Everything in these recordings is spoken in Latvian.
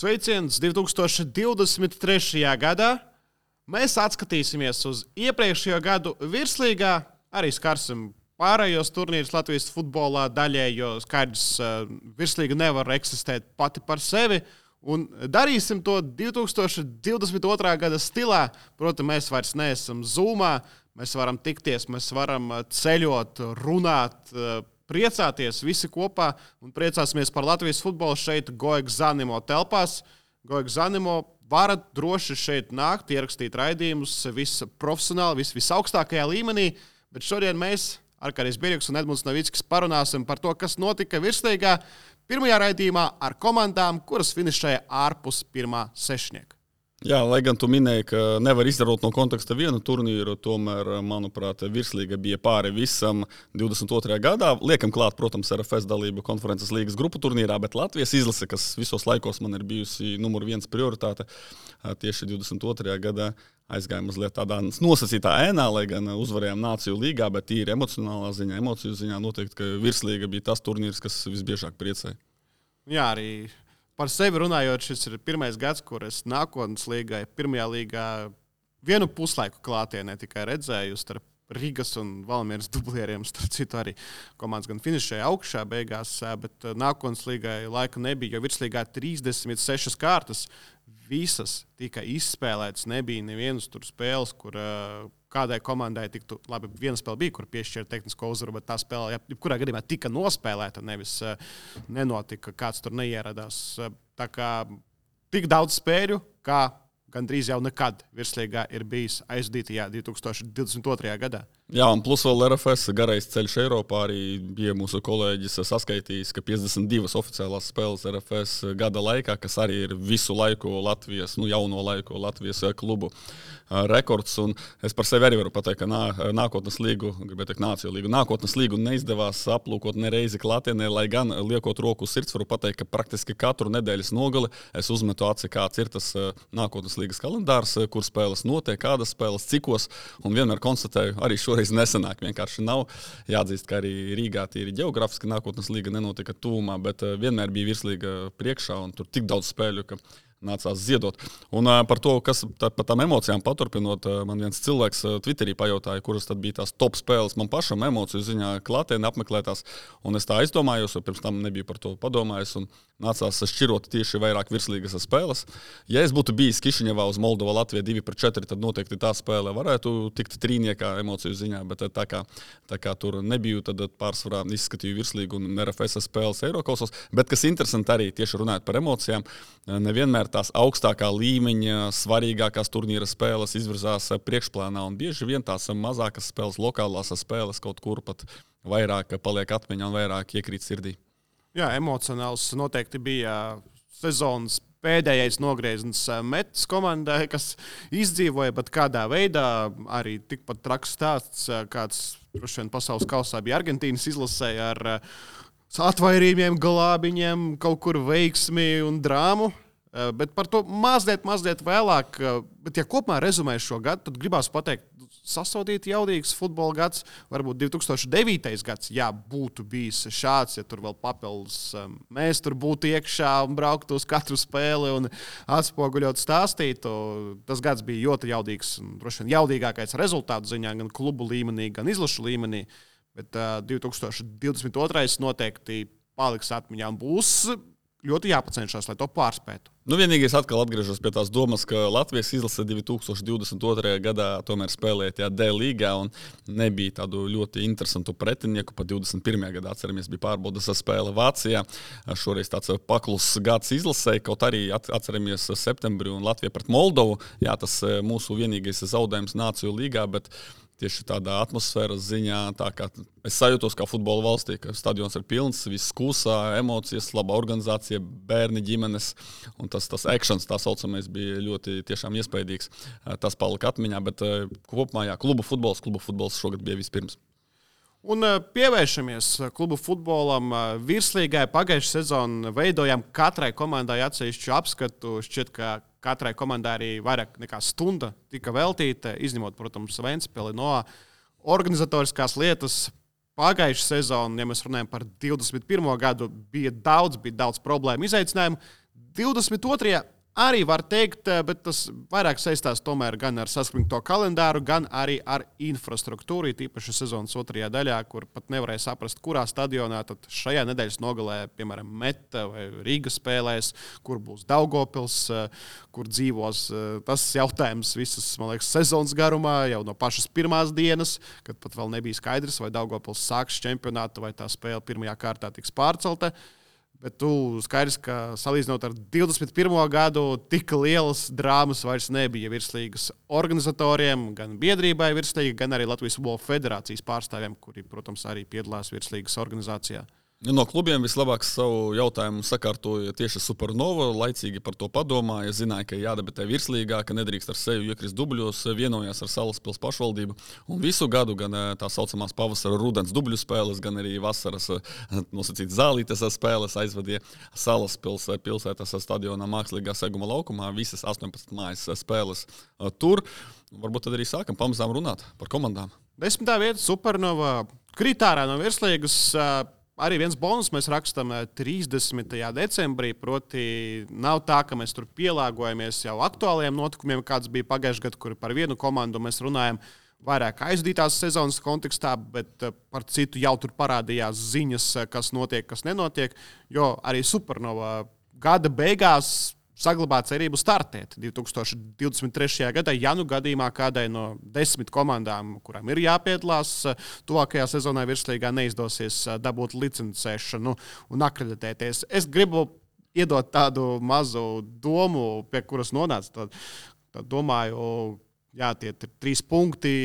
Sveiciens 2023. gadā. Mēs atskatīsimies uz iepriekšējo gadu virslīgā, arī skarsim pārējos turnīrus Latvijas futbolā daļēji, jo skaidrs, virslīga nevar eksistēt pati par sevi. Un darīsim to 2022. gada stilā. Protams, mēs vairs neesam Zoomā, mēs varam tikties, mēs varam ceļot, runāt, priecāties visi kopā un priecāsimies par Latvijas futbolu šeit Goeg Zanimo telpās. Goeg Zanimo varat droši šeit nākt, ierakstīt raidījumus, viss profesionāli, visaugstākajā līmenī, bet šodien mēs, Arkādijs Birjuks un Edmunds Novickis, parunāsim par to, kas notika virslīgā pirmajā raidījumā ar komandām, kuras finišēja ārpus pirmā sešnieka. Jā, lai gan tu minēji, ka nevar izdarot no konteksta vienu turnīru, tomēr, manuprāt, virslīga bija pāri visam 22. gadā. Liekam klāt, protams, RFS dalību konferences līgas grupu turnīrā, bet Latvijas izlase, kas visos laikos man ir bijusi numur 1 prioritāte, tieši 22. gadā aizgāja mazliet tādā nosacītā ēnā, lai gan uzvarējām Nāciju līgā, bet tīri emocionālā ziņā, emociju ziņā noteikti, ka virslīga bija tas turnīrs, kas visbiežāk priecēja. Jā, arī par sevi runājot, šis ir pirmais gads, kur es nākotnes līgai, pirmajā līgā vienu puslaiku klātienē tikai redzēju starp Rīgas un Valmieras dublieriem. Starp citu arī komandas gan finišēja augšā beigās, bet nākotnes līgai laika nebija, jo virslīgā 36 kārtas visas tika izspēlētas. Nebija nevienas tur spēles, kur kādai komandai tiktu, labi, viena spēle bija, kur piešķēra tehnisko uzvaru, bet tā spēle, jebkurā gadījumā tika nospēlēta, nevis nenotika, kāds tur neieradās. Tā kā tik daudz spēļu, kā gandrīz jau nekad virslīgā ir bijis aizdītajā 2022. gadā. Jā, un plus vēl RFS garais ceļš Eiropā arī bija mūsu kolēģis saskaitījis, ka 52 oficiālās spēles RFS gada laikā, kas arī ir visu laiku Latvijas, jauno laiku Latvijas klubu rekords. Un es par sevi arī varu pateikt, ka nākotnes līgu, gribētu teikt Nāciju līgu, nākotnes līgu neizdevās aplūkot nereizi klātienē, lai gan liekot roku uz sirds, varu pateikt, ka praktiski katru nedēļas nogali es uzmetu aci, kāds ir tas nākotnes līgas kalendārs, kur spēles notiek, kādas spēles, cikos, un vienmēr konstatēju, arī šoreiz nesanāk, vienkārši nav. Jāatzīst, ka arī Rīgā tīri ģeogrāfiski nākotnes līga nenotika tuvumā, bet vienmēr bija virslīga priekšā, un tur tik daudz spēļu, ka nācās ziedot. Un par to, kas par tām emocijām paturpinot, man viens cilvēks Twitterī pajautāja, kuras tad bija tās top spēles man pašam emociju ziņā klātienē apmeklētās, un es tā aizdomājos, jo pirms tam nebiju par to padomājis, un nācās šķirot tieši vairāk virslīgas spēles. Ja es būtu bijis Kišiņevā uz Moldova Latvija 2-4, tad noteikti tā spēle varētu tikt trīniekā emociju ziņā, bet tā kā tur nebiju, tad pārsvarā izskatīju virslīgu un RFS spēles Eirokausos, bet kas interesanti arī tieši runājot par emocijām, nevienmēr tās augstākā līmeņa, svarīgākās turnīra spēles izvirzās priekšplānā, un bieži vien tās mazākas spēles, lokālās spēles kaut kur pat vairāk paliek atmiņā un vairāk iekrīt sirdī. Jā, emocionāls noteikti bija sezonas pēdējais nogrieziens metas komandai, kas izdzīvoja, bet kādā veidā arī tikpat traks stāsts, kāds droši vien pasaules kausā bija Argentīnas izlasē ar atvairījumiem, glābiņiem, kaut kur veiksmi un drāmu. Bet par to mazliet vēlāk. Bet, ja kopumā rezumē šo gadu, tad gribās pateikt, sasaudīt jaudīgs futbola gads. Varbūt 2009. gads, jā, būtu bijis šāds, ja tur vēl papildus mēs tur būtu iekšā un brauktu uz katru spēli un atspoguļot stāstītu. Tas gads bija ļoti jaudīgs un droši vien jaudīgākais rezultātu ziņā gan klubu līmenī, gan izlašu līmenī. Bet 2022. noteikti paliks atmiņā un būs ļoti jāpacenšas, lai to pārspētu. Vienīgais atkal atgriežos pie tās domas, ka Latvijas izlase 2022. gadā tomēr spēlēja tajā D līgā un nebija tādu ļoti interesantu pretinieku. Pa 21. gadā, atceramies, bija pārbaudas spēle Vācijā. Šoreiz tāds pakluss gads izlasēja, kaut arī atceramies septembri un Latvija pret Moldovu. Jā, tas mūsu vienīgais zaudējums Nāciju līgā, bet tieši tādā atmosfēras ziņā, tā kā es sajūtos kā futbola valstī, ka stadions ir pilns, viss kūsā, emocijas, laba organizācija, bērni, ģimenes, un tas actions, tā saucamais, bija ļoti tiešām iespaidīgs. Tas palika atmiņā, bet kopumā, jā, klubu futbols šogad bija vispirms. Un pievēršamies klubu futbolam. Virslīgai pagājušā sezonu veidojām katrai komandai atsevišķu apskatu. Šķiet, ka katrai komandai arī vairāk nekā stunda tika veltīta, izņemot, protams, Ventspili no organizatoriskās lietas. Pagājušā sezona, ja mēs runājam par 21. gadu, bija daudz problēmu izaicinājumu. 22. arī var teikt, bet tas vairāk saistās tomēr gan ar saspringto kalendāru, gan arī ar infrastruktūru, tīpaši sezonas otrajā daļā, kur pat nevarēja saprast, kurā stadionā tad šajā nedēļas nogalē, piemēram, Meta vai Rīga spēlēs, kur būs Daugavpils, kur dzīvos. Tas jautājums visas, man liekas, sezonas garumā, jau no pašas pirmās dienas, kad pat vēl nebija skaidrs, vai Daugavpils sāks čempionātu, vai tā spēle pirmajā kārtā tiks pārcelta. Bet tu skaidrs, ka salīdzinot ar 21. gadu, tik lielas drāmas vairs nebija virslīgas organizatoriem, gan biedrībai virslīga, gan arī Latvijas Futbola Federācijas pārstāvjiem, kuri, protams, arī piedalās virslīgas organizācijā. No klubiem vislabāk savu jautājumu sakārtoja tieši Supernova. Laicīgi par to padomāja, zināja, ka jādebitē virslīgā, ka nedrīkst ar sevi iekrist dubļos, vienojās ar Salaspils pašvaldību. Un visu gadu gan tā saucamās pavasara rudens dubļu spēles, gan arī vasaras nosacīt zālītes spēles aizvadīja Salaspils pilsētas stadionā mākslīgā seguma laukumā. Visas 18 mājas spēles tur. Varbūt tad arī sākam pamazām runāt par komandām. 10. vieta Supernova kritārā no virslīgas. Arī viens bonus mēs rakstām 30. decembrī, proti nav tā, ka mēs tur pielāgojamies jau aktuālajiem notikumiem, kāds bija pagājušajā gadā, kur par vienu komandu mēs runājam vairāk aizdītās sezonas kontekstā, bet par citu jau tur parādījās ziņas, kas notiek, kas nenotiek, jo arī Supernova gada beigās saglabā cerību startēt 2023. gadā, ja nu gadījumā kādai no 10 komandām, kurām ir jāpiedalās tuvākajā sezonā virslīgā, neizdosies dabūt licencēšanu un akreditēties. Es gribu iedot tādu mazu domu, pie kuras nonāca. Tad domāju, jā, tie ir 3 punkti,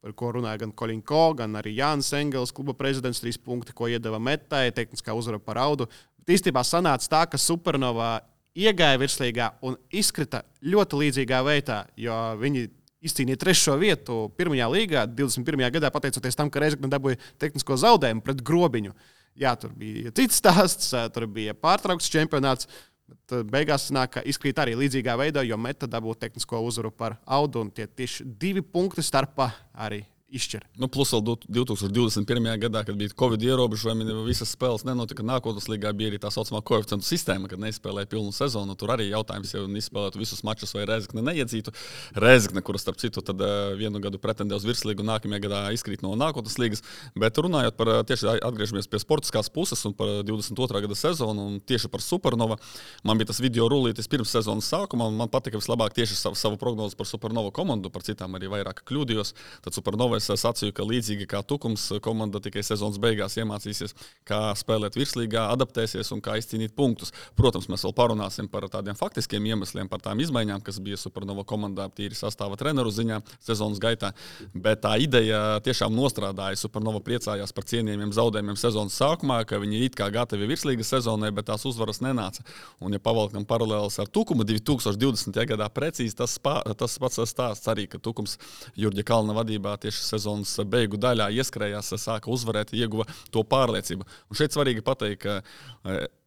par ko runāja gan Koļinko, gan arī Jānis Engels, kluba prezidents, 3 punkti, ko iedeva Metai, tehniskā uzvara par Audu. Bet īstenībā sanāca tā, ka Supernova iegāja virslīgā un izkrita ļoti līdzīgā veidā, jo viņi izcīnīja 3. vietu pirmajā līgā 21. gadā, pateicoties tam, ka Reizekne dabūja tehnisko zaudējumu pret Grobiņu. Jā, tur bija cits stāsts, tur bija pārtraukts čempionāts, bet beigās sanāk, ka izkrīt arī līdzīgā veidā, jo Meta dabūja tehnisko uzvaru par Audu, un tie tieši 2 punkti starpā arī izšķir. Plus vēl 2021. gadā, kad bija Covid ierobežojumi, visas spēles nenotika. Nākotnes līgā bija arī tā saucamā koeficientu sistēma, kad neizspēlēja pilnu sezonu. Tur arī jautājums, ja izspēlētu visus mačus vai Reizekne neiedzītu. Reizekne, kura starp citu tad vienu gadu pretendē uz virslīgu, nākamajā gadā izkrīt no nākotnes līgas. Bet runājot par tieši atgriežamies pie sportiskās puses un par 22. gada sezonu un tieši par Supernova, man bija tas video rullītis pirms sezonas sākuma, un man patika vislabāk tieši savu prognozi par Supernova komandu, par citām arī vairāk kļūdījos. Tad Supernova es sacīju, ka līdzīgi kā Tukums, komanda tikai sezonas beigās iemācīsies, kā spēlēt virslīgā, adaptēsies un kā izcīnīt punktus. Protams, mēs vēl parunāsim par tādiem faktiskiem iemesliem, par tām izmaiņām, kas bija Supernova komandā tīri sastāva treneru ziņā sezonas gaitā, bet tā ideja tiešām nostrādāja. Supernova priecājās par cienījumiem zaudējumiem sezonas sākumā, ka viņi it kā gatavi virslīgas sezonai, bet tās uzvaras nenāca. Un ja pavalkam paralēlis ar Tukumu 2020. gadā precīzi tas pats stāsts arī, ka Tukums Jurģa Kalna vadībā tieši sezonas beigu daļā ieskrējās, sāka uzvarēt, ieguva to pārliecību. Un šeit svarīgi pateikt, ka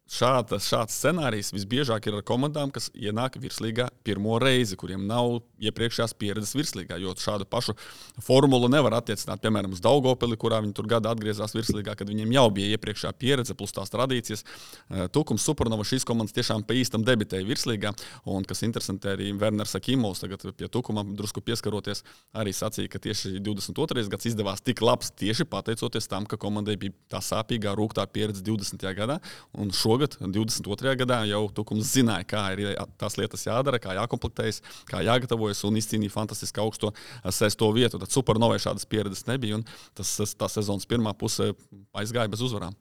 šāds scenārijs visbiežāk ir ar komandām, kas ienāk virslīgā pirmo reizi, kuriem nav iepriekšējās pieredzes virslīgā, jo šādu pašu formulu nevar attiecināt, piemēram, uz Daugavpili, kurā viņi tur gada atgriezās virslīgā, kad viņiem jau bija iepriekšējā pieredze plus tās tradīcijas. Tukums, Supernova, šīs komandas tiešām pa īstam debitēja virslīgā, un kas interesanti arī Werners Akimovs, tagad pie Tukuma drusku pieskaroties, arī sacīja, ka tieši 22. gads izdevās tik labs tieši pateicoties tam, ka komandai bija tā sāpīgā, rūgtā pieredze 20. gadā, un šogad, 22. gadā, jau Tukums zināja, kā ir tās lietas jādara, kā jākomplektējas, kā jāgatavojas un izcīnīja fantastiski augsto 6. vietu. Tad Supernovai šādas pieredzes nebija, un tā sezonas pirmā puse aizgāja bez uzvarām.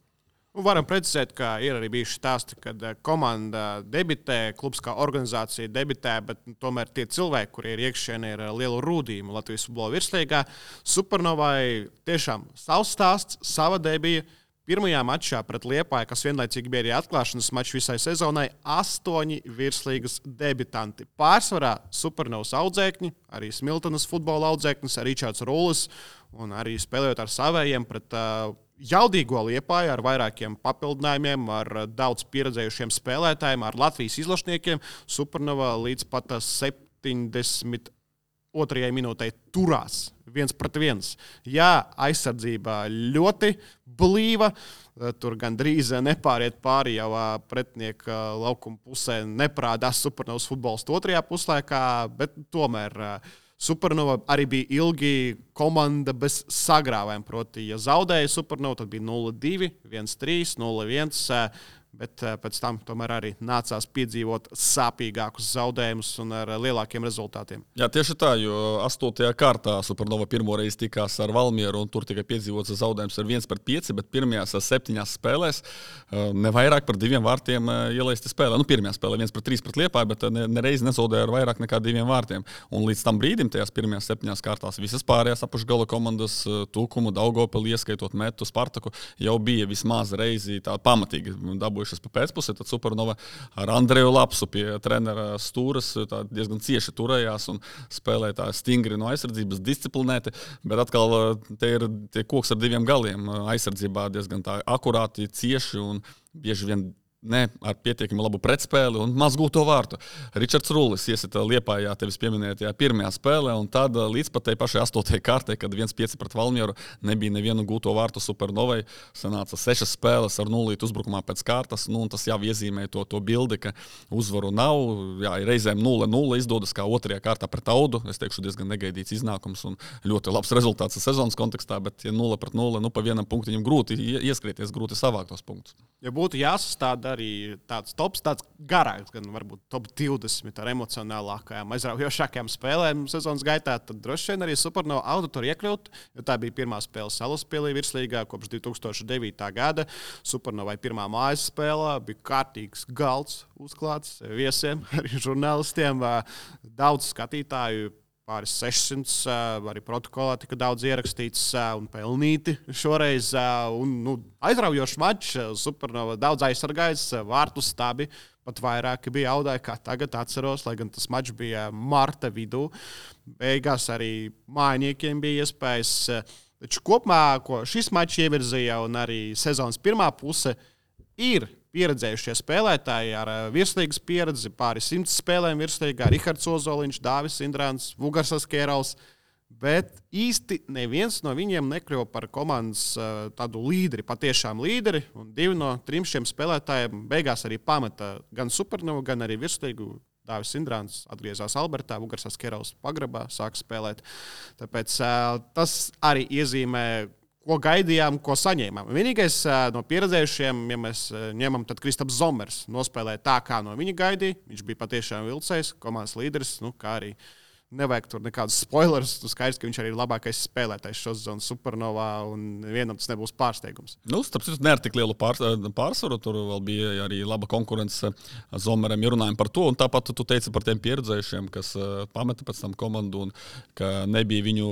Varam precizēt, ka ir arī bijuši stāsti, kad komanda debitē, klubs kā organizācija debitē, bet tomēr tie cilvēki, kuri ir iekšienē, ir lielu rūdījumu Latvijas futbola virslīgā. Supernovai tiešām savs stāsts, sava debija. Pirmajā mačā pret Liepāju, kas vienlaicīgi bija arī atklāšanas mačs visai sezonai, 8 virslīgas debitanti. Pārsvarā Supernovas audzēkņi, arī Smiltenes futbola audzēknis, Ričards Rūlis un arī spēlējot ar savējiem pret jaudīgo Liepāju ar vairākiem papildinājumiem, ar daudz pieredzējušiem spēlētājiem, ar Latvijas izlašniekiem. Supernova līdz pat 72. minūtei turās 1-1. Jā, aizsardzībā ļoti blīva. Tur gandrīz nepāriet pāri jau pretinieka laukuma pusē. Neprādās Supernovas futbolists otrajā puslaikā, bet tomēr Supernova arī bija ilgi komanda bez sagrāvēm. Proti, ja zaudēja Supernova, tad bija 0-2, 1-3, 0-1. Bet pēc tam tomēr arī nācās piedzīvot sāpīgākus zaudējumus un ar lielākiem rezultātiem. Jā, tieši tā, jo 8. kārtā Supernova pirmoreiz tikās ar Valmieru, un tur tikai piedzīvots zaudējums ar 1-5, bet pirmajās 7 spēlēs ne vairāk par 2 vārtiem ielaisti spēlē. Nu, pirmajā spēlē 1-3 pret Liepāju, bet nereiz nezaudēja ar vairāk nekā 2 vārtiem. Un līdz tam brīdim, tajās pirmajās 7 kārtās, visas pārējās apakšgala komandas, Tukumu, Daugavpili, ieskaitot Metu, Spartaku, jau bija vismaz reizi tā pamatīgi dabūjušas pa pēcpusē, tad Supernova ar Andreju Lapsu pie trenera stūras diezgan cieši turējās un spēlēja tā stingri no aizsardzības, disciplinēti, bet atkal te ir tie koks ar 2 galiem. Aizsardzībā diezgan tā akurāti, cieši un bieži vien ne ar pietiekami labu pretspēli un maz gūto vārtu. Ričards Rullis iesita Liepājā tevis pieminētajā pirmajā spēlē, un tad līdz pat tai pašai 8. kārtai, kad 1-5 pret Valmieru nebija nevienu gūto vārtu Supernovai, sanāca 6 spēles ar 0 uzbrukumā pēc kārtas, nu, un tas jau iezīmē to bildi, ka uzvaru nav, jā, reizēm 0-0 izdodas kā 2. kārtā pret Audu, es teikšu diezgan negaidīts iznākums un ļoti labs rezultāts sezonas kontekstā, bet ja 0-0, nu pa vienam punktiņam grūti ieskrieties, grūti savākt tos punktus. Ja būtu jāsastāda arī tāds tops, tāds garāks, gan varbūt top 20 ar emocionālākajām, aizraujošākajām spēlēm sezonas gaitā, tad droši vien arī Supernova Auda tur iekļūt, jo tā bija pirmā spēle Salaspilī virslīgā kopš 2009. gada. Supernovai pirmā mājas spēlē bija kārtīgs galds uzklāts viesiem, arī žurnālistiem, daudz skatītāju. Pāris 600, arī protokolā tika daudz ierakstīts un pelnīti šoreiz. Aizraujošs mačs, Supernova daudz aizsargājis, vārtu stabi pat vairāki bija Audai, kā tagad atceros, lai gan tas mačs bija marta vidū. Beigās arī mājiniekiem bija iespējas. Taču kopumā, ko šis mačs ievirzīja un arī sezonas pirmā puse, ir pieredzējušie spēlētāji ar virslīgas pieredzi, pāri 100 spēlēm virslīgā, Rihards Ozoliņš, Dāvis Indrāns, Vugarsas Kērals, bet īsti neviens no viņiem nekļuva par komandas tādu līderi, patiešām līderi, un 2 no 3 šiem spēlētājiem beigās arī pameta gan Supernovu, gan arī virslīgu. Dāvis Indrāns atgriezās Albertā, Vugarsas Kērals pagrabā sāka spēlēt. Tāpēc tas arī iezīmē, ko gaidījām, ko saņēmām. Vienīgais no pieredzējušiem, ja mēs ņemam, tad Kristaps Zomers nospēlēja tā, kā no viņa gaidīja. Viņš bija patiešām vilcējs, komandas līderis, kā arī nevajag tur nekādus spoilerus. Tu skaidrs, ka viņš arī ir labākais spēlētājs šo sezonu Supernovā, un vienam tas nebūs pārsteigums. Starp citu, ne ar tik lielu pārsvaru. Tur vēl bija arī laba konkurence Zomeram, ja runājam par to. Un tāpat tu teici par tiem pieredzējušiem, kas pameta pēc tam komandu un ka nebija viņu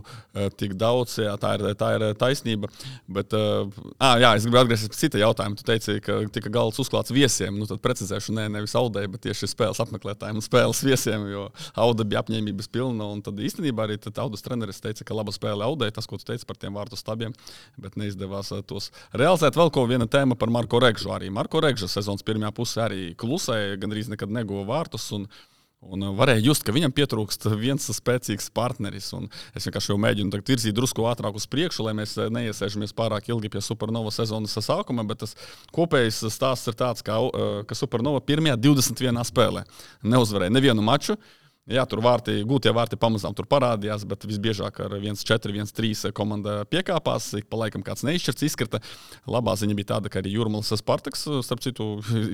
tik daudz. Jā, tā ir taisnība. Bet, es gribu atgriezties pie cita jautājuma. Tu teici, ka tika galds uzklāts viesiem. Tad precizēšu, nevis Audai, bet tieši spēles apmeklētājiem un spēles viesiem, jo Auda bija apņēmības pilna. Un tad īstenībā arī Audas treneris teica, ka laba spēle Audai, tas, ko tu teici par tiem vārtu stabiem, bet neizdevās tos realizēt. Vēl viena tēma par Marko Regžu. Arī Marko Regža sezonas pirmajā pusē arī klusēja, gandrīz nekad neguva vārtus. Un varēja just, ka viņam pietrūkst viens spēcīgs partneris. Un es vienkārši jau mēģinu virzīt drusku ātrāk uz priekšu, lai mēs neiesēžamies pārāk ilgi pie Supernova sezonas sākuma, bet tas kopējais stāsts ir tāds, ka Supernova pirmajā 21 spēlē neuzvarēja nevienu maču. Jā, tur gūtie vārti pamazām tur parādījās, bet visbiežāk ar 1-4, 1-3 komanda piekāpās, ik pa laikam kāds neizšķirts izkrita. Labā ziņa bija tāda, ka arī Jūrmalas Spartaks, starp citu,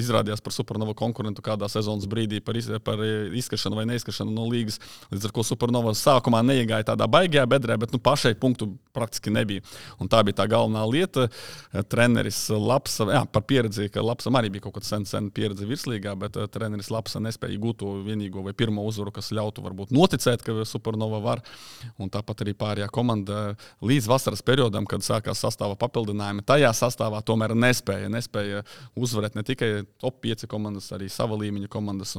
izrādījās par Supernova konkurentu kādā sezonas brīdī par izskrišanu vai neizskrišanu no līgas. Līdz ar ko Supernova sākumā neiegāja tādā baigajā bedrē, bet pašai punktu praktiski nebija. Un tā bija tā galvenā lieta. Treneris Lapsa, par pieredzi, ka Lapsam arī bija kaut kāda sen pieredze virslīgā, bet treneris Lapsa nespēja gūt to vienīgo vai pirmo uzvaru, kas ļautu varbūt noticēt, ka Supernova var. Un tāpat arī pārējā komanda līdz vasaras periodam, kad sākās sastāva papildinājumi, tajā sastāvā tomēr nespēja uzvarēt ne tikai top 5 komandas, arī sava līmeņa komandas.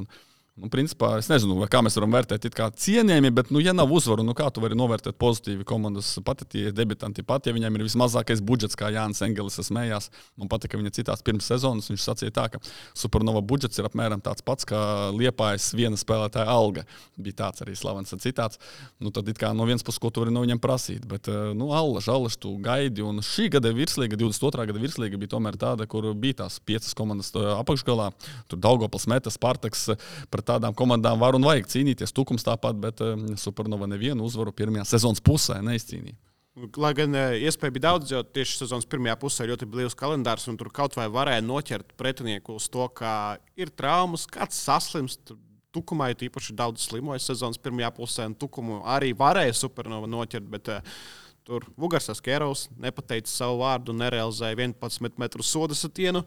Principā, es nezinu, kā mēs varam vērtēt it kā cienījami, bet, ja nav uzvaru, kā tu vari novērtēt pozitīvi komandas pat, ja debitanti pat, ja viņam ir vismazākais budžets, kā Jānis Engelis smējās. Man patika viņa citās pirms sezonas, viņš sacīja tā, ka Supernova budžets ir apmēram tāds pats, kā Liepājas viena spēlētāja alga. Bija tāds arī slavens citāts. Tad it kā no vienas puses, ko tu vari no viņam prasīt, bet, allaž, tu gaidi, un šī gada virslīga, 22. gada virslīga bija tomēr tāda, kur bija tās 5 komandas apakšgalā. Tur Daugavpils, Meta, Spartaks, pret tādām komandām var un vajag cīnīties. Tukums tāpat, bet Supernova nevienu uzvaru pirmajā sezonas pusē neizcīnīja. Lai gan iespēja bija daudz, jo tieši sezonas pirmajā pusē ļoti blīvs kalendārs, un tur kaut vai varēja noķert pretinieku uz to, ka ir traumas, kāds saslimst. Tukumā ir īpaši daudz slimoja sezonas pirmajā pusē, un Tukumu arī varēja Supernova noķert, bet tur Vugarsas Kērovs nepateica savu vārdu un nerealizēja 11 metru soda satienu.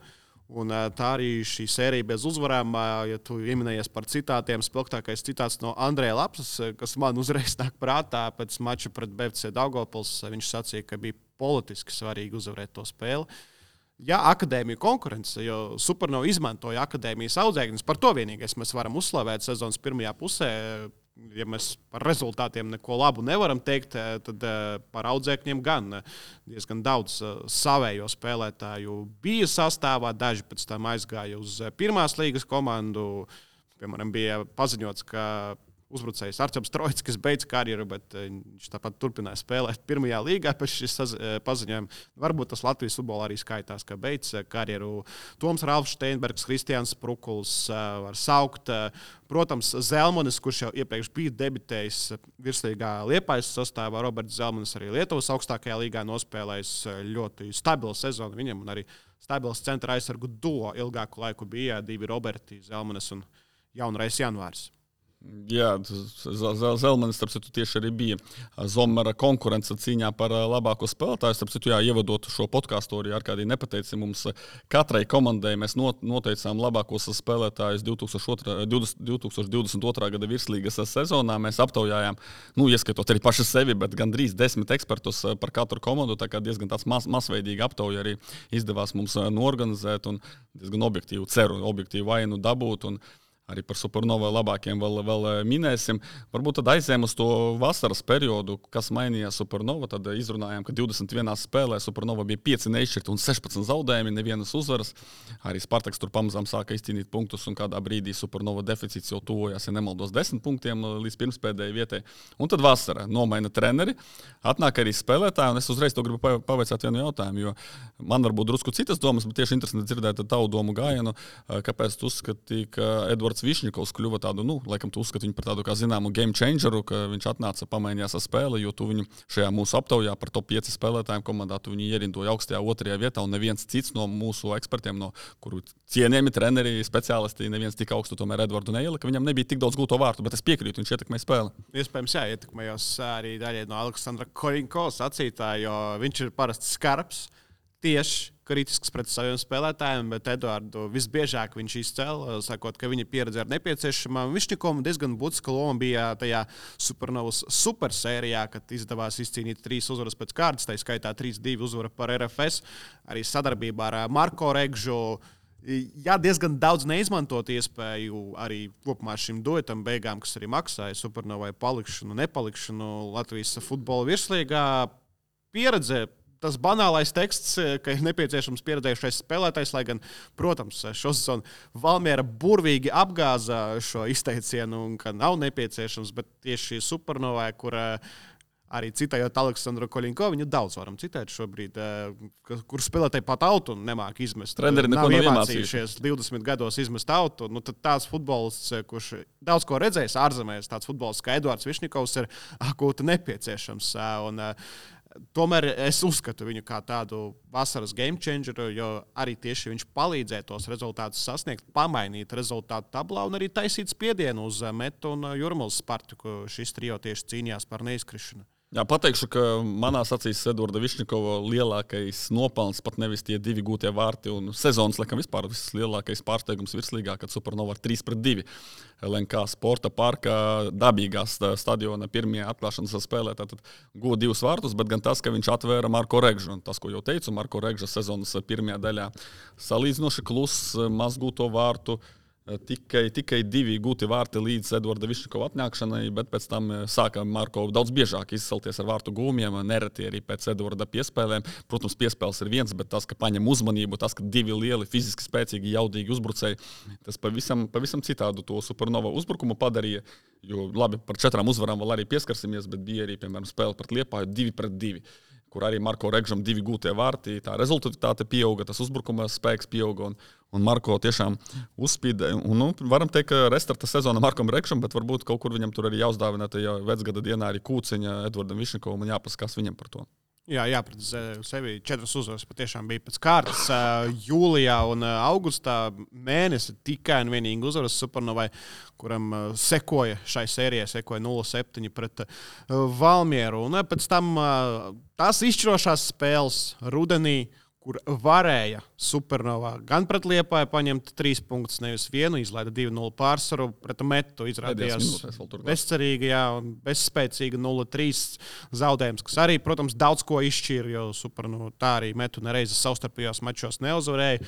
Un tā arī šī sērija bez uzvarām, ja tu ieminējies par citātiem, spilgtākais citāts no Andreja Lapsas, kas man uzreiz nāk prātā pēc mača pret BFC Daugavpils. Viņš sacīja, ka bija politiski svarīgi uzvarēt to spēli. Ja akadēmija konkurence, jo Supernova izmantoja akadēmijas audzēkņus, par to vienīgais mēs varam uzslavēt sezonas pirmajā pusē. Ja mēs par rezultātiem neko labu nevaram teikt, tad par audzēkņiem gan diezgan daudz savējo spēlētāju bija sastāvā. Daži pēc tam aizgāja uz pirmās līgas komandu. Piemēram, bija paziņots, ka uzbrucējs Arčuns Trojskis beidz karjeru, bet viņš tāpat turpināja spēlēt pirmajā līgā pēc šīs paziņojuma. Varbūt tas Latvijas futbolā arī skaitās, ka beidz karjeru. Toms Ralfs Steinbergs, Kristians Prukuls var saukt. Protams, Zelmanis, kurš jau iepriekš bija debitējis virslīgā Liepājas sastāvā, Roberts Zelmanis arī Lietuvas augstākajā līgā nospēlējis ļoti stabilu sezonu viņam, un arī stabils centra aizsargu duo ilgāku laiku bija 2 Roberti, Zelmanis un jaunrais Janvārs. Jā, Zelmanis, starp citu, tieši arī bija Zomera konkurence cīņā par labāko spēlētāju. Starp citu, ievadot šo podkāstu, arī Arkādija nepateica, mums katrai komandai mēs noteicām labākos spēlētājus 2022. gada virslīgas sezonā. Mēs aptaujājām, ieskatot arī paši sevi, bet gandrīz 10 ekspertus par katru komandu. Tā kā diezgan tāds masveidīgi aptauja arī izdevās mums norganizēt un diezgan objektīvu vainu dabūt. Un arī par Supernovu labākiem vēl minēsim. Varbūt tad aizējām uz to vasaras periodu, kas mainījās Supernova. Tad izrunājām, ka 21 spēlē Supernova bija 5 neizšķirti un 16 zaudējumi, nevienas uzvaras. Arī Spartaks tur pamazām sāka izcīnīt punktus, un kādā brīdī Supernova deficīts jau tuvojās, ja nemaldos, 10 punktiem līdz pirmspēdējai vietai. Un tad vasara nomaina treneri, atnāk arī spēlētāji, un es uzreiz to gribu pavaicāt vienu jautājumu, jo man varbūt drusku citas domas, bet tieši interesanti dzirdēt tavu domu gājienu, kāpēc tu uzskatīji, ka Edvards Višņikovs kļuva tādu, laikam tu uzskati viņu par tādu kā zināmu game changeru, ka viņš atnāca pamainījās ar spēli, jo tu viņu šajā mūsu aptaujā par top 5 spēlētājiem komandā tu viņu ierindoja augstajā 2. vietā, un neviens cits no mūsu ekspertiem, no kuru cienījami treneri, speciālisti, neviens tik augstu tomēr Edvardu neielika, viņam nebija tik daudz gūto vārtu, bet es piekrītu, viņš ietekmēja spēli. Iespējams, ietekmējos arī daļai no Aleksandra Koļinko sacītā, jo viņš ir parasti skarbs, tieši kritisks pret saviem spēlētājiem, bet Eduardu visbiežāk viņš izcēla, sakot, ka viņa pieredze ir nepieciešama. Višņikovam diezgan būtiska loma bija tajā Supernovas supersērijā, kad izdevās izcīnīt 3 uzvaras pēc kārtas, tā skaitā 3-2 uzvara par RFS, arī sadarbībā ar Marko Regžu. Jā, diezgan daudz neizmantot iespēju arī kopumā šim duetam beigām, kas arī maksāja Supernovai palikšanu, nepalikšanu Latvijas futbola virslīgā. Pieredze, tas banālais teksts, ka ir nepieciešams pieredzējušais spēlētājs, lai gan, protams, šo sezonu Valmiera burvīgi apgāza šo izteicienu un ka nav nepieciešams, bet tieši Supernovai, kur arī citējot Aleksandru Koļinko, viņu daudz varam citēt šobrīd, kur spēlētāji pat autu nemāk izmest. Treneri neko nav iemācījušies 20 gados izmest autu. Tad tāds futbolists, kurš daudz ko redzējis ārzemēs, tāds futbolists kā Eduards Višņikovs ir akūti nepieciešams. Tomēr es uzskatu viņu kā tādu vasaras game changeru, jo arī tieši viņš palīdzēja tos rezultātus sasniegt, pamainīt rezultātu tablā un arī taisīt spiedienu uz Metu un Jurmālas Spartaku. Šis trio tieši cīnījās par neizkrišanu. Jā, pateikšu, ka manās acīs Edvarda Višņikova lielākais nopelns pat nevis tie 2 gūtie vārti un sezonas, laikam, vispār vislielākais pārsteigums virslīgā, kad Supernova ar 3-2 LNK sporta parkā dabīgās stadiona pirmajā atklāšanas spēlē. Tātad guva 2 vārtus, bet gan tas, ka viņš atvēra Marko Regžu. Un tas, ko jau teicu, Marko Regža sezonas pirmajā daļā salīdzinoši kluss, maz gūto vārtu. Tikai 2 gūti vārti līdz Eduarda Višņikova atnākšanai, bet pēc tam sāka Marko daudz biežāk izcelties ar vārtu gūmiem, nereti arī pēc Eduarda piespēlēm. Protams, piespēles ir viens, bet tas, ka paņem uzmanību, tas, ka 2 lieli, fiziski spēcīgi, jaudīgi uzbrucēji, tas pavisam citādu to Supernova uzbrukumu padarīja. Jo labi, par 4 uzvarām vēl arī pieskarsimies, bet bija arī, piemēram, spēle pret Liepāju 2-2. Kur arī Marko Regžam 2 gūtie vārti, tā rezultāte pieauga, tas uzbrukuma spēks pieauga, un Marko tiešām uzspīdē. Varam teikt, ka restarta sezona Markom Regžam, bet varbūt kaut kur viņam tur arī jāuzdāvina tajā vecgada dienā arī Kūciņa Edvardam Višņikovam un jāpaskās viņam par to. Jā, pret sevi 4 uzvaras patiešām bija pēc kārtas. Jūlijā un augustā mēnesi tikai un vienīgi uzvaras Supernovai, kuram šai sērijai sekoja 0-7 pret Valmieru. Un pēc tam tās izšķirošās spēles rudenī, kur varēja Supernova gan pret Liepāju paņemt 3 punktus, nevis 1, izlaida 2-0 pārsvaru, pret Metu izrādījās bezcerīgi, un bezspēcīgi 0-3 zaudējums, kas arī, protams, daudz ko izšķīra, jo Supernova tā arī Metu nereizi savstarpējos mačos neuzvarēja.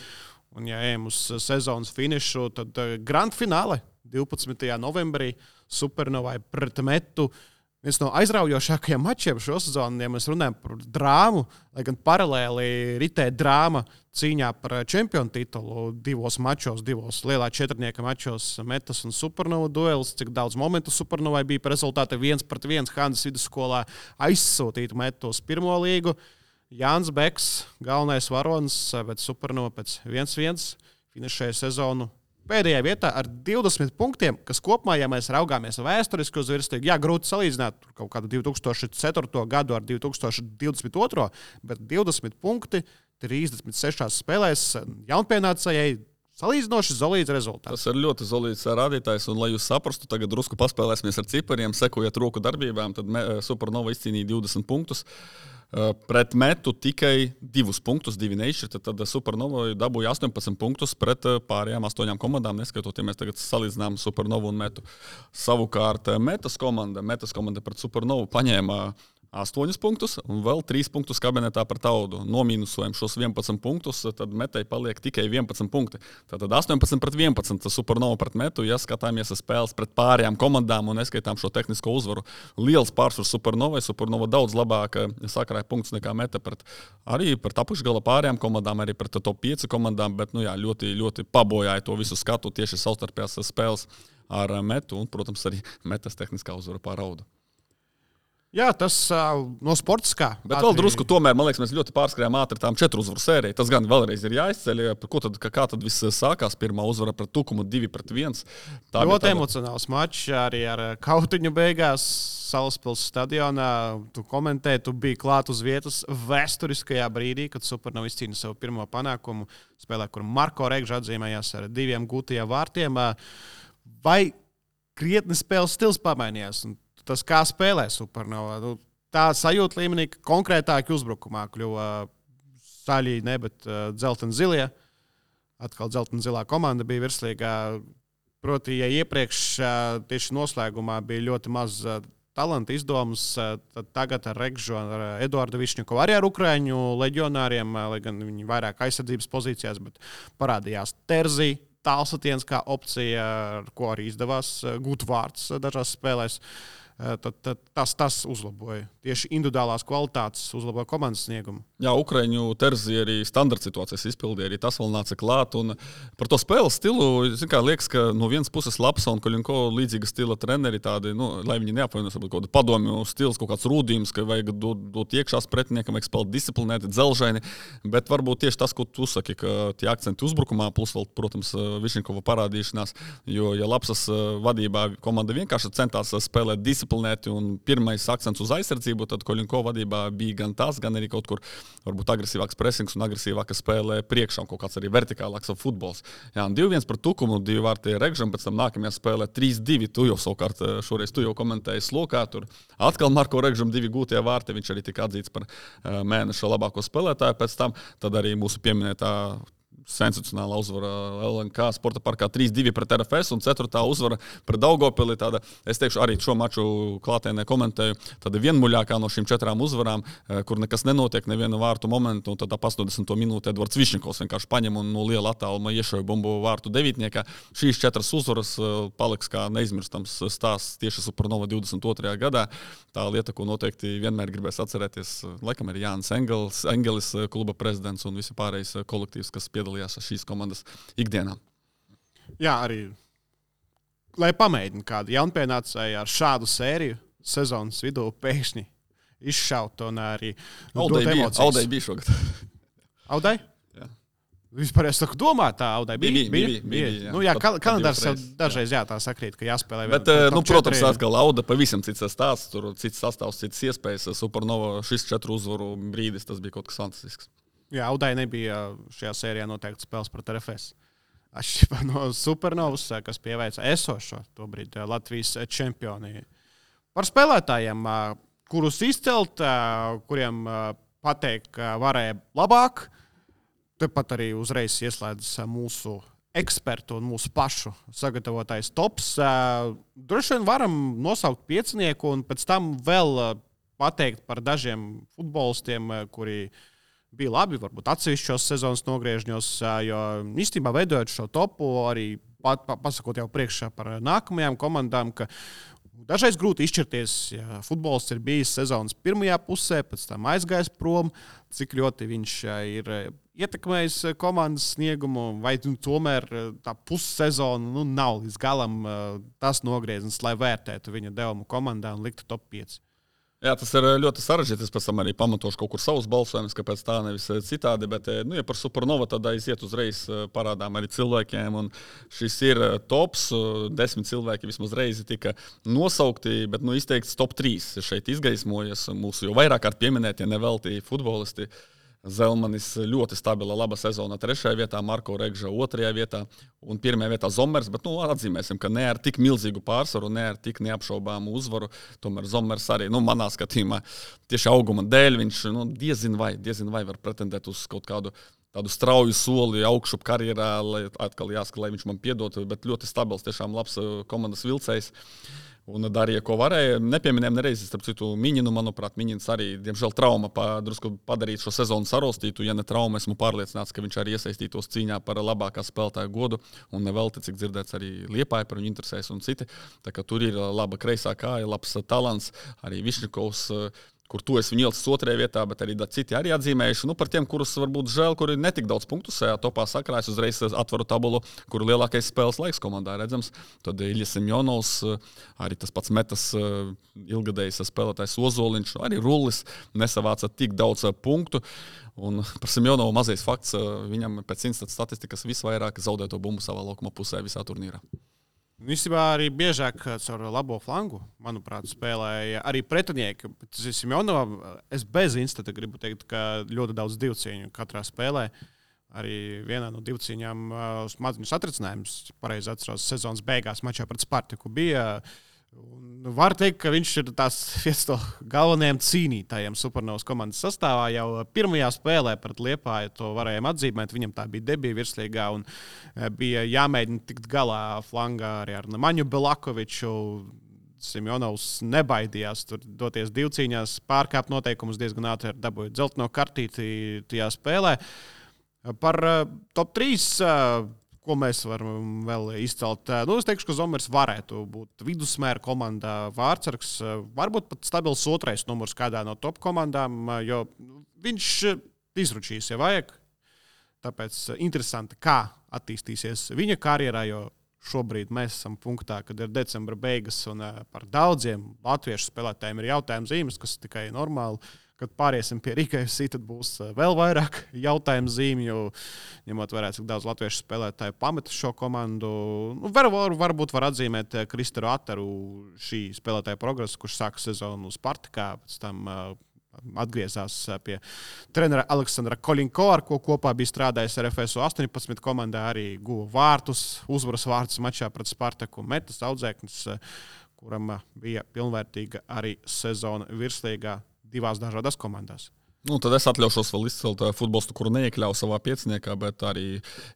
Un, ja ejam uz sezonas finišu, tad grand fināle 12. novembrī Supernovai pret Metu. Viens no aizraujošākajiem mačiem šo sezonu, ja mēs runājam par drāmu, lai gan paralēli ritē drāma cīņā par čempionu titulu 2 mačos, 2 lielā 4 mačos Metas un Supernova duelis, cik daudz momentu Supernovai bija par rezultātu 1-1 Hanzas vidusskolā aizsūtīt Metu uz pirmo līgu. Jānis Beks, galvenais varonis, bet Supernova pēc 1-1 finišēja sezonu pēdējā vietā ar 20 punktiem, kas kopumā, ja mēs raugāmies vēsturiski uz virsliegu, grūti salīdzināt kaut kādu 2004. gadu ar 2022. Bet 20 punkti 36 spēlēs jaunpienācējai salīdzinoši solīds rezultāts. Tas ir ļoti solīds rādītājs, un lai jūs saprastu, tagad drusku paspēlēsimies ar cipariem, sekojot roku darbībām, tad Supernova izcīnīja 20 punktus. Pret Metu tikai 2 punktus, 2 neizšķirti, tad Supernova dabūja 18 punktus pret pārējām 8 komandām, neskaitot, ja mēs tagad salīdzinām Supernovu un Metu. Savukārt Metas komanda pret Supernovu paņēma 8 punktus un vēl 3 punktus kabinetā par Taudu. Nomīnusojam šos 11 punktus, tad Metai paliek tikai 11 punkti. Tātad 18 pret 11 Supernova pret Metu, ja skatāmies spēles pret pārējām komandām un neskaitām šo tehnisko uzvaru. Liels pārsvars Supernovai. Supernova daudz labāk sakrāja punktus nekā Meta arī pret apakšgala pārējām komandām, arī pret top 5 komandām, bet ļoti, ļoti pabojāja to visu skatu tieši savstarpējās spēles ar Metu un, protams, arī Metas tehniskā uzvara pār Audu. Jā, tas no sportiskā. Bet vēl drusku tomēr, man liekas, mēs ļoti pārskrējām ātri tām 4 uzvaru sēriju. Tas gan vēlreiz ir jāizceļ. Kā tad viss sākās? Pirmā uzvara pret Tukumu 2-1. Ļoti emocionāls mačs arī ar kautiņu beigās Salaspils stadionā. Tu komentēji, tu biji klāt uz vietas vēsturiskajā brīdī, kad Supernova izcīna savu pirmo panākumu spēlē, kur Marko Regža atzīmējās ar 2 gūtajiem vārtiem. Vai krietni spēles stils pamainījās? Tas, kā spēlē Supernova, tā sajūta līmenī, ka konkrētāki uzbrukumā kļuva saļī, ne, bet dzelten-zilie. Atkal dzelten-zilā komanda bija virslīgā. Proti, ja iepriekš tieši noslēgumā bija ļoti maz talanta izdomas, tad tagad ar Regžu, ar Eduardu Višņikovu, arī ar ukraiņu leģionāriem, lai gan viņi vairāk aizsardzības pozīcijās, bet parādījās Terzī, tālsatiens kā opcija, ar ko arī izdevās gūt vārds dažās spēlēs. Tad tas uzlaboja. Tieši individuālās kvalitātes uzlaboja komandas sniegumu. Jā, Ukraiņu Terzi arī standarta situācijas izpildīja, arī tas vēl nāca klāt. Un par to spēles stilu, liekas, ka no vienas puses Lapsa un Koļinko līdzīga stila treneri tādi, lai viņi neapvainojas, kaut kādu padomju stils, kaut kāds rūdījums, ka vajag dot iekšās pretiniekam, vajag spēlēt disciplinēti, dzelžaini. Bet varbūt tieši tas, ko tu saki, ka tie akcenti uzbrukumā, plus vēl, protams, Višņikova parādīšanās, jo, ja Lapsas vadībā komanda vienkārši centās spēlēt disciplinēti un pirmais akcents uz aizsardzību, tad Koļinko vadībā bija gan tas, gan arī kaut kur varbūt agresīvāks presings un agresīvāka spēlē priekšā un kaut kāds arī vertikālāks futbols. Jā, un 2-1 par Tukumu, 2 vārti Regžam, pēc tam nākamajā spēlē 3-2. Tu jau savukārt šoreiz komentēji slokā. Tur atkal Marko Regžam 2 gūtie vārti, viņš arī tika atzīts par mēneša labāko spēlētāju pēc tam. Tad arī mūsu pieminētā sensacionāla uzvara LNK sporta parkā 3-2 pret RFS un 4. uzvara pret Daugavpili. Es teikšu, arī šo maču klātienē komentēju. Tāda vienmuļākā no šīm 4 uzvarām, kur nekas nenotiek, nevienu vārtu momentu. Un tad 80. minūtē Edvards Višņikovs vienkārši paņem un no liela attāluma iešauja bumbu vārtu devītniekā. Šīs 4 uzvaras paliks kā neizmirstams stāsts tieši Supernova 22. gadā. Tā lieta, ko noteikti vienmēr gribēs atcerēties, laikam ir Jānis Engelis, kluba prezidents un visi pārējais kolektīvs, kas piedalījās šīs komandas ikdienā. Jā, arī, lai pamēģina kādu jaunpienācēju ar šādu sēriju sezonas vidū pēkšņi izšaut un arī dot emocijas. Audai bija šogad. Audai? Jā. Vispār es saku domā, tā Audai bija. Jā. Nu jā, kalendārs jau dažreiz tā sakrīt, ka jāspēlē. Bet, protams, atkal Auda pavisam cits stāsts, tur cits sastāvs, cits iespējas. Supernova šis 4 uzvaru brīdis, tas bija kaut kas fantastisks. Jā, Audai nebija šajā sērijā noteikti spēles pret RFS. Atšķirībā no Supernovas, kas pieveica esošo tobrīd Latvijas čempioni. Par spēlētājiem, kurus izcelt, kuriem pateikt, ka varēja labāk, tepat arī uzreiz ieslēdz mūsu ekspertu un mūsu pašu sagatavotais tops. Droši vien varam nosaukt piecinieku un pēc tam vēl pateikt par dažiem futbolistiem, kuri bija labi, varbūt atsevišķos sezonas nogriežņos, jo īstenībā veidojot šo topu, arī pasakot jau priekšā par nākamajām komandām, ka dažreiz grūti izšķirties, ja futbolists ir bijis sezonas pirmajā pusē, pēc tam aizgājis prom, cik ļoti viņš ir ietekmējis komandas sniegumu, vai tomēr tā pussezona nav līdz galam tas nogrieznis, lai vērtētu viņa devumu komandā un liktu top 5. Jā, tas ir ļoti sarežģīti. Es pēc tam arī pamatošu kaut kur savus balsojumus, kāpēc tā nevis citādi. Bet, ja par Supernova tad aiziet uzreiz parādām arī cilvēkiem. Un šis ir tops. 10 cilvēki vismaz reizi tika nosaukti, bet izteikts top 3 šeit izgaismojas. Mūsu jau vairāk kārt pieminētie nevelti futbolisti. Zelmanis ļoti stabila, laba sezona 3. vietā, Marko Regža 2. vietā un 1. vietā Zomers, bet atzīmēsim, ka ne ar tik milzīgu pārsvaru, ne ar tik neapšaubāmu uzvaru. Tomēr Zomers arī, manā skatījumā, tieši auguma dēļ viņš diezin vai var pretendēt uz kaut kādu tādu strauju soli augšup karjerā, lai atkal jāsaka, lai viņš man piedod, bet ļoti stabils, tiešām labs komandas vilcējs. Un darīja, ko varēja. Nepieminējām nereizi, starp citu, Miņinu, manuprāt, Miņins arī, diemžēl, trauma drusku padarīt šo sezonu sarostītu. Ja ne trauma, esmu pārliecināts, ka viņš arī iesaistītos cīņā par labākā spēlētāja godu. Un nevelti, cik dzirdēts, arī Liepāja par viņu interesēs un citi. Tā kā tur ir laba kreisā kāja, labs talants, arī Višņikovs, kur tu esi viņu ielicis 2. vietā, bet arī citi arī atzīmējuši. Par tiem, kurus varbūt žēl, kuri netik daudz punktu šajā topā sakrājas, uzreiz atveru tabulu, kur lielākais spēles laiks komandā redzams. Tad Iļas Semjonovs, arī tas pats metas ilgadējs spēlētājs Ozoliņš, arī Rullis nesavāca tik daudz punktu. Un par Semjonovu mazais fakts, viņam pēc Instat statistikas visvairāk zaudēto bumbu savā laukuma pusē visā turnīrā. Īstenībā arī biežāk caur labo flangu, manuprāt, spēlēja arī pretinieki. Semjonovam es bez Instata gribu teikt, ka ļoti daudz divcīņu katrā spēlē. Arī vienā no divcīņām maziņu satricinājums, pareizi atceros, sezonas beigās mačā pret Spartaku bija. Var teikt, ka viņš ir viens no galvenajiem cīnītājiem Supernovas komandas sastāvā. Jau pirmajā spēlē pret Liepāju to varējām atzīmēt. Viņam tā bija debija virslīgā un bija jāmēģina tikt galā flangā arī ar Maņu Belakoviču. Semjonovs nebaidījās tur doties divcīņās, pārkāpt noteikumus diezgan ātri, dabūja dzelteno kartīti tajā spēlē. Par top 3... Ko mēs varam vēl izcelt? Es teikšu, ka Zomers varētu būt vidusmēra komandā vārtsargs, varbūt pat stabils 2. numurs kādā no top komandām, jo viņš izručīs, ja vajag. Tāpēc interesanti, kā attīstīsies viņa karjerā, jo šobrīd mēs esam punktā, kad ir decembra beigas un par daudziem latviešu spēlētājiem ir jautājuma zīmes, kas tikai normāli. Kad pāriesim pie Rīgas, tad būs vēl vairāk jautājumu zīmju, ņemot vērā, cik daudz latviešu spēlētāju pameta šo komandu. Varbūt var atzīmēt Kristaru Ataru šī spēlētāja progresu, kurš sāka sezonu Spartakā, pēc tam atgriezās pie trenera Aleksandra Kolinko, ar ko kopā bija strādājis RFS 18 komandā, arī guva vārtus, uzvaras vārtus mačā pret Spartaku, metas audzēknis, kuram bija pilnvērtīga arī sezona virslīgā 2 dažādās komandās. Tad es atļaušos vēl izcelt futbolistu, kuru neiekļauju savā pieciniekā, bet arī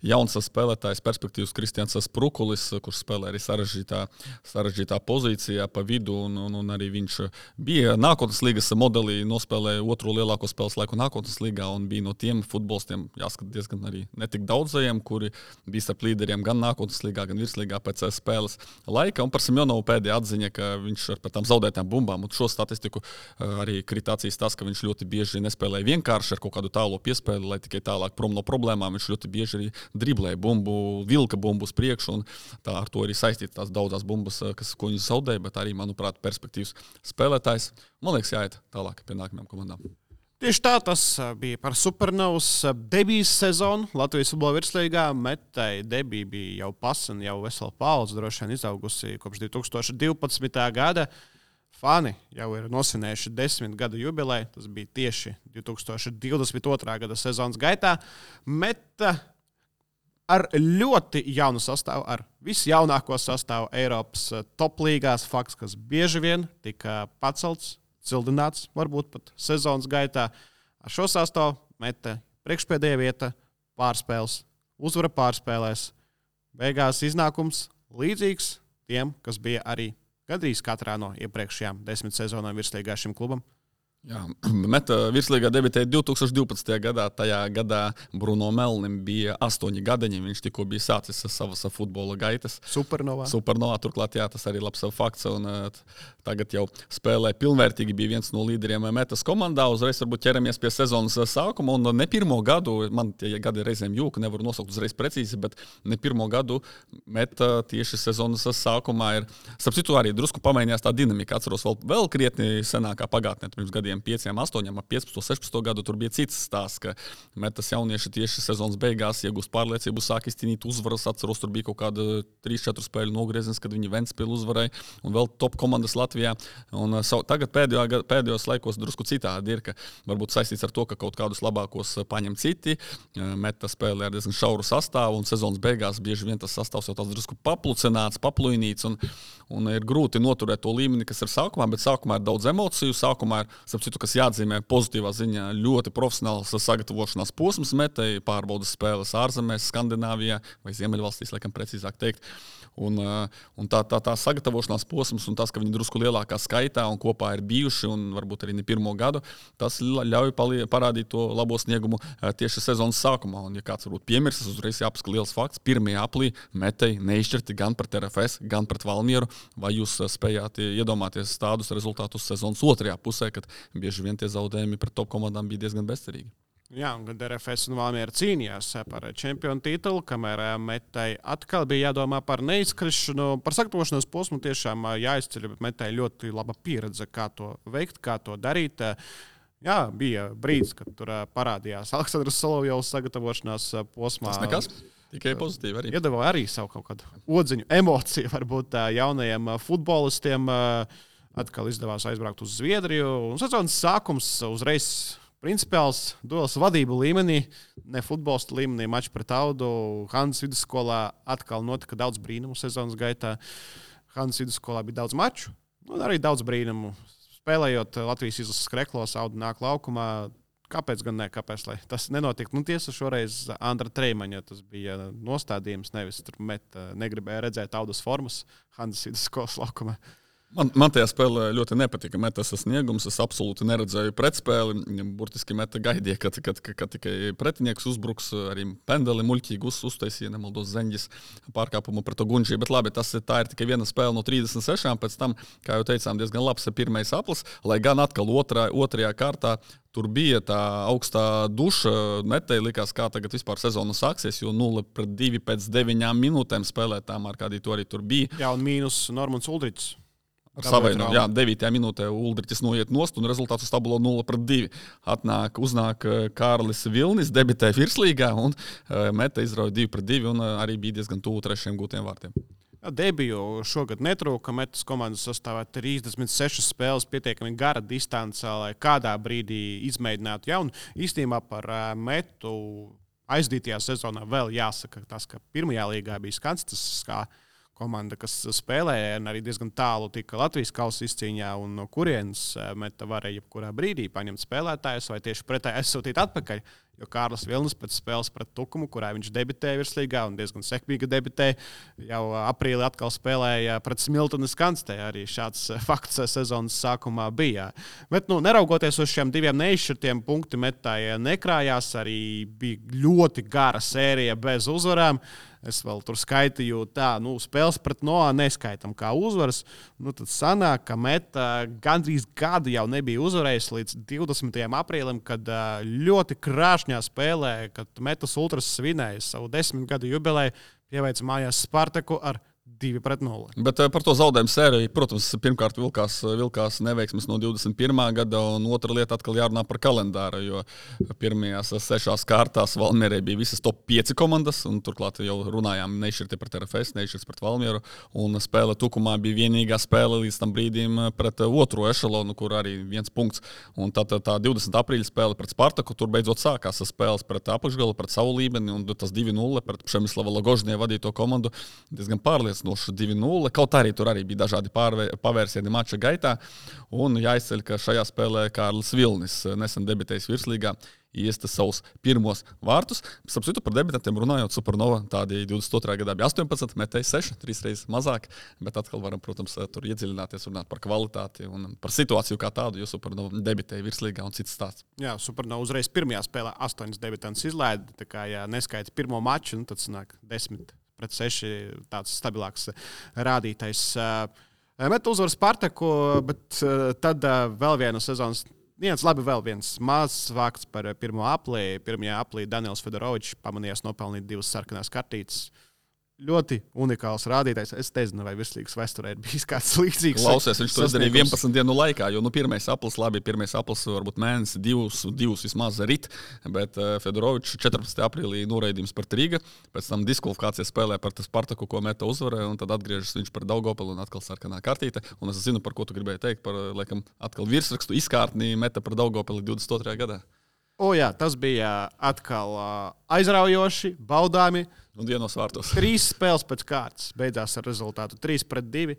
jauns spēlētājs, perspektīvas Kristians Sprukulis, kurš spēlē arī sarežģītā pozīcijā pa vidu, un arī viņš bija nākotnes līgas modelī, nospēlēja otro lielāko spēles laiku nākotnes līgā un bija no tiem futbolistiem, jāskat diezgan arī netik daudzajiem, kuri bija starp līderiem gan nākotnes līgā, gan virslīgā pēc spēles laika. Un par Simjonovu pēdējā atziņa, ka viņš ar tām zaudētām bumbām, un šo statistiku arī kritācijas tas, ka viņš ļoti bieži nespēlēja vienkārši ar kaut kādu tālo piespēli, lai tikai tālāk prom no problēmām. Viņš ļoti bieži arī driblēja bumbu, vilka bumbu uz priekšu, un tā ar to arī saistīta tās daudzās bumbas, ko viņš zaudēja, bet arī, manuprāt, perspektīvs spēlētājs. Man liekas, jāiet tālāk pie nākamajām komandām. Tieši tā tas bija par Supernovas debijas sezonu Latvijas futbola virslīgā. Metai debija bija jau pasen, jau vesela paudze, droši vien izaugusi kopš 2012. gada. Fani jau ir nosvinējuši 10 gadu jubileju. Tas bija tieši 2022. gada sezonas gaitā. Meta ar ļoti jaunu sastāvu, ar visjaunāko sastāvu Eiropas top līgās, fakts, kas bieži vien tika pacelts, cildināts, varbūt pat sezonas gaitā. Ar šo sastāvu Meta priekšpēdējā vieta, pārspēles, uzvara pārspēlēs. Beigās iznākums līdzīgs tiem, kas bija arī gandrīz katrā no iepriekšējām 10 sezonām virslīgā šim klubam. Jā, Meta virslīgā debitēja 2012. gadā. Tajā gadā Bruno Melnim bija 8 gadiņi. Viņš tikko bija sācis savas futbola gaitas. Supernovā, turklāt, jā, tas arī labs fakts. Un, tagad jau spēlē pilnvērtīgi, bija viens no līderiem Metas komandā. Uzreiz varbūt ķeramies pie sezonas sākuma. Un ne pirmo gadu, man tie gadi reizēm jūka, nevaru nosaukt uzreiz precīzi, bet ne pirmo gadu Meta tieši sezonas sākumā ir. Starp citu arī drusku pamainījās tā dinamika. Atceros vēl krietni senākā pagātnē, pirms gadiem 5, 8, 15, 16 gadu tur bija cits stāsts, ka Metas jaunieši tieši sezonas beigās iegūst pārliecību, sāk izcīnīt uzvaras. Atceros, tur bija kaut kāda 3-4 spēļu nogrieziens, kad viņi Ventspili uzvarēja un vēl top komandas Latvijā. Un tagad pēdējos laikos drusku citādi ir, ka varbūt saistīts ar to, ka kaut kādus labākos paņem citi. Meta spēlē ar diezgan šauru sastāvu un sezonas beigās bieži vien tas sastāvs jau tāds drusku paplucināts, papluinīts un ir grūti noturēt to līmeni, kas ir sākumā, bet sākumā ir daudz emociju. Sākumā ir, citu, kas jāatzīmē pozitīvā ziņā, ļoti profesionāls sagatavošanās posms Metai, pārbaudas spēles ārzemēs, Skandināvijā vai Ziemeļvalstīs, laikam precīzāk teikt. Un tā sagatavošanās posms un tas, ka viņi drusku lielākā skaitā un kopā ir bijuši un varbūt arī ne pirmo gadu, tas ļauj parādīt to labo sniegumu tieši sezonas sākumā. Un, ja kāds varbūt piemirsis, uzreiz jāpasaka liels fakts. 1. aprīlī Metai neizšķirti gan pret RFS, gan pret Valmieru. Vai jūs spējāt iedomāties tādus rezultātus sezonas otrajā pusē, kad bieži vien tie zaudējumi pret top komandām bija diezgan bezcerīgi? Jā, un kad RFS un Valmiera cīnījās par čempionu titulu, kamēr Metai atkal bija jādomā par neizkrišanu, par sagatavošanos posmu tiešām jāizceļ, bet Metai ļoti laba pieredze, kā to veikt, kā to darīt. Jā, bija brīdis, kad tur parādījās Aleksandrs Solovjovs sagatavošanās posmā. Tas nekas. Tikai pozitīvi arī. Iedeva arī savu kaut kādu odziņu, emociju varbūt jaunajiem futbolistiem. Atkal izdevās aizbraukt uz Zviedriju. Un sezonas sākums uzreiz principiāls duels vadību līmenī, ne futbolista līmenī, mačs pret Audu. Hanzas vidusskolā atkal notika daudz brīnumu sezonas gaitā. Hanzas vidusskolā bija daudz maču un arī daudz brīnumu. Spēlējot Latvijas izlases kreklos, Audu nāk laukumā. Kāpēc gan ne? Kāpēc, lai tas nenotiktu? Nu, tiesa šoreiz Andra Treimaņa, tas bija nostādījums, nevis tur Meta negribēja redzēt Audas formas Hanzas vidusskolas laukumā. Man tajā spēlē ļoti nepatika Metas sasniegums. Es absolūti neredzēju pretspēli. Burtiski Meta gaidīja, kad tikai pretinieks uzbruks. Arī pendeli muļķīgi uztaisīja, nemaldos Zeņģis pārkāpumu pret Gunģiju. Bet labi, tā ir tikai viena spēle no 36. Pēc tam, kā jau teicām, diezgan labs pirmais aplis. Lai gan atkal otrajā kārtā tur bija tā augstā duša. Metai likās, kā tagad vispār sezona sāksies, jo 0-2 pēc 9 minūtēm spēlētām, ar kādī to arī tur bija. Jā, un mīnus Normans Uldričs. Savaino, jā, 9. minūtē Uldriķis noiet nost un rezultāts uz tabulo 0-2. Uznāk Kārlis Vilnis, debitē virslīgā un Meta izrauja 2-2 un arī bija diezgan tuvu 3. gūtiem vārtiem. Jā, debiju šogad netrūka. Metas komandas sastāvā 36 spēles, pietiekami gara distance, lai kādā brīdī izmēģinātu jaunu. Īstenībā par Metu aizdītajā sezonā vēl jāsaka tas, ka pirmajā līgā bija skans, tas kā komanda, kas spēlēja, un arī diezgan tālu tika Latvijas kausa izcīņā, un no kurienes Meta varēja jebkurā brīdī paņemt spēlētājus vai tieši pretēji aizsūtīt atpakaļ. Jo Kārlis Vilnis pēc spēles pret Tukumu, kurā viņš debitēja virslīgā un diezgan sekmīgi debitēja, jau aprīlī atkal spēlēja pret Smiltenes Kanstē. Arī šāds fakts sezonas sākumā bija. Bet, neraugoties uz šiem diviem neizšķirtiem punktu metāji nekrājās, arī bija ļoti gara sērija bez uzvarām. Es vēl tur skaitīju, spēles pret Noā neskaitam kā uzvaras. Tad sanāk, ka Meta gandrīz gadu jau nebija uzvarējis līdz 20. aprīlim, kad ļoti krāšņā spēlē, kad Metas Ultras svinēja savu 10 gadu jubileju, pieveica mājās Spartaku ar 2-0. Bet par to zaudējumu sēriju, protams, pirmkārt vilkās neveiksmes no 21. gada, un otra lieta atkal jārunā par kalendāru, jo pirmajās 6 kārtās Valmierē bija visas top 5 komandas, un turklāt jau runājām nešķirti pret RFS, nešķirti pret Valmieru, un spēle Tukumā bija vienīgā spēle līdz tam brīdim pret otro ešalonu, kur arī 1 punkts. Un tā 20. aprīļa spēle pret Spartaku, tur beidzot sākās spēles pret apakšgalu, pret savu līmeni, un tas 2-0 pret Přemyslava Logožņie vadīto komandu diezgan pārliecinoši 2-0. Kaut arī tur arī bija dažādi pavērsieni mača gaitā. Un jāizceļ, ka šajā spēlē Kārlis Vilnis, nesen debitējis virslīgā, iesta savus pirmos vārtus. Starp citu, par debitantiem runājot, Supernova tādi 22. gadā bija 18, metēja 6, 3 reizes mazāk, bet atkal varam, protams, tur iedziļināties, runāt par kvalitāti un par situāciju kā tādu, jo Supernova debitēja virslīgā un cits stāsts. Jā, Supernova uzreiz pirmajā spēlē 8 debitantus izlaida, tā kā ja neskaita pirmo maču, tad sanāk 10 pret 6 tāds stabilāks rādītais. Meta uzvar Spartaku, bet tad vēl viena sezonas. Vēl viens mazs vārds par pirmo aplī. Pirmajā aplī Daniels Fedorovičs pamanījās nopelnīt 2 sarkanās kartītes. Ļoti unikāls rādītājs. Es nezinu, vai virslīgas vēsturē ir bijis kāds līdzīgs. Klausies, viņš to izdarīja 11 dienu laikā, jo pirmais aplis varbūt mēnesi, divus vismaz rit, bet Fedorovičs 14. aprīlī noraidījums par Rīga, pēc tam diskvalifikācijas spēlē par Spartaku, ko Meta uzvarēja, un tad atgriežas viņš par Daugavpili un atkal sarkanā kartīte. Un es zinu, par ko tu gribēji teikt, par, laikam, atkal virsrakstu izkārtnī Meta par Daugavpili 22. gadā. Jā, tas bija atkal aizraujoši, baudāmi. Un dienos vārtos. 3 spēles pēc kārtas beidzās ar rezultātu 3-2.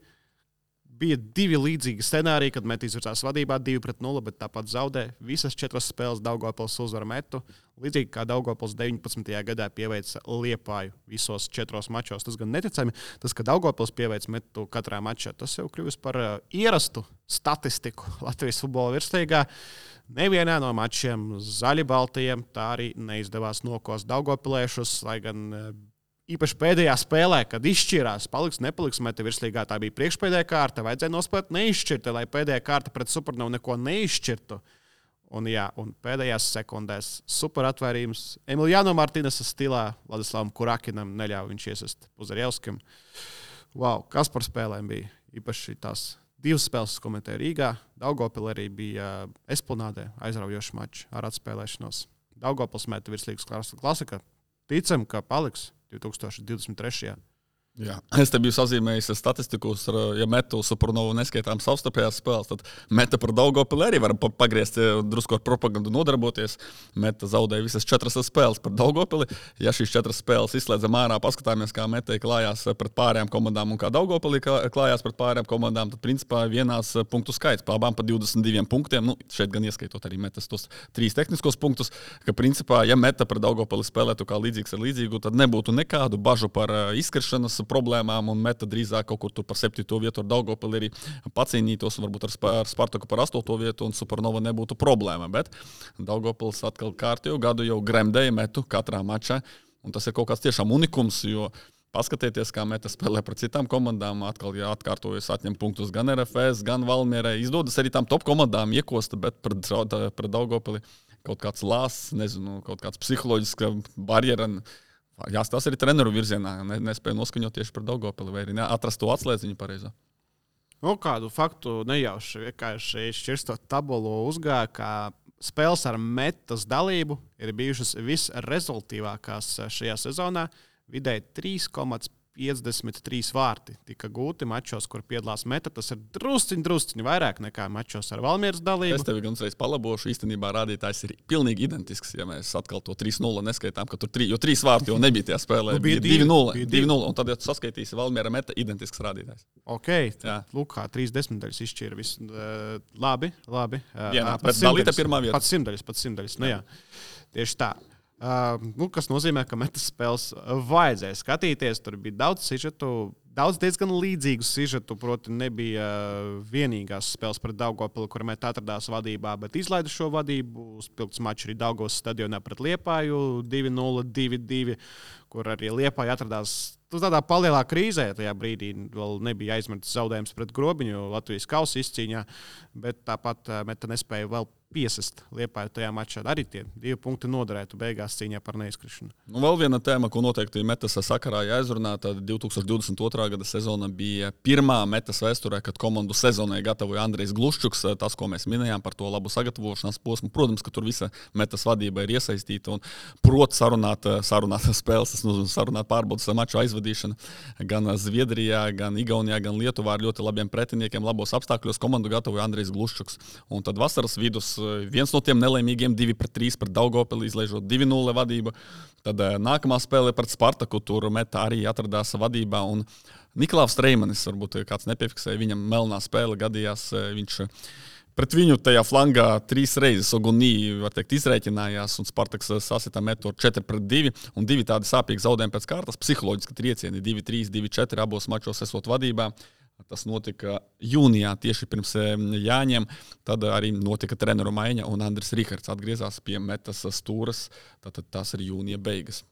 Bija 2 līdzīgi scenāriji, kad Meta izvirzās vadībā 2-0, bet tāpat zaudēja. Visas 4 spēles Daugavpils uzvara Metu. Līdzīgi kā Daugavpils 19. gadā pieveica Liepāju visos 4 mačos. Tas gan neticami, tas, ka Daugavpils pieveica Metu katrā mačā, tas jau kļuvis par ierastu statistiku Latvijas futbola virslīgā. Nevienā no mačiem zaļi-baltajiem tā arī neizdevās nokost Daugavpiliešus, lai gan īpaši pēdējā spēlē, kad izšķirās, paliks, nepaliks Meta virslīgā, tā bija priekšpēdējā kārta, vajadzēja nospēlēt neizšķirti, lai pēdējā kārta pret Supernovu neko neizšķirtu. Un pēdējās sekundēs super atvērījums Emiliano Martinesa stilā Vladislavam Kurakinam neļāva viņš iesist Puzarjevskim. Wow, kas par spēlēm bija? Īpaši tās 2 spēles komentēja Rīgā. Daugavpilī arī bija Esplanādē aizraujoši mači ar atspēlēšanos. Daugavpils Meta virslīgas klasika. Ticam, ka paliks 2023. Jā. Es te biju sazīmējis statistiku, ja Metu Supernovu neskaitām savstarpējās spēles, tad Meta par Daugavpili arī var pagriezt, drusku ar propagandu nodarboties. Meta zaudēja visas 4 spēles par Daugavpili. Ja šīs 4 spēles izslēdzam ārā, paskatāmies, kā Meta klājās pret pārējām komandām un kā Daugavpili klājās pret pārējām komandām, tad principā vienās punktu skaits pa abām pa 22 punktiem. Šeit gan ieskaitot arī Metas tos 3 tehniskos punktus, ka principā, ja Meta par Daugavpili spēlētu kā līdzīgs ar līdzīgu, tad nebūtu nekādu bažu par izkrišanas problēmām, un Meta drīzāk kaut kur tur par 7. vietu ar Daugavpili arī pacīnītos, varbūt ar Spartaku par 8. vietu, un Supernova nebūtu problēma. Bet Daugavpils atkal kārtējo gadu jau gremdēja Metu katrā mačā, un tas ir kaut kāds tiešām unikums, jo paskatieties, kā Meta spēlē pret citām komandām, atkal atkārtojas atņem punktus gan RFS, gan Valmierai. Izdodas arī tām top komandām iekosta, bet pret Daugavpili kaut kāds lāsts, nezinu, kaut kāds psiholoģiska barjera. Jāstāsta arī treneru virzienā, nespēja noskaņot tieši par Daugavpili, vai arī atrast to atslēdziņu pareizo. Kādu faktu nejauši vienkārši šķirstot tabulu uzgāja, ka spēles ar Metas dalību ir bijušas visrezultīvākās šajā sezonā. Vidēji 3,5 53 vārti tika gūti mačos, kur piedalās Meta. Tas ir drusciņi vairāk nekā mačos ar Valmieras dalību. Es tevi gan uzreiz palabošu. Īstenībā rādītājs ir pilnīgi identisks, ja mēs atkal to 3-0 neskaitām, ka tur 3 vārti jau nebija tajā spēlē. Bija 2-0. Un tad, ja tu saskaitīsi Valmiera Meta, identisks rādītājs. Ok, lūk, kā 30 izšķīra visu. Labi. Pēc dalīta pirmā vieta. Pats simtdaļas. Nu jā, tieši tā. Kas nozīmē, ka Metas spēles vajadzēja skatīties. Tur bija daudz sižetu, daudz diezgan līdzīgu sižetu. Proti, nebija vienīgās spēles pret Daugavpili, kur Meta atradās vadībā, bet izlaida šo vadību. Spilgts mačs arī Daugavas stadionā pret Liepāju 2-0, 2-2, kur arī Liepāja atradās tādā palielā krīzē. Tajā brīdī vēl nebija aizmirsts zaudējums pret Grobiņu Latvijas kausa izcīņā, bet tāpat Meta nespēja vēl piesist Liepāju tajā mačā. Arī tie 2 punkti noderētu beigās cīņā par neizkrišanu. Nu, vēl viena tēma, ko noteikti Metas sakarā jāizrunā, tad 2022. gada sezona bija pirmā Metas vēsturē, kad komandu sezonai gatavoja Andrejs Gluščuks. Tas, ko mēs minējām par to labu sagatavošanās posmu, protams, ka tur visa Metas vadība ir iesaistīta un prot sarunāt spēles, tas nozīmē sarunāt pārbaudas maču aizvadīšanu gan Zviedrijā, gan Igaunijā, gan Lietuvā ar ļoti labiem pretiniekiem, labos apstākļos komandu gatavoja Andrejs Gluščuks. Un tad vasaras vidus viens no tiem nelaimīgiem 2-3 pret Daugavpili, izlaižot 2-0 vadību. Tad nākamā spēle pret Spartaku, tur Meta arī atradās vadībā. Un Niklaus Reimanis, varbūt kāds nepiefiksēja, viņam melnā spēle gadījās. Viņš pret viņu tajā flangā 3 reizes Ogunī, var teikt, izrēķinājās, un Spartaks sasita Metu 4-2, un 2 tādi sāpīgi zaudējumi pēc kārtas, psiholoģiski triecieni, 2-3, 2-4 abos mačos esot vadībā. Tas notika jūnijā, tieši pirms Jāņiem. Tad arī notika treneru maiņa, un Andris Rihards atgriezās pie Metas stūras. Tātad tas ir jūnija beigas.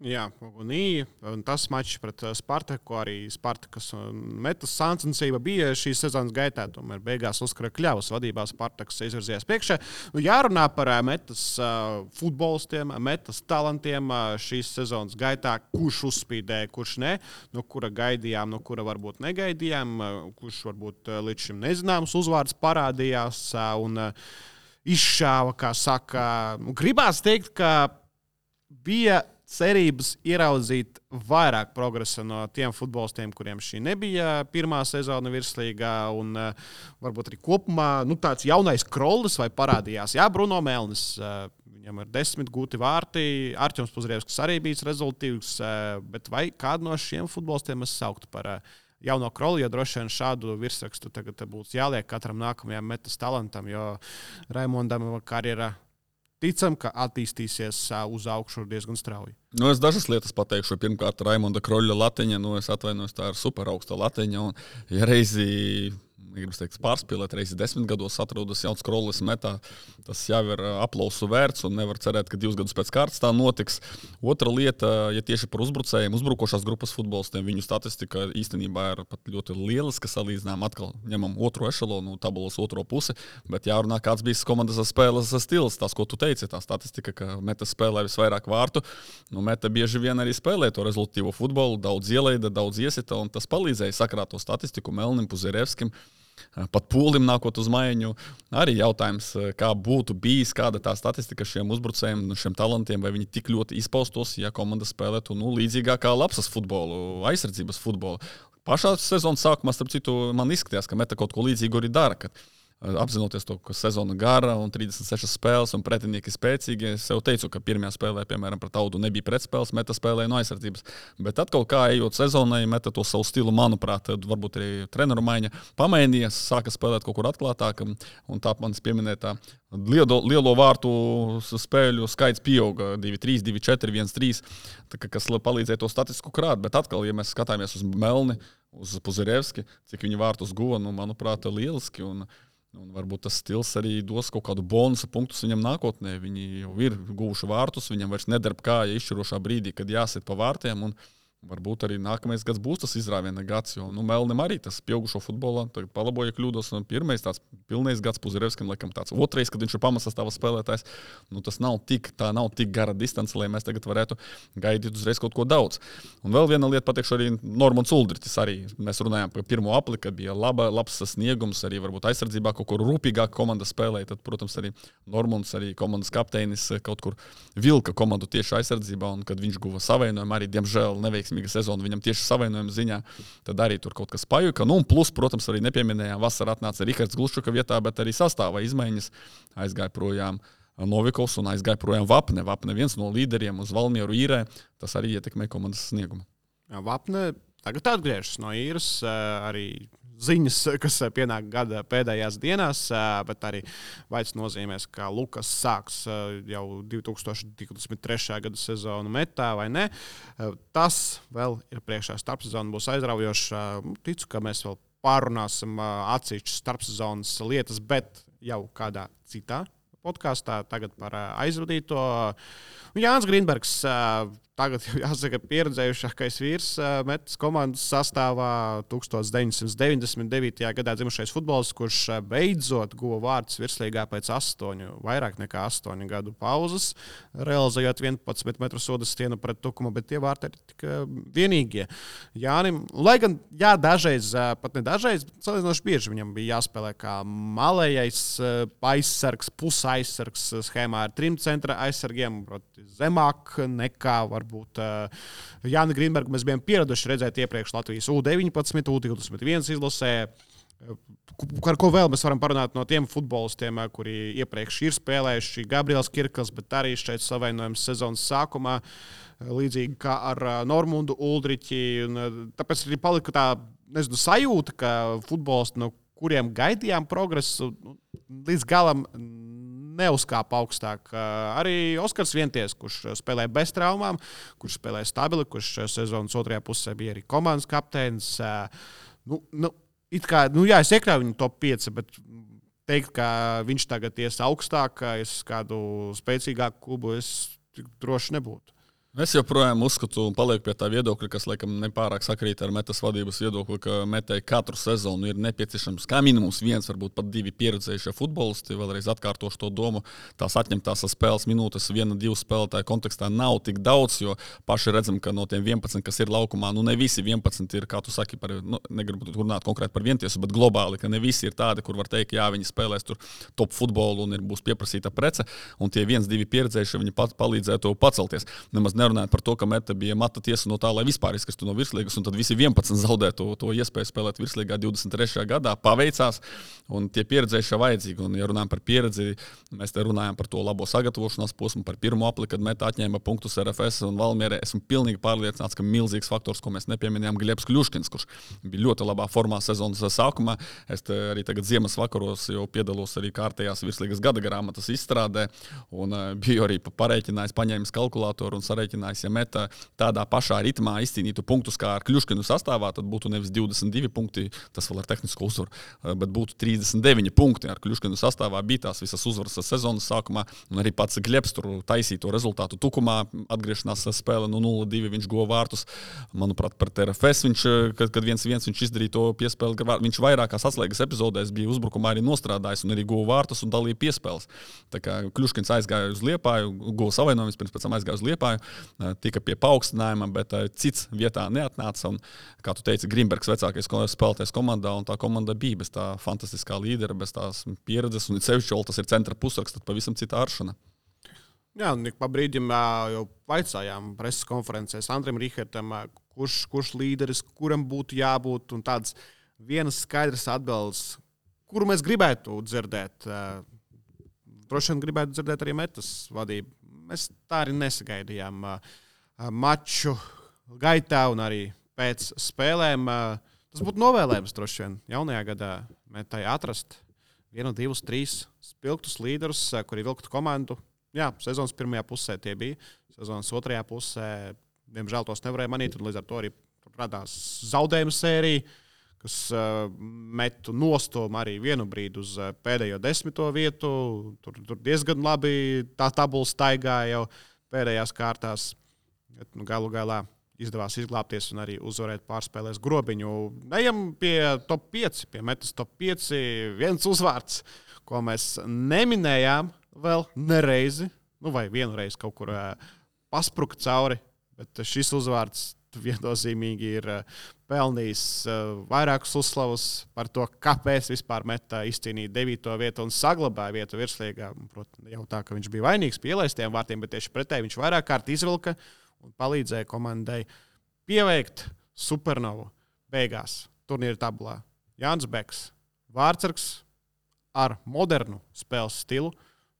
Jā, un tas mačs pret Spartaku, arī Spartakas un Metas sāncensība bija šīs sezonas gaitā. Tomēr beigās uzkara Kļavas vadībā Spartakas izvirzījās priekšā. Jārunā par Metas futbolistiem, Metas talantiem šīs sezonas gaitā, kurš uzspīdēja, kurš ne, no kura gaidījām, no kura varbūt negaidījām, kurš varbūt līdz šim nezināms uzvārds parādījās un izšāva, kā saka. Gribās teikt, ka bija cerības ieraudzīt vairāk progresa no tiem futbolistiem, kuriem šī nebija pirmā sezona virslīgā, un varbūt arī kopumā tāds jaunais Krollis vai parādījās. Jā, Bruno Melnis, viņam ir 10 gūti vārti, Artjoms Puzrievskis arī bijis rezultīvs, bet vai kādu no šiem futbolistiem es sauktu par jauno Krolli, jo droši vien šādu virsrakstu tagad būs jāliek katram nākamajam Metas talantam, jo Raimondam karjera ticam, ka attīstīsies uz augšu diezgan strauji. Es dažas lietas pateikšu. Pirmkārt, Raimonda Kroļa latiņa. Es atvainojos, tā ir super augsta latiņa. Un, ja reizi, gribas teikt, pārspīlēt, reizi 10 gados atrodas jauns Krollis Metā, tas jau ir aplausu vērts un nevar cerēt, ka 2 gadus pēc kārtas tā notiks. Otra lieta, ja tieši par uzbrucējiem, uzbrukošās grupas futbolistiem, viņu statistika īstenībā ir pat ļoti lieliska salīdzinām. Atkal ņemam otro ešalonu, tabulas otro pusi, bet jārunā, kāds bija komandas spēles stils. Tas, ko tu teici, tā statistika, ka Meta spēlē visvairāk vārtu. Meta bieži vien arī spēlē to rezultīvo futbolu, daudz ielaida, daudz iesita, un tas palīdzēja sakrāt to statistiku Melnim, Puzerevskim. Pat Pūlim nākot uz maiņu. Arī jautājums, kā būtu bijis, kāda tā statistika šiem uzbrucējiem, šiem talantiem, vai viņi tik ļoti izpaustos, ja komanda spēlētu līdzīgāk kā lapsas futbolu, aizsardzības futbolu. Pašā sezonas sākumā, starp citu, man izskatījās, ka Meta kaut ko līdzīgu arī dara, kad apzinoties to, ka sezona gara un 36 spēles un pretinieki spēcīgi. Es jau teicu, ka pirmajā spēlē, piemēram, pret Audu nebija pretspēles, Meta spēlēja no aizsardzības. Bet atkal kā ejot sezonai, Meta to savu stilu, manuprāt, varbūt arī treneru maiņa pamainījās, sāka spēlēt kaut kur atklātāk. Un tā manis pieminētā lielo vārtu spēļu skaits pieauga 2-3, 2-4, 1-3, kas palīdzēja to statistiku krāt. Bet atkal, ja mēs skatāmies uz Melni, uz Puzerevski, cik viņi vārtus guva, manuprāt, lieliski. Un varbūt tas stils arī dos kaut kādu bonusu punktus viņam nākotnē. Viņi jau ir guvuši vārtus, viņam vairs nedarb kāja izšķirošā brīdī, kad jāsit pa vārtiem. Un varbūt arī nākamais gads būs tas izrāviena gads, jo Melnim arī tas pieaugušo futbolā, tagad palaboja kļūdos, un pirmais tāds pilnais gads Puzerevskim, laikam tāds otrais, kad viņš ir pamatsastāvā spēlētājs. Tas nav tik gara distance, lai mēs tagad varētu gaidīt uzreiz kaut ko daudz. Un vēl viena lieta pateikšu arī Normons Uldritis arī. Mēs runājām par pirmo apli, kad bija labs sasniegums, arī varbūt aizsardzībā kaut kur rūpīgāk komanda spēlēja, tad, protams, arī Normons, arī komandas kapteinis kaut kur vilka komandu tieši aizsardzībā, un kad viņš guva savainojumu, arī, diemžēl, neveiksmīgi veiksmīga sezona viņam tieši savainojuma ziņā, tad arī tur kaut kas pajuka. Nu, un plus, protams, arī nepieminējām, vasarā atnāca Rihards Gluščuka vietā, bet arī sastāvā izmaiņas aizgāja projām Novikovs un aizgāja projām Vapne. Vapne viens no līderiem uz Valmieru īrē, tas arī ietekmē komandas sniegumu. Jā, Vapne tagad atgriežas no īras, arī ziņas, kas pienāk gada pēdējās dienās, bet arī vairs nozīmēs, ka Lukas sāks jau 2023. gada sezonu metā vai ne. Tas vēl ir priekšā, starpsezona būs aizraujošs. Ticu, ka mēs vēl pārunāsim atsevišķas starpsezonas lietas, bet jau kādā citā podkāstā tagad par aizvadīto. Jānis Grīnbergs tagad, jāsaka, pieredzējušākais vīrs metas komandas sastāvā 1999. gadā dzimušais futbolists, kurš beidzot guva vārdus virslīgā pēc vairāk nekā 8 gadu pauzes, realizējot 11 metru soda stienu pret Tukumu, bet tie vārti ir tik vienīgie. Jānim, lai gan, jā, dažreiz, pat ne dažreiz, bet salīdzinoši bieži viņam bija jāspēlē kā malējais aizsargs, pusaizsargs schēmā ar 3 centra aizsargiem, proti zemāk nekā varbūt Jāni Grīnbergu mēs bijām pieraduši redzēt iepriekš Latvijas U19, U21 izlasē. Ar ko vēl mēs varam parunāt no tiem futbolistiem, kuri iepriekš ir spēlējuši, Gabriels Kirkls, bet arī šeit savainojums sezonas sākumā, līdzīgi kā ar Normundu Uldriķi. Tāpēc arī palika tā, sajūta, ka futbolisti, no kuriem gaidījām progresu, līdz galam neuzkāpa augstāk. Arī Oskars Vienties, kurš spēlē bez traumām, kurš spēlē stabili, kurš sezonas otrajā pusē bija arī komandas kapteinis. Es iekļauju viņu top 5, bet teikt, ka viņš tagad ies augstāk, es kādu spēcīgāku klubu, es droši nebūtu. Es joprojām uzskatu un palieku pie tā viedokļa, kas laikam nepārāk sakrīt ar metas vadības viedokli, ka metai katru sezonu ir nepieciešams kā minimums 1, varbūt pat 2 pieredzējušie futbolisti. Vēlreiz atkārtošu to domu, tās atņemtās spēles minūtes 1-2 spēlētāju kontekstā nav tik daudz, jo paši redzam, ka no tiem 11, kas ir laukumā, ne visi 11 ir, kā tu saki, negribu runāt konkrēti par Vientiesu, bet globāli, ka ne visi ir tādi, kur var teikt, jā, viņi spēlēs tur top futbolu un būs pieprasīta prece, un tie 1-2 pieredzējušie viņi palīdzētu pacelties. Nemaz nerunājot par to, ka meta bija mata tiesa no tā, lai vispār izkristu no virslīgas, un tad visi 11 zaudētu to iespēju spēlēt virslīgā 23. gadā. Paveicās, un tie pieredzējušie vajadzīgi. Un, ja runājam par pieredzi, mēs te runājam par to labo sagatavošanās posmu, par pirmo apli, kad meta atņēma punktus RFS un Valmierē. Esmu pilnīgi pārliecināts, ka milzīgs faktors, ko mēs nepieminējām, Glebs Kļuškins, kurš bija ļoti labā formā sezonas sākumā. Es arī tagad ziemas vakaros jau piedalos arī kārtējās virslīgas gada grāmatas izstrādē, un biju arī parēķinājis, paņēmis kalkulātoru un sarēķinājis, ja meta tādā pašā ritmā izcīnītu punktus kā ar Kļuškinu sastāvā, tad būtu nevis 22 punkti, tas vēl ar tehnisko uzvaru, bet būtu 39 punkti. Ar Kļuškinu sastāvā bija tās visas uzvaras sezonas sākumā, un arī pats Glebs tur taisīja to rezultātu Tukumā, atgriešanās spēle no 0-2, viņš guva vārtus. Manuprāt, pret RFS viņš, kad 1-1 viņš izdarīja to piespēli, viņš vairākās atslēgas epizodēs bija uzbrukumā arī nostrādājis un arī guva vārtus un dalīja piespēles. Tā kā Kļuškins aizgāja uz Liepāju, guva savainojumus, pēc tam aizgāja uz Liepāju, tika pie paaugstinājuma, bet cits vietā neatnāca. Un, kā tu teici, Grīnbergs vecākais spēlētājs komandā, un tā komanda bija bez tā fantastiskā līdera, bez tās pieredzes, un sevišķi tas ir centra pusraks, tad pavisam cita aršana. Jā, un pa brīdim jau vaicājām preses konferencēs Andrim Rihartam, kurš līderis, kuram būtu jābūt, un tāds vienas skaidras atbildes, kuru mēs gribētu dzirdēt. Droši vien gribētu dzirdēt arī metas vadību. Mēs tā arī nesagaidījām maču gaitā un arī pēc spēlēm. Tas būtu novēlējums droši vien jaunajā gadā metai atrast 1, 2, 3 spilgtus līderus, kuri vilktu komandu. Jā, sezonas pirmajā pusē tie bija. Sezonas otrajā pusē, diemžēl, tos nevarēja manīt, un līdz ar to arī radās zaudējumu sērija, kas metu nostomu arī vienu brīdi uz pēdējo 10. vietu. Tur diezgan labi tā tabula staigāja jau pēdējās kārtās. Galu galā izdevās izglābties un arī uzvarēt pārspēlēs Grobiņu. Ejam pie top 5, pie metas top 5. Viens uzvārds, ko mēs neminējām vēl nereizi, vai vienu reizi kaut kur paspruka cauri, bet šis uzvārds viennozīmīgi ir pelnījis vairākus uzslavus par to, kāpēc vispār meta izcīnīja 9. vietu un saglabāja vietu virslīgā. Protams, jau tā, ka viņš bija vainīgs pie ielaistiem vārtiem, bet tieši pretēji viņš vairāk kārt izvilka un palīdzēja komandai pieveikt supernovu beigās turnīra tabulā. Jānis Beks, vārtsargs ar modernu spēles stilu.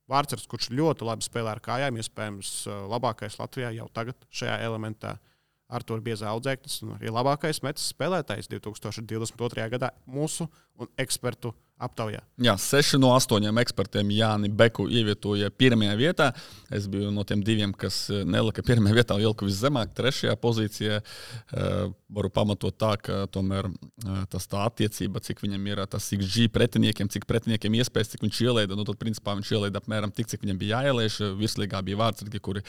Vārtsargs, kurš ļoti labi spēlē ar kājām, iespējams labākais Latvijā jau tagad šajā elementā. Artur Biezā audzēknis un arī labākais metas spēlētājs 2022. gadā mūsu un ekspertu aptaujā. Jā, 6 no 8 ekspertiem Jāni Beku ievietoja pirmajā vietā. Es biju no tiem 2, kas nelika pirmajā vietā, ilka viszemāk, 3. pozīcijā. Varu pamatot tā, ka tomēr tas tā attiecība, cik viņam ir tas XG pretiniekiem, cik pretiniekiem iespējas, cik viņš ielaida. Nu, tad, principā, viņš ielaida apmēram tik, cik viņam bija jāieliež. Virslīgā bija vārtsargi, kuri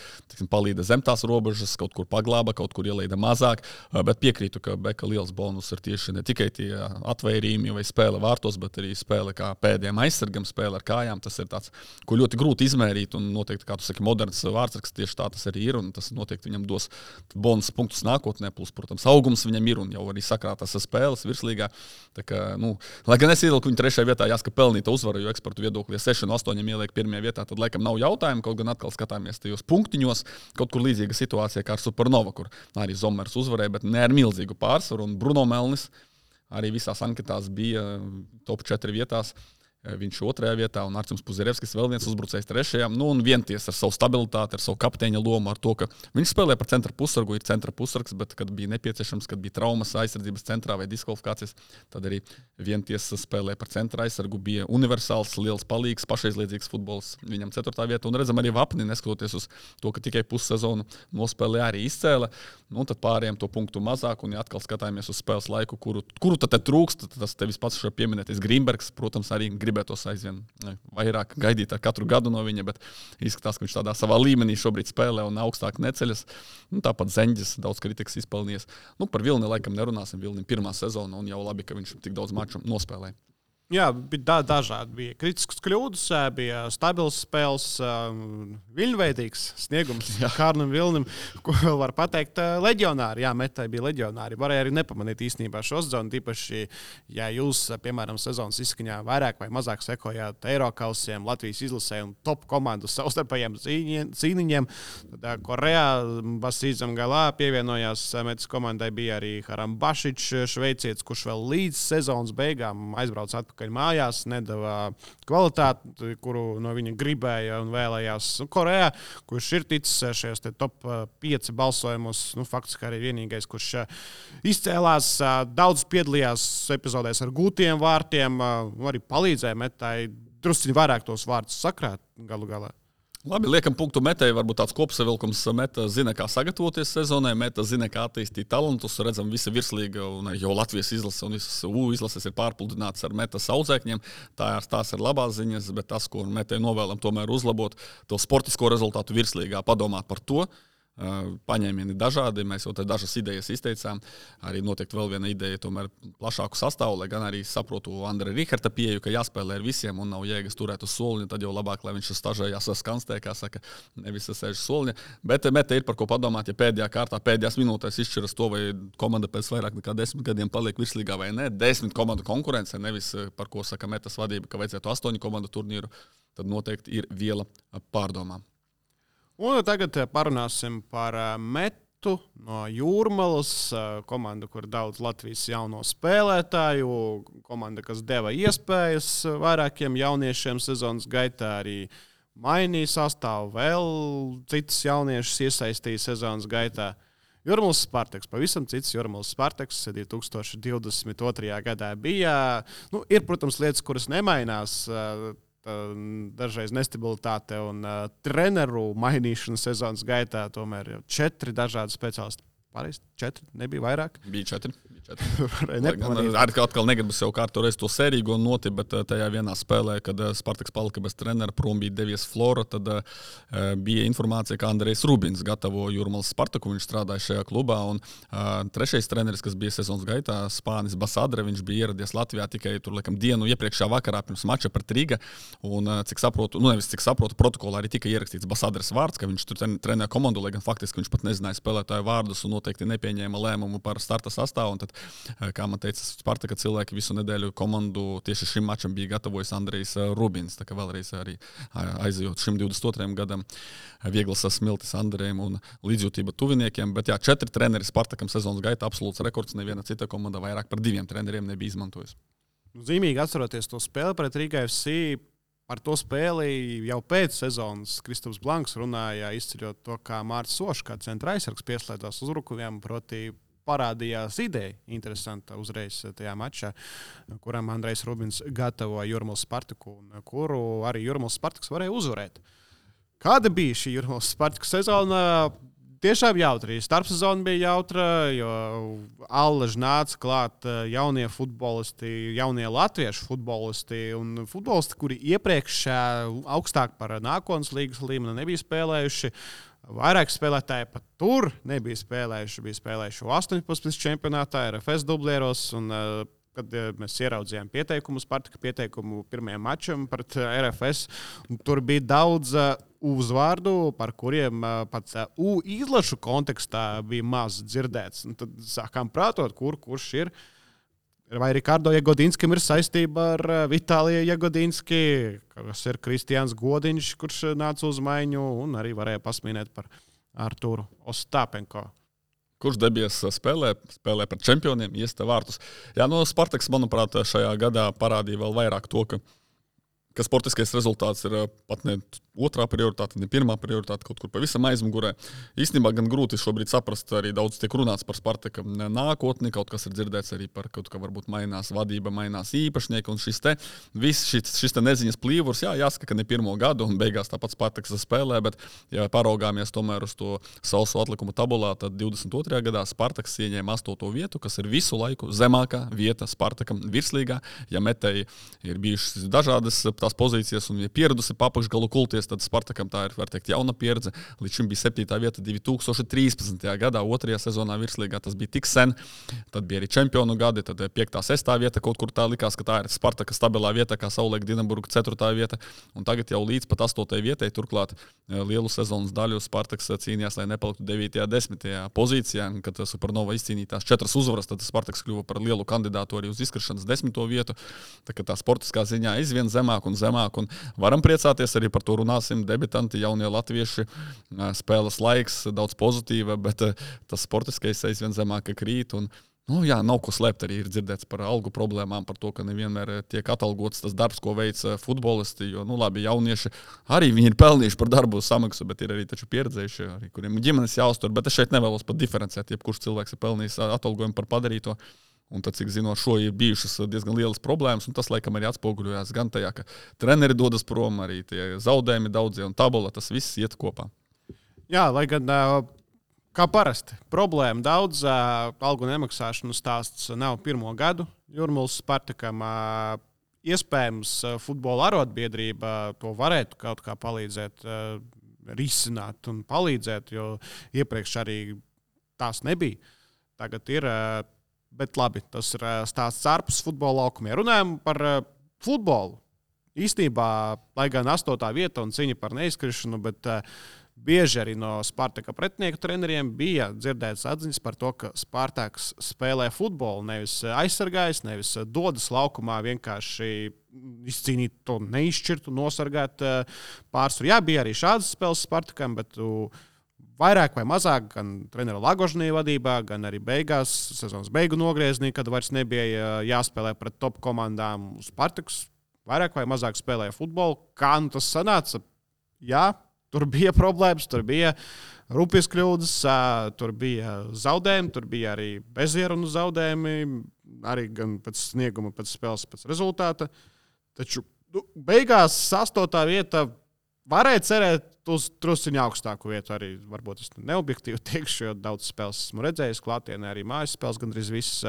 palīda zem tās robežas, kaut kur paglāba, kaut kur ielaida mazāk. Bet piekrītu, ka Beka liels bonus ir tieši ne tikai tie atvairījumi vai spēle vārtos, bet arī spēle kā pēdējiem aizsargam, spēle ar kājām. Tas ir tāds, ko ļoti grūti izmērīt, un noteikti, kā tu saki, moderns vārtsargs, tieši tā tas arī ir, un tas noteikti viņam dos bonus punktus nākotnē, plus, protams, augums viņam ir, un jau arī sakrātas spēles virslīgā. Tā kā, lai gan es ievilku viņu 3. vietā, jāsaka pelnīta uzvara, jo ekspertu viedoklī 6 no 8 ieliek 1. vietā, tad laikam nav jautājumu, kaut gan atkal skatāmies tajos punktiņos, kaut kur līdzīga situācija kā ar Supernova, kur arī Zomers uzvarēja, bet ne ar milzīgu pārsvaru, un Bruno Melnis arī visās anketās bija top 4 vietās. Viņš 2. vietā un Artjums Puzerevskis vēl viens uzbrucējs 3. Un vienties ar savu stabilitāti, ar savu kapteiņa lomu, ar to, ka viņš spēlē par centra pusargu, ir centra pusargs, bet kad bija nepieciešams, kad bija traumas aizsardzības centrā vai diskvalifikācijas, tad arī vienties spēlē par centra aizsargu, bija universāls, liels palīgs, pašaizliedzīgs futbols viņam 4. vieta. Un redzam arī Vapni, neskatoties uz to, ka tikai pussezonu nospēlē arī izcēla. Tad pārējiem to punktu mazāk, un ja atkal skatāmies uz spēles laiku, kuru tad trūkst, tas tevis pats šo pieminētais Grīmbergs, protams, arī gribētos aizvien vairāk gaidīt ar katru gadu no viņa, bet izskatās, ka viņš tādā savā līmenī šobrīd spēlē un augstāk neceļas. Tāpat Zeņģis daudz kritikas izpelnījies. Par Vilni laikam nerunāsim. Vilnim 1. sezona un jau labi, ka viņš tik daudz maču nospēlēja. Jā, bija dažādi. Bija kritiskas kļūdas, bija stabils spēles, viļņveidīgs sniegums Kārnam Vilnim, ko vēl var pateikt. Leģionāri, jā, metai bija leģionāri. Varēja arī nepamanīt īstenībā šo sezonu, tīpaši, ja jūs, piemēram, sezonas izskaņā vairāk vai mazāk sekojāt Eirokausiem, Latvijas izlasē un top komandu savstarpējiem cīniņiem. Tad Korejā Basīdzam Galā pievienojās metas komandai, bija arī Harambašičs, šveicietis, kurš vēl līdz sezonas beigām aizbrauc atpakaļ mājās, nedavā kvalitāti, kuru no viņa gribēja un vēlējās Korejā, kurš ir ticis šajos top 5 balsojumos. Faktiski arī vienīgais, kurš izcēlās, daudz piedalījās epizodēs ar gūtiem vārtiem, arī palīdzēja metai drusciņi vairāk tos vārtus sakrāt galu galā. Labi, liekam punktu Metei, varbūt tāds kopsavilkums. Meta zina, kā sagatavoties sezonai, Meta zina, kā attīstīt talantus. Redzam, visa virslīga un jau Latvijas izlase un visas izlases ir pārpludināts ar Metas audzēkņiem. Tās ir labās ziņas, bet tas, ko Metei novēlam tomēr uzlabot, to sportisko rezultātu virslīgā, padomāt par to. Paņēmieni dažādi, mēs jau dažas idejas izteicām. Arī noteikti vēl viena ideja, tomēr plašāku sastāvu, lai gan arī saprotu Andra Riharta pieeju, ka jāspēlē ar visiem un nav jēgas turēt uz soliņa, tad jau labāk, lai viņš stažējās skanstē, kā saka, nevis sēž soliņa. Bet Meta ir par ko padomāt, ja pēdējā kārtā, pēdējās minūtēs izšķiras to, vai komanda pēc vairāk nekā 10 gadiem paliek virslīgā vai ne. 10 komandu konkurence, nevis par ko saka Metas vadība, ka vajadzētu 8 komandu turnīru, tad noteikti ir viela pārdomām. Un tagad parunāsim par Metu no Jūrmalas, komandu, kur daudz Latvijas jauno spēlētāju, komanda, kas deva iespējas vairākiem jauniešiem sezonas gaitā, arī mainīja sastāvu, vēl citas jauniešus iesaistīja sezonas gaitā. Jūrmalas Spartaks, pavisam cits Jūrmalas Spartaks 2022. gadā bija. Ir, protams, lietas, kuras nemainās, dažreiz nestabilitāte un treneru mainīšana sezonas gaitā, tomēr jau 4 dažādi speciālisti. Pareizi, 4, nebija vairāk? Bija 4. Atkal negribu sev kārtu reiz to sērīgo noti, bet tajā vienā spēlē, kad Spartaks palika bez trenera, prom bija devies Flora, tad bija informācija, ka Andrejs Rubins gatavo Jūrmalas Spartaku, viņš strādāja šajā klubā, un trešais treneris, kas bija sezonas gaitā, Spānis Basadre, viņš bija ieradies Latvijā tikai tur, laikam, dienu iepriekšā vakarā pirms mača pret Riga, un cik saprotu, protokolā arī tika ierakstīts Basadres vārds, ka viņš tur trenē komandu, lai gan faktiski viņš pat nezināja spēlētāju vārdus un noteikti nepieņēma lēmumu par starta sastāvu, un tad Kā man teica Spartaka cilvēki, visu nedēļu komandu tieši šim mačam bija gatavojis Andrejs Rubins. Tā kā vēlreiz arī aizejot šim 22. gadam, vieglas smiltis Andrejam un līdzjūtība tuviniekiem. Bet 4 treneri Spartakam sezonas gaitā absolūts rekords. Neviena cita komanda vairāk par 2 treneriem nebija izmantojusi. Zīmīgi atceroties to spēli pret Riga FC. Par to spēli jau pēc sezonas Kristaps Blanks runāja, izceļot to, kā Mārcis Sošs, kā centra aizsargs, pieslēdzās uzbrukumiem, proti parādījās ideja interesanta uzreiz tajā mačā, kuram Andrejs Rubins gatavoja Jūrmālas Spartaku, un kuru arī Jūrmālas Spartaks varēja uzvarēt. Kāda bija šī Jūrmālas Spartaku sezona? Tiešām jautri. Starpsezona bija jautra, jo allaž nāca klāt jaunie futbolisti, jaunie latviešu futbolisti un futbolisti, kuri iepriekš augstāk par nākotnes līgas līmeni nebija spēlējuši. Vairāk spēlētāji pat tur nebija spēlējuši. Bija spēlējuši 18 čempionātā, RFS dublieros. Un, kad mēs ieraudzījām Spartaka pieteikumu pirmajam mačam pret RFS, tur bija daudz uzvārdu, par kuriem pat izlašu kontekstā bija maz dzirdēts. Un tad sākām prātot, kurš ir. Vai Rikardo Jagodinskam ir saistība ar Vitāliju Jagodinski, kas ir Kristiāns Godiņš, kurš nāca uz maiņu, un arī varēja pasmīnēt par Arturu Ostāpenko. Kurš debies spēlē pret čempioniem, iesta vārtus. Spartaks, manuprāt, šajā gadā parādīja vēl vairāk to, ka sportiskais rezultāts ir pat ne otrā prioritāte, ne pirmā prioritāte, kaut kur pavisam aizmugurē. Īstenībā gan grūti šobrīd saprast, arī daudz tiek runāts par Spartaka nākotni, kaut kas ir dzirdēts arī par kaut kā varbūt mainās vadība, mainās īpašnieki, un šis te neziņas plīvurs, jāsaka, ka ne pirmo gadu, un beigās tāpat Spartaks spēlē, bet ja paraugāmies tomēr uz to sausu atlikumu tabulā, tad 22. gadā Spartaks ieņēma 8. vietu, kas ir visu laiku zemākā vieta Spartakam virslīgā. Ja metēji ir bijušas dažādas tās pozīcijas un ja pieradusi papakšgalu kulties, tad Spartakam tā ir, var teikt, jauna pieredze. Līdz šim bija 7. vieta 2013. gadā, 2. sezonā virslīgā. Tas bija tik sen. Tad bija arī čempionu gadi, tad 5. 6. vieta kaut kur tā likās, ka tā ir Spartaka stabilā vieta, kā savulaik Dinamburga 4. vieta. Un tagad jau līdz pat 8. vietai, turklāt lielu sezonas daļu Spartaks cīnījās, lai nepaliktu 9. 10. pozīcijā. Kad Supernova izcīnīja tās 4 uzvaras, tad Spartaks kļuva par lielu kandidātu arī uz izkrišanas 10. vietu. Tā kā tā sportiskā ziņā aizvien zemāk un zemāk. Un varam priecāties arī par to runāsim. Debitanti, jaunie latvieši, spēles laiks, daudz pozitīva, bet tas sportiskais aizvien zemāk krīt. Un, nav ko slēpt, arī ir dzirdēts par algu problēmām, par to, ka nevienmēr tiek atalgots tas darbs, ko veic futbolisti. Jo, labi, jaunieši arī viņi ir pelnījuši par darbu samaksu, bet ir arī taču pieredzējuši, arī, kuriem ģimenes jāuztur. Bet es šeit nevēlos pat diferencēt, jebkurš cilvēks ir pelnījis atalgojumu par padarīto. Un tad, cik zinu, ar šo ir bijušas diezgan lielas problēmas, un tas, laikam, arī atspoguļojās gan tajā, ka treneri dodas prom, arī tie zaudējumi daudzie un tabula, tas viss iet kopā. Jā, lai gan, kā parasti, problēma daudz, algu nemaksāšanu stāsts nav pirmo gadu Jūrmālas Spartakam. Iespējams, futbola arotbiedrība to varētu kaut kā palīdzēt risināt un palīdzēt, jo iepriekš arī tās nebija. Tagad ir. Bet labi, tas ir stāsts ārpus futbola laukumiem. Runājam par futbolu. Īstenībā, lai gan 8. vieta un cīņa par neizkrišanu, bet bieži arī no Spartaka pretinieku treneriem bija dzirdētas atziņas par to, ka Spartaks spēlē futbolu, nevis aizsargājas, nevis dodas laukumā vienkārši izcīnīt to neizšķirtu, nosargāt pārsvaru. Jā, bija arī šādas spēles Spartakam, bet vairāk vai mazāk, gan trenera Lagožnī vadībā, gan arī beigās, sezonas beigu nogriezienī, kad vairs nebija jāspēlē pret top komandām. Spartaks vairāk vai mazāk spēlēja futbolu. Kā tas sanāca? Jā, tur bija problēmas, tur bija rupjas kļūdas, tur bija zaudējumi, tur bija arī bezierunu zaudējumi, arī gan pēc snieguma, pēc spēles, pēc rezultāta. Taču beigās 8. vieta varēja cerēt uz trusiņu augstāku vietu. Arī varbūt es neobjektīvi teikšu, jo daudz spēles esmu redzējis klātienē, arī mājas spēles gandrīz viss.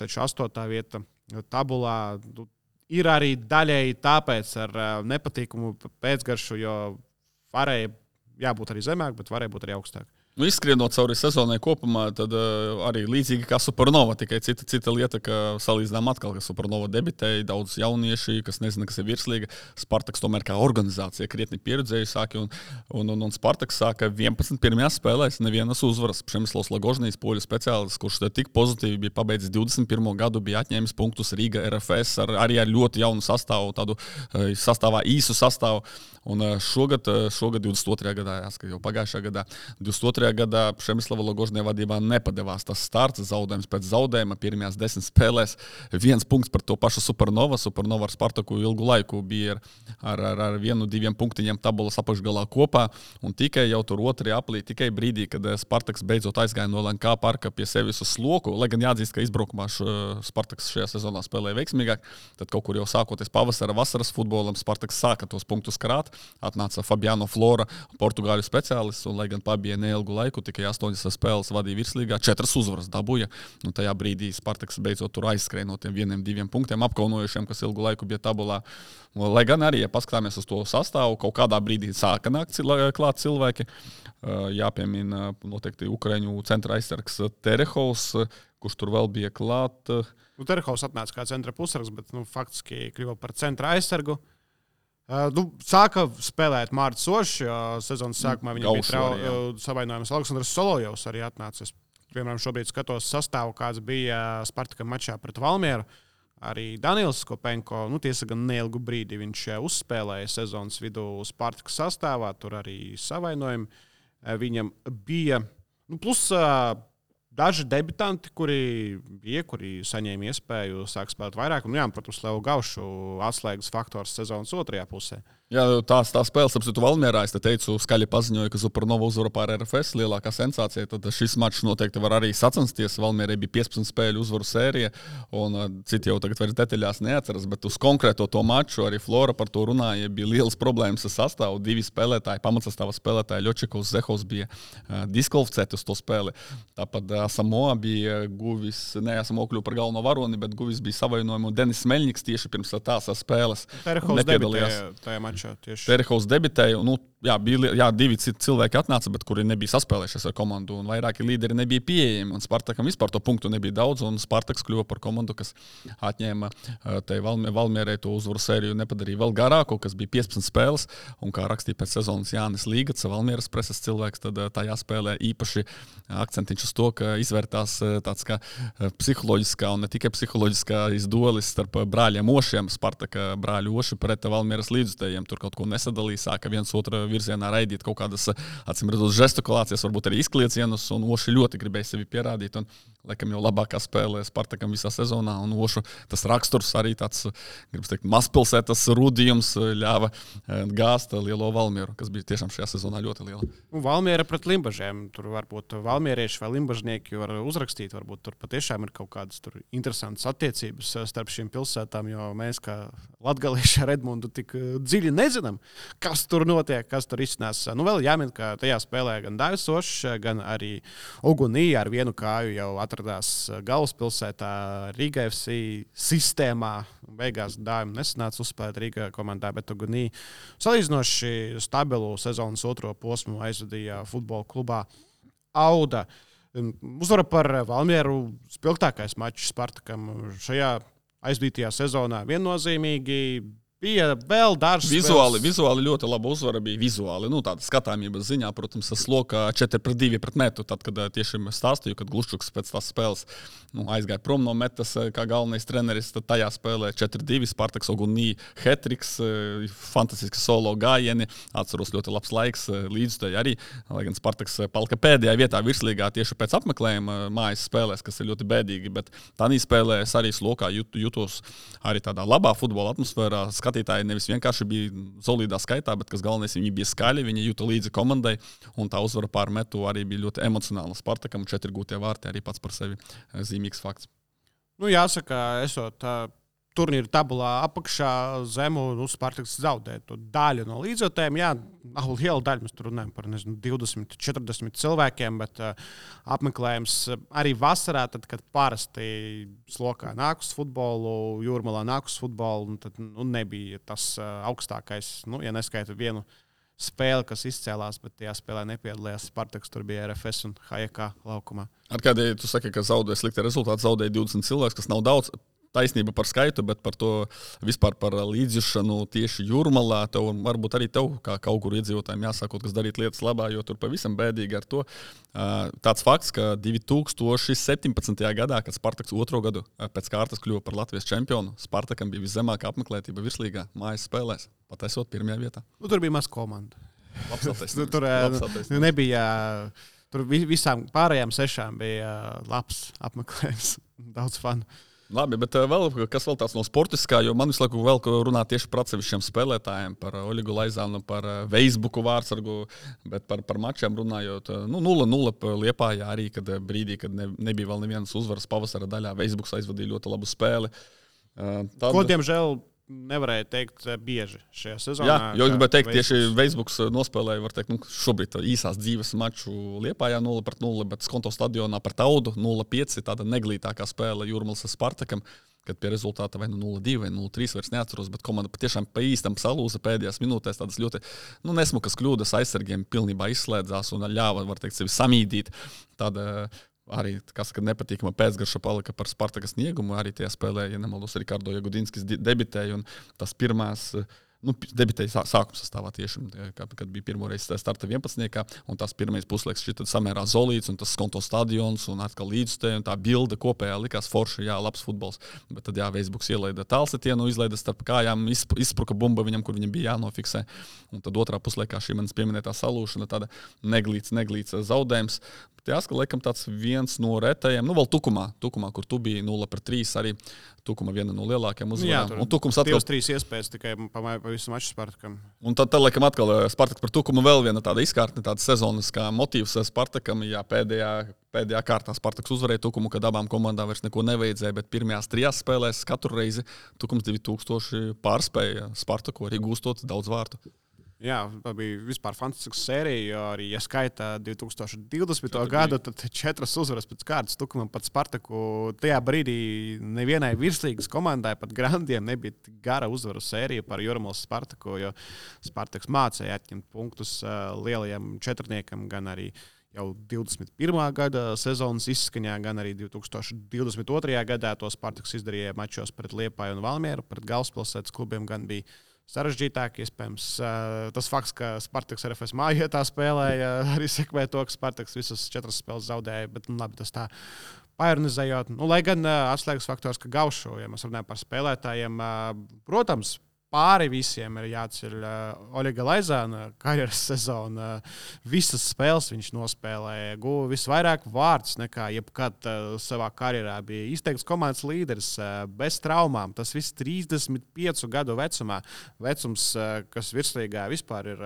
Taču 8. vieta tabulā ir arī daļēji tāpēc ar nepatīkumu pēcgaršu, jo varēja jābūt arī zemāk, bet varēja būt arī augstāk. Izskrienot cauri sezonai kopumā, tad arī līdzīgi kā Supernova, tikai cita lieta, ka salīdzinām atkal, ka Supernova debitēja daudz jaunieši, kas nezina, kas ir virslīga. Spartaks tomēr kā organizācija krietni pieredzējusi, un Spartaks sāka 11 pirmajās spēlēs, nevienas uzvaras. Přemyslavs Lagožnijs, poļu speciālists, kurš tik pozitīvi bija pabeidzis 21. gadu, bija atņēmis punktus Rīga RFS arī ar ļoti jaunu sastāvu, tādu īsu sastāvu. Un šogad 22. gadā, jāsaka, jau pagājušā gadā, 22. gadā Přemyslava Lagožņa vadībā nepadevās tas starts, zaudējums pēc zaudējuma pirmajās 10 spēlēs. 1 punkts par to pašu Supernova. Supernova ar Spartaku ilgu laiku bija ar 1-2 punktiņiem tabulas apakšgalā kopā. Un tikai jau tur 2. aprīlī, tikai brīdī, kad Spartaks beidzot aizgāja no LNK parka pie sevis uz sloku, lai gan jāatzīst, ka izbraukumā Spartaks šajā sezonā spēlēja veiksmīgāk, tad kaut kur jau sākoties pavasara, vasaras futbolam, Spartaks sāka tos punktus krāt. Atnāca Fabiano Flora, portugāļu speciālists, un, lai gan pabija neilgu laiku, tikai 8 spēles vadīja virslīgā, 4 uzvaras dabūja. Un tajā brīdī Spartaks beidzot tur aizskrēja no tiem 1-2 punktiem apkaunojušiem, kas ilgu laiku bija tabulā. Lai gan arī, ja paskatāmies uz to sastāvu, kaut kādā brīdī sāka nākt klāt cilvēki. Jāpiemina noteikti Ukraiņu centra aizsargs Terehovs, kurš tur vēl bija klāt. Terehovs atnāca kā centra pusargs, bet faktiski kļuva par centra aizsargu. Sāka spēlēt Mārcis Ošs, jo sezonas sākumā viņam bija savainojums. Aleksandrs Solojovs arī atnācis. Piemēram, šobrīd skatos sastāvu, kāds bija Spartakam mačā pret Valmieru. Arī Daniels Kopenko, tiesa gan neilgu brīdi viņš uzspēlēja sezonas vidū Spartakas sastāvā, tur arī savainojumi viņam bija. Plus daži debitanti, kuri saņēma iespēju sākt spēlēt vairāk. Un, protams, Levu Gaušu atslēgas faktors sezonas otrajā pusē. Jā, tā spēle, apsitu Valmierā, es te teicu, skaļi paziņoja, ka Supernova uzvara pār RFS, lielākā sensācija, tad šis mačs noteikti var arī sacensties. Valmierai bija 15 spēļu uzvaru sērija, un citi jau tagad vairs detaļās neatceras, bet uz konkrēto to maču arī Flora par to runāja, bija lielas problēmas ar sastāvu. 2 spēlētāji, pamatsastāva spēlētāji, Ļočikovs, Zehovs bija diskvalificēti uz to spēli. Tāpat Samoa bija guvis, Samoa kļuva par galveno varoni, bet guvis bija savainojumu. Denis Meļņiks tieši pirms tās spēles nepiedalījās. Terehovs debitēja. Bija 2 citi cilvēki atnāca, bet kuri nebija saspēlējušies ar komandu, un vairāki līderi nebija pieejami. Un Spartakam vispār to punktu nebija daudz, un Spartaks kļuva par komandu, kas atņēma Valmierai to uzvaru sēriju, nepadarīja vēl garāku, kas bija 15 spēles. Un kā rakstīja pēc sezonas Jānis Līgats, Valmieras preses cilvēks, tad tajā spēlē īpaši akcentiņš uz to, ka izvērtās tāds kā psiholoģiskā un ne tikai psiholoģiskā izdolis starp brāļiem Ošiem, Spartaka brāļu Oši pret Valmieras līdzutējiem. Tur kaut ko nesadalīja, sāka viens otru virzienā raidīt kaut kādas, acīm redzot, žestikulācijas, varbūt arī izkliecienus, un Oši ļoti gribēja sevi pierādīt, un laikam jau labākā spēlē Spartakam visā sezonā, un Ošu tas raksturs arī tāds, gribas teikt, mazpilsētas rūdījums ļāva gāzt lielo Valmieru, kas bija tiešām šajā sezonā ļoti liela. Valmiera pret Limbažiem, tur varbūt valmierieši vai limbažnieki var uzrakstīt, varbūt tur patiešām ir kaut kādas tur interesantas attiecības starp šīm pilsētām, jo mēs kā latgalieši ar Edmundu tik dziļi nezinām, kas tur notiek, kas tur izcinās. Vēl jāmin, ka tajā spēlē gan Daivis Ošs, gan arī Ugunī ar vienu kāju jau atradās galvaspilsētā Riga FC sistēmā. Beigās Daivis nesanāca uzspēlēt Riga komandā, bet Ugunī salīdzinoši stabilu sezonas otro posmu aizvadīja futbola klubā Auda. Uzvara par Valmieru spilgtākais mačs Spartakam šajā aizdītajā sezonā viennozīmīgi. Bija vēl dažs vizuāli ļoti laba uzvara bija vizuāli, tāda skatāmības ziņā, protams, slokā 4-2 pret metu, tad, kad tiešām stāstīju, kad Gluščuks pēc tās spēles aizgāja prom no metas kā galvenais treneris, tad tajā spēlē 4-2, Spartaks Ogunī, hetriks, fantastiski solo gājieni, atceros ļoti labs laiks līdzstēji arī, lai gan Spartaks palika pēdējā vietā virslīgā tieši pēc apmeklējuma mājas spēlēs, kas ir ļoti bēdīgi, bet tādā spēlē es arī slokā jutos arī tādā labā futbola atmosfērā. Skatītāji nevis vienkārši bija solīdā skaitā, bet kas galvenais, viņi bija skaļi, viņi jūta līdzi komandai, un tā uzvara pār metu arī bija ļoti emocionāla. Spartakam 4 gūtie vārti arī pats par sevi zīmīgs fakts. Jāsaka, esot turnīra tabulā apakšā zemu, Spartaks zaudē to daļu no līdzotēm. Jā, nav liela daļa, mēs tur runājam par 20, 40 cilvēkiem, bet apmeklējums arī vasarā, tad, kad parasti slokā nāk uz futbolu, Jūrmalā nāk uz futbolu, tad nebija tas augstākais, ja neskaita vienu spēle, kas izcēlās, bet tajā spēlē nepiedalījās Spartaks, tur bija RFS un HJK laukumā. Ar kādēļ tu saki, ka zaudēja slikti rezultāti, zaudēja 20 cilvēks, kas nav daudz? Taisnība par skaitu, bet par to vispār par līdzjūšanu tieši Jūrmalā. Tev varbūt arī tev, kā kaut kur iedzīvotājiem, jāsākot, kas darīt lietas labā, jo tur pavisam bēdīgi ar to. Tāds fakts, ka 2017. gadā, kad Spartaks otro gadu pēc kārtas kļuva par Latvijas čempionu, Spartakam bija viszemākā apmeklētība virslīgā mājas spēlēs, pat esot pirmajā vietā. Nu, tur bija maz komanda. Tur nebija. Tur visām pārējām 6 bija labs apmeklējums, daudz fanu. Labi, bet kas vēl tāds no sportiskā, jo man visu laiku vēl runā tieši par atsevišķiem spēlētājiem, par Oļegu Laizānu, par Veisbuku vārdsargu, bet par mačiem runājot, 0-0 Liepājā arī, kad brīdī, kad nebija vēl nevienas uzvaras pavasara daļā, Veisbuks aizvadīja ļoti labu spēli. Ko, diemžēl, nevarēja teikt bieži šajā sezonā. Jā, jo gribēju teikt, tieši Veisbuks nospēlēja, var teikt, šobrīd īsās dzīves maču Liepājā 0-0, bet Skonto stadionā par Taudu 0-5, tāda neglītākā spēle Jūrmalas Spartakam, kad pie rezultāta vai 0-2 vai 0-3 vairs neatceros, bet komanda patiešām pa īstam salūza pēdējās minūtēs, tādas ļoti nesmukas kļūdas aizsargiem pilnībā izslēdzās un ļāva, var teikt, sevi samīdīt. Tāda arī, kas nepatīkama pēcgarša palika par Spartakas sniegumu, arī tie spēlē, ja nemaldos, Rikardo Jagudinskis debitēja, un tas pirmās, debitēja sākuma sastāvā tieši, kad bija pirmoreiz starta 11. Un tas pirmais puslaiks šķita samērā zolīts, un tas Skonto stadions, un atkal līdzstēja, un tā bilde kopējā likās forši, jā, labs futbols. Bet tad, jā, Veisbuks ielaida tālsetienu, izlaida starp kājām, izspruka bumba viņam, kur viņam bija jānofiksē. Un tad otrā puslaikā šī manis pieminētā salūšana, tāda neglīts zaudējums. Jāsaka, laikam tāds viens no retajiem, vēl Tukumā, kur tu biji 0-3, arī Tukuma viena no lielākajiem uzvarām. Un Tukums atkal 3 iespējas tikai pa visu maču Spartakam. Un tad laikam atkal Spartaks par Tukumu vēl viena tāda izkārtne, tāda sezonas kā motīvs Spartakam. Jā, pēdējā kārtā Spartaks uzvarēja Tukumu, kad abām komandām vairs neko nevajadzēja, bet pirmajās 3 spēlēs katru reizi Tukums 2000 pārspēja Spartaku, arī gūstot daudz vārtu. Jā, tā bija vispār fantastisks sērija, jo arī, ja skaitā 2020. gadu, tad 4 uzvaras pēc kārtas Tukumam pat Spartaku. Tajā brīdī nevienai virslīgas komandai, pat grandiem, nebija gara uzvaru sērija par Jūrmalas Spartaku, jo Spartaks mācēja atņemt punktus lielajiem četrniekam, gan arī jau 21. gada sezonas izskaņā, gan arī 2022. gadā to Spartaks izdarīja mačos pret Liepāju un Valmieru, pret galvaspilsētas klubiem gan bija sarežģītāk, iespējams, tas fakts, ka Spartaks RFS mājietā spēlēja, arī sekmē to, ka Spartaks visas 4 spēles zaudēja, bet labi, tas tā paironizējot. Lai gan atslēgas faktors, ka Gaušu, ja mēs runājam par spēlētājiem, protams, pāri visiem ir jāceļ Oļega Laizāna karjeras sezona. Visas spēles viņš nospēlēja, guva visvairāk vārdus nekā jebkad savā karjerā. Bija izteikts komandas līderis, bez traumām. Tas viss 35 gadu vecumā. Vecums, kas virslīgā vispār ir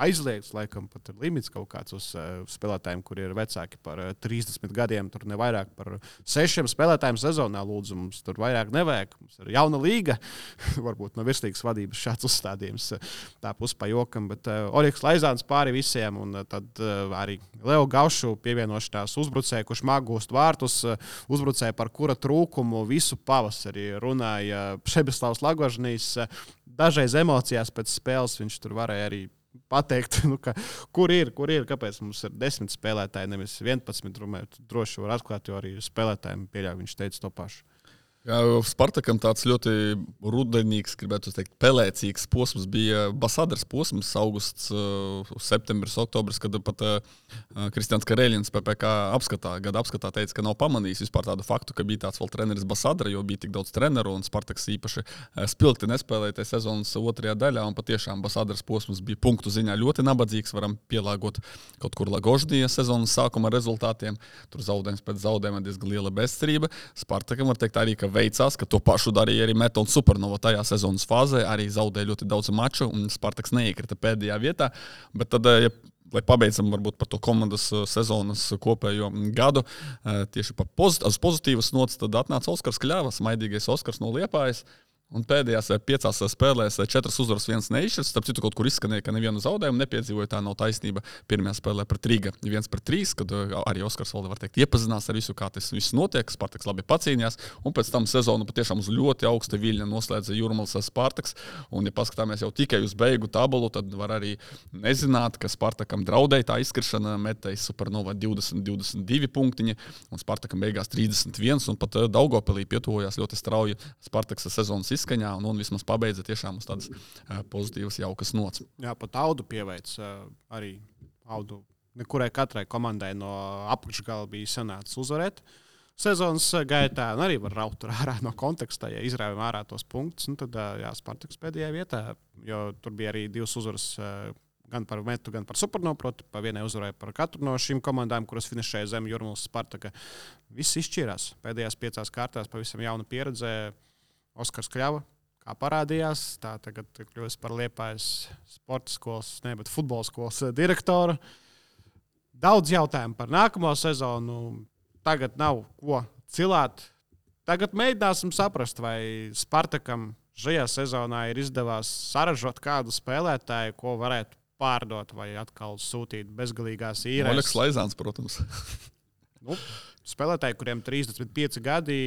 aizliegts, laikam pat ir limits kaut kāds uz spēlētājiem, kuri ir vecāki par 30 gadiem. Tur nevairāk par 6 spēlētājiem sezonā, lūdzu, mums tur vairāk nevajag. Mums ir jauna līga, varbūt no virslīgas vadības šāds uzstādījums, tā pus pa jokam, bet Oļegs Laizāns pāri visiem, un tad arī Leo Gaušu pievienošanās uzbrucēju, kurš māk gūst vārtus, uzbrucēju, par kura trūkumu visu pavasari runāja Šebeslavs Lagožnīs. Dažreiz emocijās pēc spēles viņš tur varēja arī pateikt, kur ir, kāpēc mums ir 10 spēlētāji, nevis 11, droši var atklāt, jo arī spēlētājiem pieļauj, viņš teica to pašu. Jā, Spartakam tāds ļoti rudenīgs, gribētu teikt, pelēcīgs posms bija Basadars posms, augusts, septembris, oktobris, kad pat Kristians Karēļins PPK gada apskatā teica, ka nav pamanījis vispār tādu faktu, ka bija tāds vēl treneris Basadara, jo bija tik daudz treneru, un Spartaks īpaši spilgti nespēlēja tajā sezonas otrajā daļā, un patiešām Basadars posms bija punktu ziņā ļoti nabadzīgs, varam pielāgot kaut kur Lagoždija sezonas sākuma rezultātiem, tur zaudējums pēc zaudējuma diezgan liela bezcerība. Spartakam var teikt arī, ka veicās, ka to pašu darīja arī Metal Supernova tajā sezonas fāzē, arī zaudēja ļoti daudz maču, un Spartaks neiekrita pēdējā vietā, bet tad, lai pabeidzam varbūt par to komandas sezonas kopējo gadu, tieši uz pozitīvas nots, tad atnāca Oskars Kļavas, maidīgais Oskars no Liepājas, Un pēdējās 5 spēlēs 4 uzvaras, 1 neizšķirts. Starp citu, kaut kur izskanēja, ka nevienu zaudējumu nepiedzīvoja. Tā nav taisnība. Pirmajā spēlē pret Riga 1-3, kad arī Oskars Valde, var teikt, iepazinās ar visu, kā tas viss notiek. Spartaks labi pacīnījās. Un pēc tam sezonu patiešām uz ļoti augsta viļņa noslēdza Jūrmālas Spartaks. Un, ja paskatāmies jau tikai uz beigu tabulu, tad var arī nezināt, ka Spartakam draudēja tā izkrišana. Metēja Supernova 20-22 punktiņi. Un Spartakam beigās 31. Un pat Daugavpilī pietuvojās ļoti strauji Spartaks sezonas izskaņā un vismaz pabeidza tiešām uz tādas pozitīvas, jaukas nots. Jā, pat Audu pieveic arī Audu. Nekurai katrai komandai no apakšgala bija sanācis uzvarēt sezonas gaitā, un arī var raut ārā no konteksta, ja izrāvjam ārā tos punktus, un tad, jā, Spartaks pēdējā vietā, jo tur bija arī 2 uzvaras gan par Metu, gan par Supernovu, proti, pa vienai uzvarai par katru no šīm komandām, kuras finišēja zem Jūrmālas Spartaka. Viss izšķirās. Pēdējās 5 kārtās pavisam jauna pieredze. Oskars Kļava, kā parādījās, tā tagad kļūst par Liepājas sporta skolas, bet futbola skolas direktoru. Daudz jautājumu par nākamo sezonu. Tagad nav ko cilāt. Tagad mēģināsim saprast, vai Spartakam šajā sezonā ir izdevās saražot kādu spēlētāju, ko varētu pārdot vai atkal sūtīt bezgalīgās īrēs. Oļegs Laizāns, protams. Spēlētāji, kuriem 35 gadi,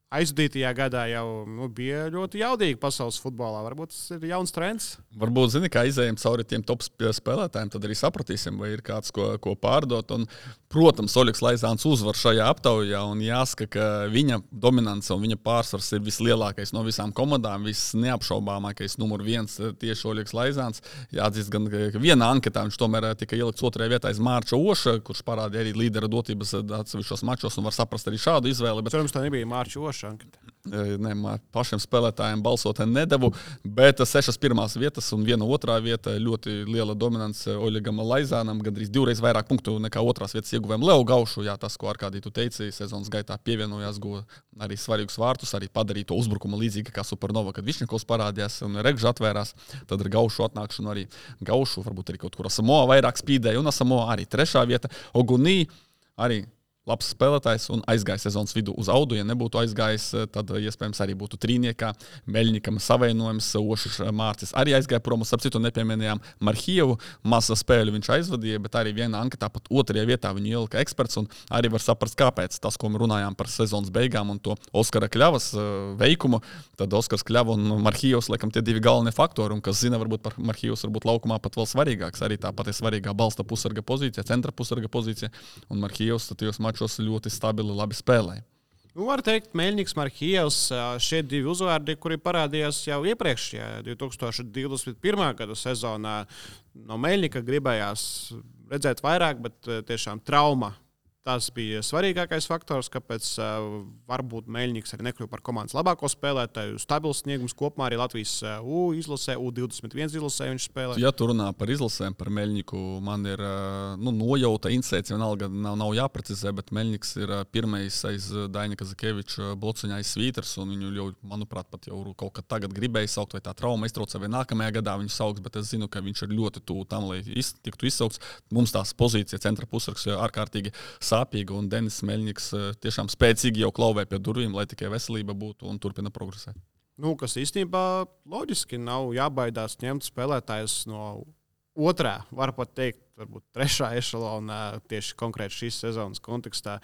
aizvadītajā gadā jau bija ļoti jaudīgi pasaules futbolā. Varbūt tas ir jauns trends. Varbūt, kā izējām cauri tiem top spēlētājiem, tad arī sapratīsim, vai ir kāds, ko pārdot. Un, protams, Oļegs Laizāns uzvar šajā aptaujā, un jāsaka, ka viņa dominance un viņa pārsvars ir vislielākais no visām komandām, visneapšaubāmākais numur 1 tieši Oļegs Laizāns. Jāatzīst gan, ka vienā anketā viņš tomēr tika ielikts 2. vietā aiz Mārča Oša, kurš parādīja arī līdera dotības atsevišķos mačos, un var saprast arī šādu izvēli. Bet cerams, tā nebija Mārča Oša. Ne, pašiem spēlētājiem balsot nedevu, bet 6 pirmās vietas un 1 otrā vieta. Ļoti liela dominance Oļegam Laizānam, gandrīz 2 reizes vairāk punktu nekā 2. vietas ieguvēm Leo Gaušu. Jā, tas, ko Arkādī tu teici, sezonas gaitā pievienojās, guva arī svarīgus vārtus, arī padarīja to uzbrukumu līdzīgi kā Supernova, kad Višņakovs parādījās un Regža atvērās. Tad ar Gaušu atnākšanu arī Gaušu, varbūt arī kaut kur Asamoa vairāk spīdēja, un Asamoa arī 3. vieta. Ogunī arī labs spēlētājs un aizgāja sezonas vidū uz Audu. Ja nebūtu aizgājis, tad iespējams arī būtu trīniekā. Meļņikam savienojums, Ošs Mārcis arī aizgāja prom. Starp citu nepieminējām Marhievu. Masa spēļu viņš aizvadīja, bet arī vienā anketā pat 2. vietā viņu ielika eksperts. Un arī var saprast, kāpēc tas, ko mēs runājām par sezonas beigām un to Oskara Kļavas veikumu. Tad Oskars Kļava un Marhievs, laikam, tie 2 galvenie faktori. Un kas zina, varbūt par Marhievs varbūt laukumā pat vēl svarīgāks. Arī tāpat ir svarīgā balsta pusarga pozīcija, centra pusarga pozīcija. Un Marhievs tajos mačos ļoti stabili, labi spēlēja. Var teikt, Meļņiks, Marhievs, šie 2 uzvārdi, kuri parādījās jau iepriekšējā 2021. gada sezonā. No Meļņika gribējās redzēt vairāk, bet tiešām trauma. Tas bija svarīgākais faktors, kāpēc varbūt Meļņiks arī nekļuva par komandas labāko spēlētāju. Stabils sniegums kopumā arī Latvijas izlasē, U21 izlasē viņš spēlē. Ja tu runā par izlasēm, par Meļņiku, man ir nojauta, insēts, vienalga nav jāprecizē, bet Meļņiks ir pirmais aiz Daņa Kazakeviča blociņā aiz Svīters, un viņu jau, manuprāt, pat jau kaut kad tagad gribēja saukt, vai tā trauma iztraucē, vai nākamajā gadā viņu sauks, bet es zinu, ka viņš ir ļoti tuvu tam, lai tiktu izsaukts. Mums tās pozīcija centra pusargs ārkārtīgi sāpīga, un Denis Meļņiks tiešām spēcīgi jau klauvē pie durvīm, lai tikai veselība būtu un turpina progresēt. Kas īstenībā loģiski nav jābaidās ņemt spēlētājus no 2., var pat teikt, varbūt 3. ešalona tieši konkrēti šīs sezonas kontekstā.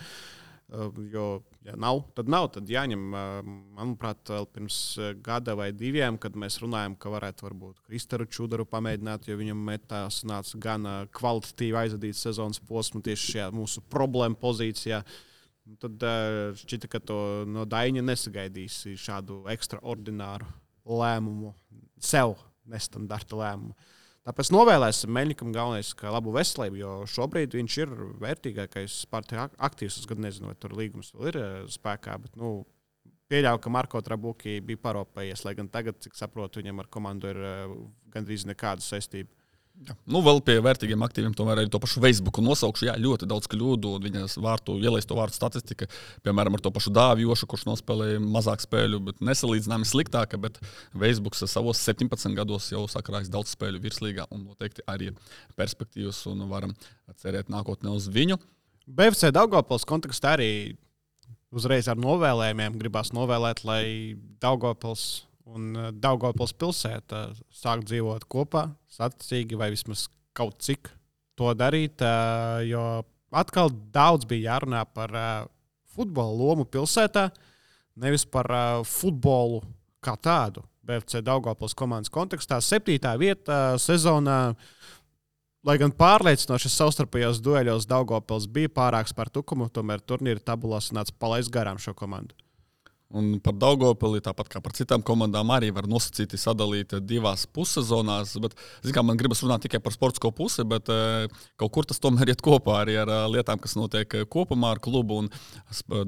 Jo, ja nav, tad jāņem, manuprāt, vēl pirms gada vai 2, kad mēs runājam, ka varētu varbūt Kristaru Čudaru pamēģināt, jo viņam metās nāca gan kvalitatīvi aizvadīt sezonas posmu tieši šajā mūsu problēmu pozīcijā. Tad šķita, ka to no Daņa nesagaidīs šādu ekstraordināru lēmumu, sev nestandarta lēmumu. Tāpēc novēlēsim Meļņikam galvenais, ka labu veselību, jo šobrīd viņš ir vērtīgākais Sparta aktīvs. Es gan nezinu, vai tur līgums vēl ir spēkā, bet pieļauju, ka Marko Trabuki bija paropējies, lai gan tagad, cik saprotu, viņam ar komandu ir gandrīz nekāda saistība. Jā. Vēl pie vērtīgiem aktīviem tomēr arī to pašu Facebooku nosaukšu. Jā, ļoti daudz kļūdu, un viņas ielaisto vārtu statistika, piemēram, ar to pašu Dāvjošu, kurš nospēlēja mazāk spēļu, bet nesalīdzināmi sliktāka, bet Facebooks savos 17 gados jau sakrājis daudz spēļu virslīgā, un noteikti arī perspektīvas, un varam cerēt nākotnē uz viņu. BFC Daugavpils kontekstā arī uzreiz ar novēlējumiem gribās novēlēt, lai Daugavpils un Daugavpils pilsēta sāk dzīvot kopā, saticīgi vai vismaz kaut cik to darīt, jo atkal daudz bija jārunā par futbola lomu pilsētā, nevis par futbolu kā tādu. BFC Daugavpils komandas kontekstā 7. vieta sezonā, lai gan pārliecinošas savstarpējos dueļos Daugavpils bija pārāks par Tukumu, tomēr turnīra tabulā sanāca palaist garām šo komandu. Un par Daugavpili, tāpat kā par citām komandām, arī var nosacīti sadalīt divās pussezonās. Bet, man gribas runāt tikai par sportisko pusi, bet kaut kur tas tomēr iet kopā arī ar lietām, kas notiek kopumā ar klubu. Un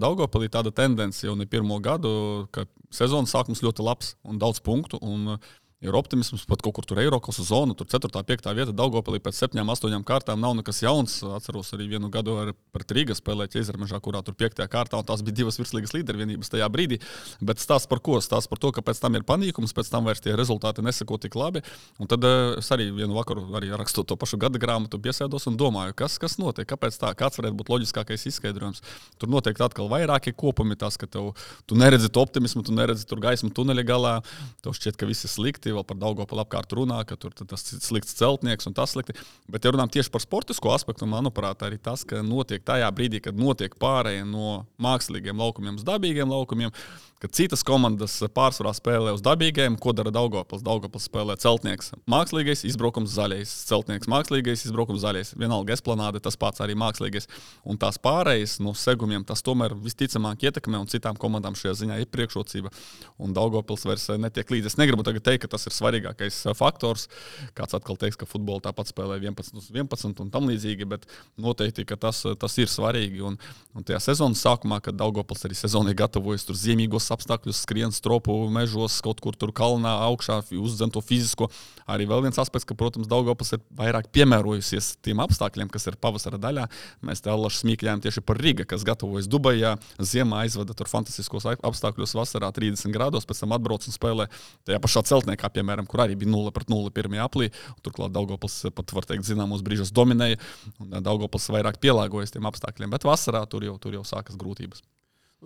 Daugavpilī tāda tendence jau ne pirmo gadu, ka sezonas sākums ļoti labs un daudz punktu. Un ir optimisms, pat kaut kur tur Eiropas zonu, tur 4. 5. vieta Daugavpilī pēc 7, 8 kārtām nav nekas jauns. Atceros arī vienu gadu pret Rīgu spēlēt Ķeizermežā, kurā tur 5. kārtā, un tās bija 2 virslīgas līdervienības tajā brīdī. Bet stāsts par ko? Stāsts par to, ka pēc tam ir panīkums, pēc tam vairs tie rezultāti neseko tik labi. Un tad es arī vienu vakaru, arī rakstot to pašu gada grāmatu, piesēdos un domāju, kas notiek, kāpēc tā, kāds varētu būt loģiskākais izskaidrojums. Tur noteikti atkal vairākie kopumi, tas, ka tu neredzi to optimismu, tu neredzi tur gaismu tuneļa galā, tev šķiet, ka viss ir slikti. Vēl par Daugavpilu apkārt runā, ka tur tas slikts celtnieks un tas slikti. Bet, ja runājam tieši par sportisko aspektu, manuprāt, arī tas, ka notiek tajā brīdī, kad notiek pārēja no mākslīgiem laukumiem uz dabīgiem laukumiem, kad citas komandas pārsvarā spēlē uz dabīgiem, ko dara Daugavpils? Daugavpils spēlē celtnieks mākslīgais, izbraukums zaļais, celtnieks mākslīgais, izbraukums zaļais. Vienalga esplanāde, tas pats arī mākslīgais. Un tās pārējas no segumiem, tas tomēr visticamāk ietekmē, un citām komandām šajā ziņā ir priekšrocība. Un Daugavpils vairs netiek līdzi. Es negribu tagad teikt, ka tas ir svarīgākais faktors. Kāds atkal teiks, ka futbolu tāpat spēlē 11/11 un tam līdzīgi, bet noteikti, ka tas ir svarīgi. Un tajā sezonas sākumā, kad Daugavpils arī sezonai gatavojas tur ziemīgos apstākļus, skrien stropu mežos, kaut kur tur kalnā augšā, uzdzen to fizisko. Arī vēl viens aspekts, ka, protams, Daugavpils ir vairāk piemērojusies tiem apstākļiem, kas ir pavasara daļā. Mēs te allaši smīkļājām tieši par Riga, kas gatavojas Dubajā, ziemā aizveda tur fantastiskos apstākļos, vasarā 30 grādos, pēc tam atbrauc un spēlē tajā pašā celtniekā, piemēram, kur arī bija 0-0 pirmajā aplī. Turklāt Daugavpils pat, var teikt, zināmos brīžos dominēja, un Daugavpils vairāk pielāgojas tiem apstākļiem, bet vasarā tur jau sākas grūtības.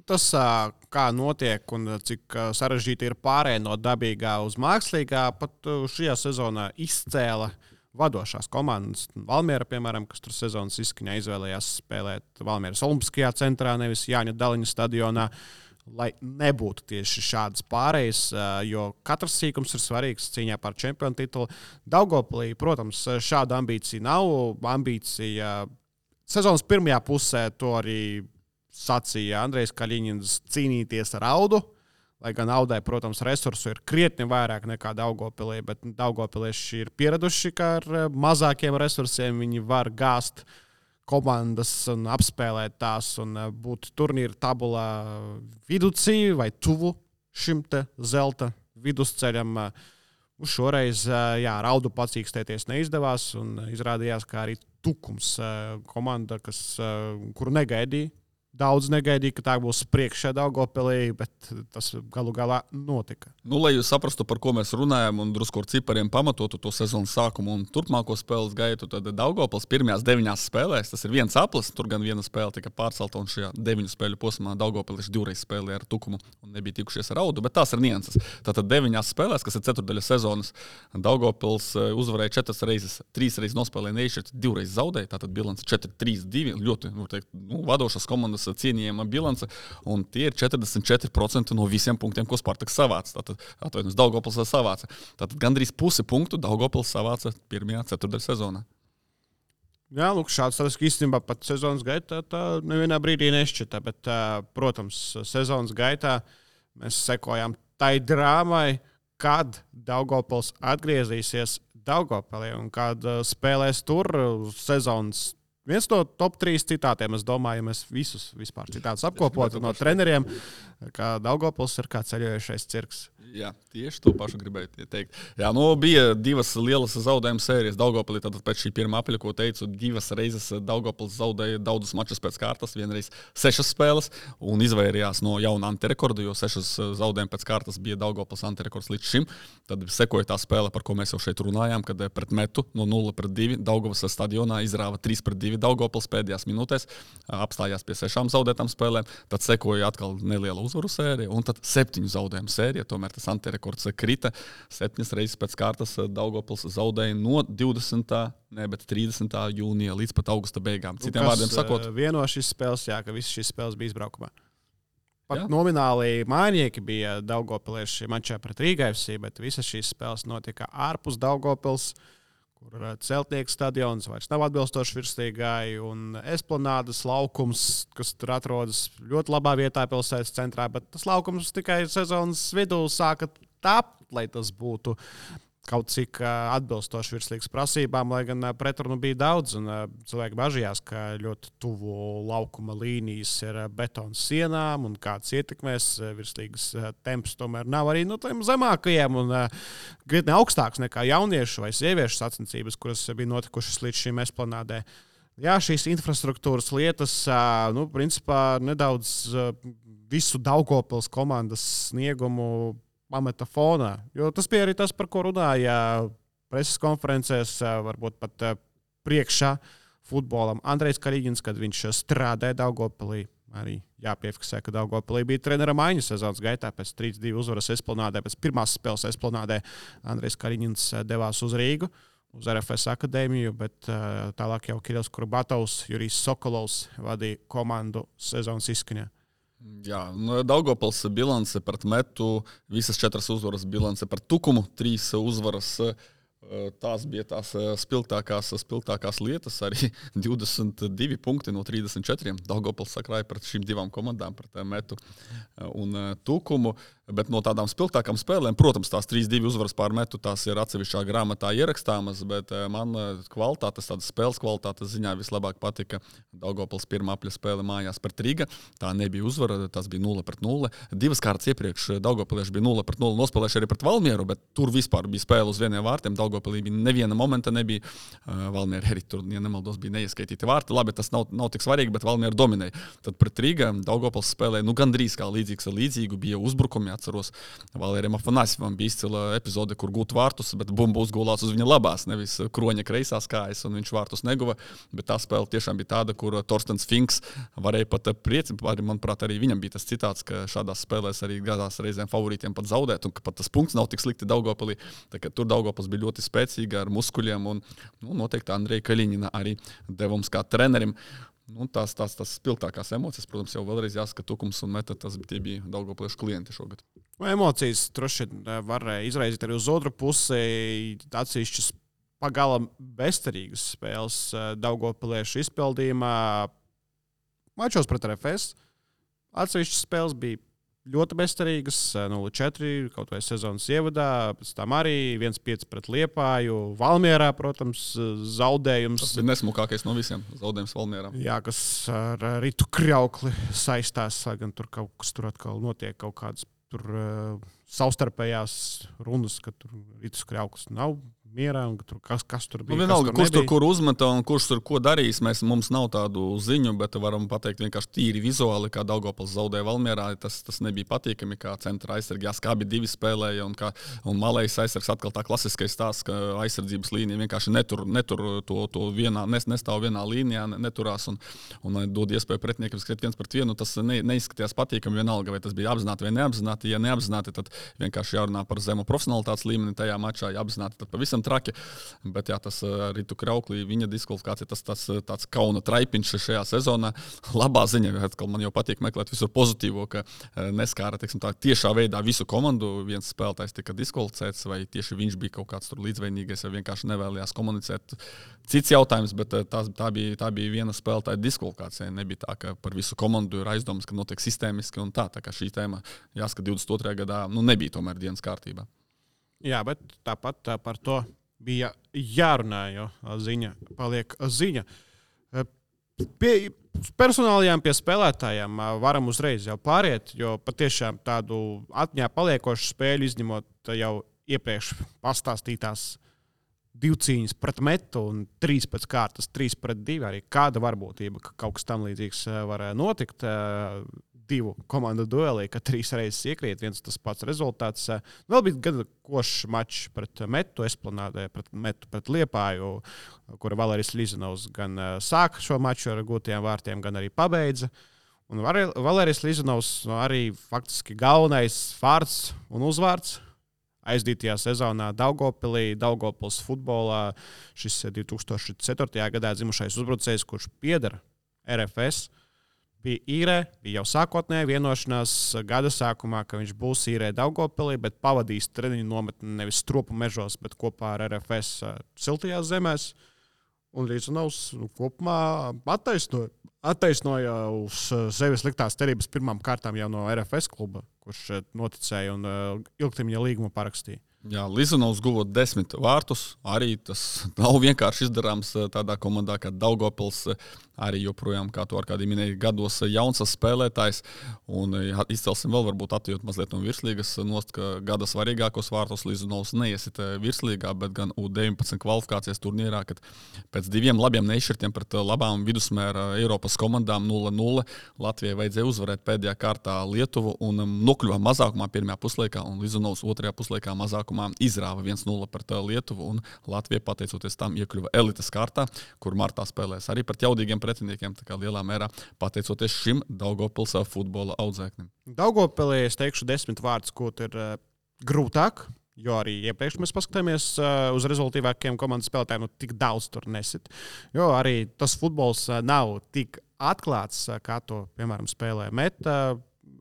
Tas, kā notiek un cik sarežģīti ir pārēj no dabīgā uz mākslīgā, pat šajā sezonā izcēla vadošās komandas. Valmiera, piemēram, kas tur sezonas izskaņā izvēlējās spēlēt Valmieras Olimpiskajā centrā, nevis Jāņa Daliņa stadionā, lai nebūtu tieši šādas pārējas, jo katrs sīkums ir svarīgs cīņā par čempionu titulu. Daugavpilī, protams, šāda ambīcija nav. Ambīcija sezonas pirmajā pusē to arī sacīja Andrejs Kaļiņins cīnīties ar Audu, lai gan Audai, protams, resursu ir krietni vairāk nekā Daugavpilī, bet Daugavpilieši ir pieraduši, ka ar mazākiem resursiem viņi var gāzt komandas un apspēlēt tās un būt turnīra tabulā viducī vai tuvu šim te zelta vidusceļam. Šoreiz, ar Audu pacīkstēties neizdevās un izrādījās, ka arī Tukums komanda, kuru negaidīja. Daudz negaidīja, ka tā būs priekšā Daugavpilī, bet tas galu galā notika. Lai jūs saprastu, par ko mēs runājam un drusku ar cipariem pamatotu to sezonas sākumu un turpmāko spēles gaitu, tad Daugavpils pirmajās 9 spēlēs, tas ir viens aplis, tur gan viena spēle tika pārcelta un šajā 9 spēļu posmā Daugavpilieši 2 reizes spēlēja ar Tukumu un nebija tikušies ar Audu, bet tās ir nianses. Tātad 9 spēlēs, kas ir ceturdaļa sezonas, Daugavpils uzvarēja 4 reizes, 3 reizes nospēlēja neišķirt, 2 reizes zaudēja, tātad bilance 4-3-2, ļoti, vadošas komandas cienījama bilance, un tie ir 44% no visiem punktiem, ko Spartaks savāca. Tātad Daugavpils savāca. Tātad gandrīz pusi punktu Daugavpils savāca pirmajā ceturtdaļa sezonā. Jā, lūk, šāds statistiski īstenībā pat sezonas gaitā tā nevienā brīdī nešķita, bet, protams, sezonas gaitā mēs sekojām tai drāmai, kad Daugavpils atgriezīsies Daugavpilī un kad spēlēs tur sezonas. Viens no top 3 citātiem, es domāju, ja mēs visus vispār citātus apkopotu no treneriem, ka Daugavpils ir kā ceļojušais cirks. Jā, tieši to pašu gribēju teikt. Jā, bija 2 lielas zaudējuma sērijas Daugavpilī, tātad pēc šī pirmā apļa, ko teicu, 2 reizes Daugavpils zaudēja daudzus mačus pēc kārtas, vienreiz 6 spēles un izvairījās no jauna antirekorda, jo 6 zaudējumi pēc kārtas bija Daugavpils antirekords līdz šim. Tad sekoja tā spēle, par ko mēs jau šeit runājām, kad pret Metu no 0-2 Daugavas stadionā izrāva 3-2 Daugavpils pēdējās minūtēs, apstājās pie 6 zaudētām spēlēm, tad sekoja atkal neliela uzvaru sērija, un tad 7 zaudējumu sērija. Tomēr tas antirekords krita 7 reizes pēc kārtas. Daugavpils zaudēja no 30. jūnija līdz pat augusta beigām. Citiem vārdiem sakot, vieno šīs spēles, ka visas šīs spēles bija izbraukumā. Pat nomināli mājnieki bija daugavpilieši mačā pret Rīga FC, bet visas šīs spēles notika ārpus Daugavpils, kur Celtnieku stadions vairs nav atbilstoši virstīgai, un Esplanādes laukums, kas tur atrodas ļoti labā vietā pilsētas centrā, bet tas laukums tikai sezonas vidū sāka tapt, lai tas būtu kaut cik atbilstoši virslīgas prasībām, lai gan pretrunu bija daudz, un cilvēki bažījās, ka ļoti tuvu laukuma līnijas ir betona sienām, un kāds ietekmēs virslīgas temps tomēr nav arī tiem zemākajiem, un krietni augstāks nekā jauniešu vai sieviešu sacensības, kuras bija notikušas līdz šīm Esplanādē. Jā, šīs infrastruktūras lietas, principā nedaudz visu Daugavpils komandas sniegumu pameta fonā. Jo tas bija arī tas, par ko runāja preses konferencēs, varbūt pat priekšā futbolam Andrejs Kariņins, kad viņš strādāja Daugavpilī. Arī jāpiefiksē, ka Daugavpilī bija trenera maiņa sezonas gaitā pēc 3-2 uzvaras Esplanādē. Pēc pirmās spēles Esplanādē Andrejs Kariņins devās uz Rīgu, uz RFS akadēmiju, bet tālāk jau Kirills Kurbatovs, Jurijs Sokolovs vadīja komandu sezonas izskaņā. Jā, Daugavpils bilance pret Metu, visas 4 uzvaras bilance pret Tukumu, 3 uzvaras. Tās bija tās spilgtākās lietas, arī 22 punkti no 34. Daugavpils sakrāja pret šīm 2 komandām, pret Metu un Tukumu. Bet no tādām spilgtākām spēlēm, protams, tās 3-2 uzvaras pār Metu, tās ir atsevišķā grāmatā ierakstāmas, bet man kvalitātes, tādas spēles kvalitātes ziņā vislabāk patika Daugavpils pirmā apļa spēle mājās pret Riga. Tā nebija uzvara, tas bija 0-0. 2 kārtas iepriekš Daugavpilieši bija 0-0 nospēlējuši arī pret Valmieru, bet tur vispār bija spēle uz vieniem vārtiem. Daugavpilī bija neviena momenta nebija. Valmiera arī tur, ja nemaldos, bija neieskaitīti vārti. Labi, tas nav tik svarīgi, bet Valmiera dominēja. Tad pret Riga Daugavpils spēlēja gandrīz kā līdzīgs ar līdzīgu, bija uzbrukumi. Atceros, Valērijam Afanasjevam bija izcila epizode, kur gūt vārtus, bet bumba uzgulās uz viņa labās, nevis kroņa kreisās kājas, un viņš vārtus neguva. Bet tā spēle tiešām bija tāda, kur Torstens Finks varēja pat priecāt. Manuprāt, arī viņam bija tas citāts, ka šādās spēlēs arī gadās reizēm favorītiem pat zaudēt, un ka pat tas punkts nav tik slikti Daugavpilī. Tur Daugavpils bija ļoti spēcīga ar muskuļiem, un noteikti Andreja Kaļiņina arī devums kā trenerim. Tās spilgtākās emocijas, protams, jau vēlreiz jāsaka, Tukums un Meta, tie bija Daugavpiliešu klienti šogad. Emocijas droši var izraizīt arī uz otru pusi, atsevišķas pagalam bezcerīgas spēles Daugavpiliešu izpildījumā. Mačos pret RFS atsevišķas spēles bija ļoti bezcerīgas, 0-4, kaut vai sezonas ievadā, pēc tam arī 1-5 pret Liepāju, Valmierā, protams, zaudējums. Tas bija nesmukākais no visiem zaudējums Valmierā. Jā, kas ar Ritu Kraukli saistās, gan tur kaut kas tur atkal notiek, kaut kādas tur savstarpējās runas, ka tur Ritus Krauklis nav mierā, un tur kas tur bija. Vienalga, kurš tur kur uzmeta un kurš tur ko darīs, mums nav tādu ziņu, bet varam pateikt vienkārši tīri vizuāli, kā Daugavpils zaudēja Valmierā. Tas nebija patīkami, kā centra aizsargi. Skābi 2 spēlēja, un malējs aizsargs atkal tā klasiskais stāsts, ka aizsardzības līnija vienkārši netur to vienā, nestāv vienā līnijā, neturās un dod iespēju pretiniekam skriet 1-1. Tas neizskatījās patīkami vienalga, vai tas bija apzināti vai neapzināti. Ja neapzināti, tad vienkārši jārunā par zemu profesionalitātes līmeni tajā mačā, ja apzināti, tad pavisam traki, bet jā, tas Ritu Krauklī, viņa diskvalifikācija, tas tāds kauna traipiņš šajā sezonā. Labā ziņa, atkal man jau patīk meklēt visur pozitīvo, ka neskāra, teiksim tā, tiešā veidā visu komandu. Viens spēlētājs tika diskvalificēts, vai tieši viņš bija kaut kāds tur līdzvainīgais, vai vienkārši nevēlējās komunicēt. Cits jautājums, bet tā bija viena spēlētāja diskvalifikācija. Nebija tā, ka par visu komandu ir aizdomas, ka notiek sistēmiski un tā kā šī tēma, jāsaka, 22. gadā, nebija tomēr dienas kārtībā. Jā, bet tāpat par to bija jārunā, jo ziņa paliek ziņa. Personālajām pie spēlētājiem varam uzreiz jau pāriet, jo patiešām tādu atmiņā paliekošu spēļu izņemot jau iepriekš pastāstītās 2 cīņas pret Metu un 3 pēc kārtas, 3-2, arī kāda varbūtība, ka kaut kas tam līdzīgs var notikt. divu komandu duelī, ka 3 reizes iekrīt viens tas pats rezultāts. Vēl bija gana košs mačs pret Metu Esplanādē, pret Liepāju, kura Valērijas Lizanovs gan sāka šo maču ar gūtajiem vārtiem, gan arī pabeidza. Un Valērijas Lizanovs arī faktiski galvenais vārds un uzvārds aizdītajā sezonā Daugavpilī, Daugavpils futbolā. Šis 2004. gadā dzimušais uzbrucējs, kurš pieder RFS, bija īrē, bija jau sākotnēji vienošanās gada sākumā, ka viņš būs īrē Daugavpilī, bet pavadīs treniņu nometni nevis Stropu mežos, bet kopā ar RFS siltajās zemēs. Un Lizanovs kopumā attaisnoja uz sevi sliktās cerības pirmām kārtām jau no RFS kluba, kurš noticēja un ilgtermiņa līgumu parakstīja. Jā, Lizanovs guva 10 vārtus. Arī tas nav vienkārši izdarāms tādā komandā kā Daugavpils. Arī joprojām, kā to ar kādiem minēja, gados jauns spēlētājs. Un izcelsim vēl varbūt atjūt mazliet no virslīgas nost, ka gada svarīgākos vārtus Lizanovs neiesit virslīgā, bet gan U19 kvalifikācijas turnīrā, kad pēc 2 labiem nešķirtiem pret labām vidusmēra Eiropas komandām 0-0 Latvijai vajadzēja uzvarēt pēdējā kārtā Lietuvu un nokļuva mazākumā pirmajā puslaikā, un Lizanovs otrajā puslaikā mazākumā izrāva 1-0 pret Lietuvu, un Latvija, pateicoties tam, iekļuva elites kārtā, kur martā spēlēs arī pret jaudīgiem pretiniekiem, tā kā lielā mērā pateicoties šim Daugavpils futbola audzēknim. Daugavpilī es teikšu 10 vārdus, ko ir grūtāk, jo arī iepriekš mēs paskatāmies uz rezultīvākiem komandas spēlētājiem, tik daudz tur nesit. Jo arī tas futbols nav tik atklāts, kā to, piemēram, spēlē Meta,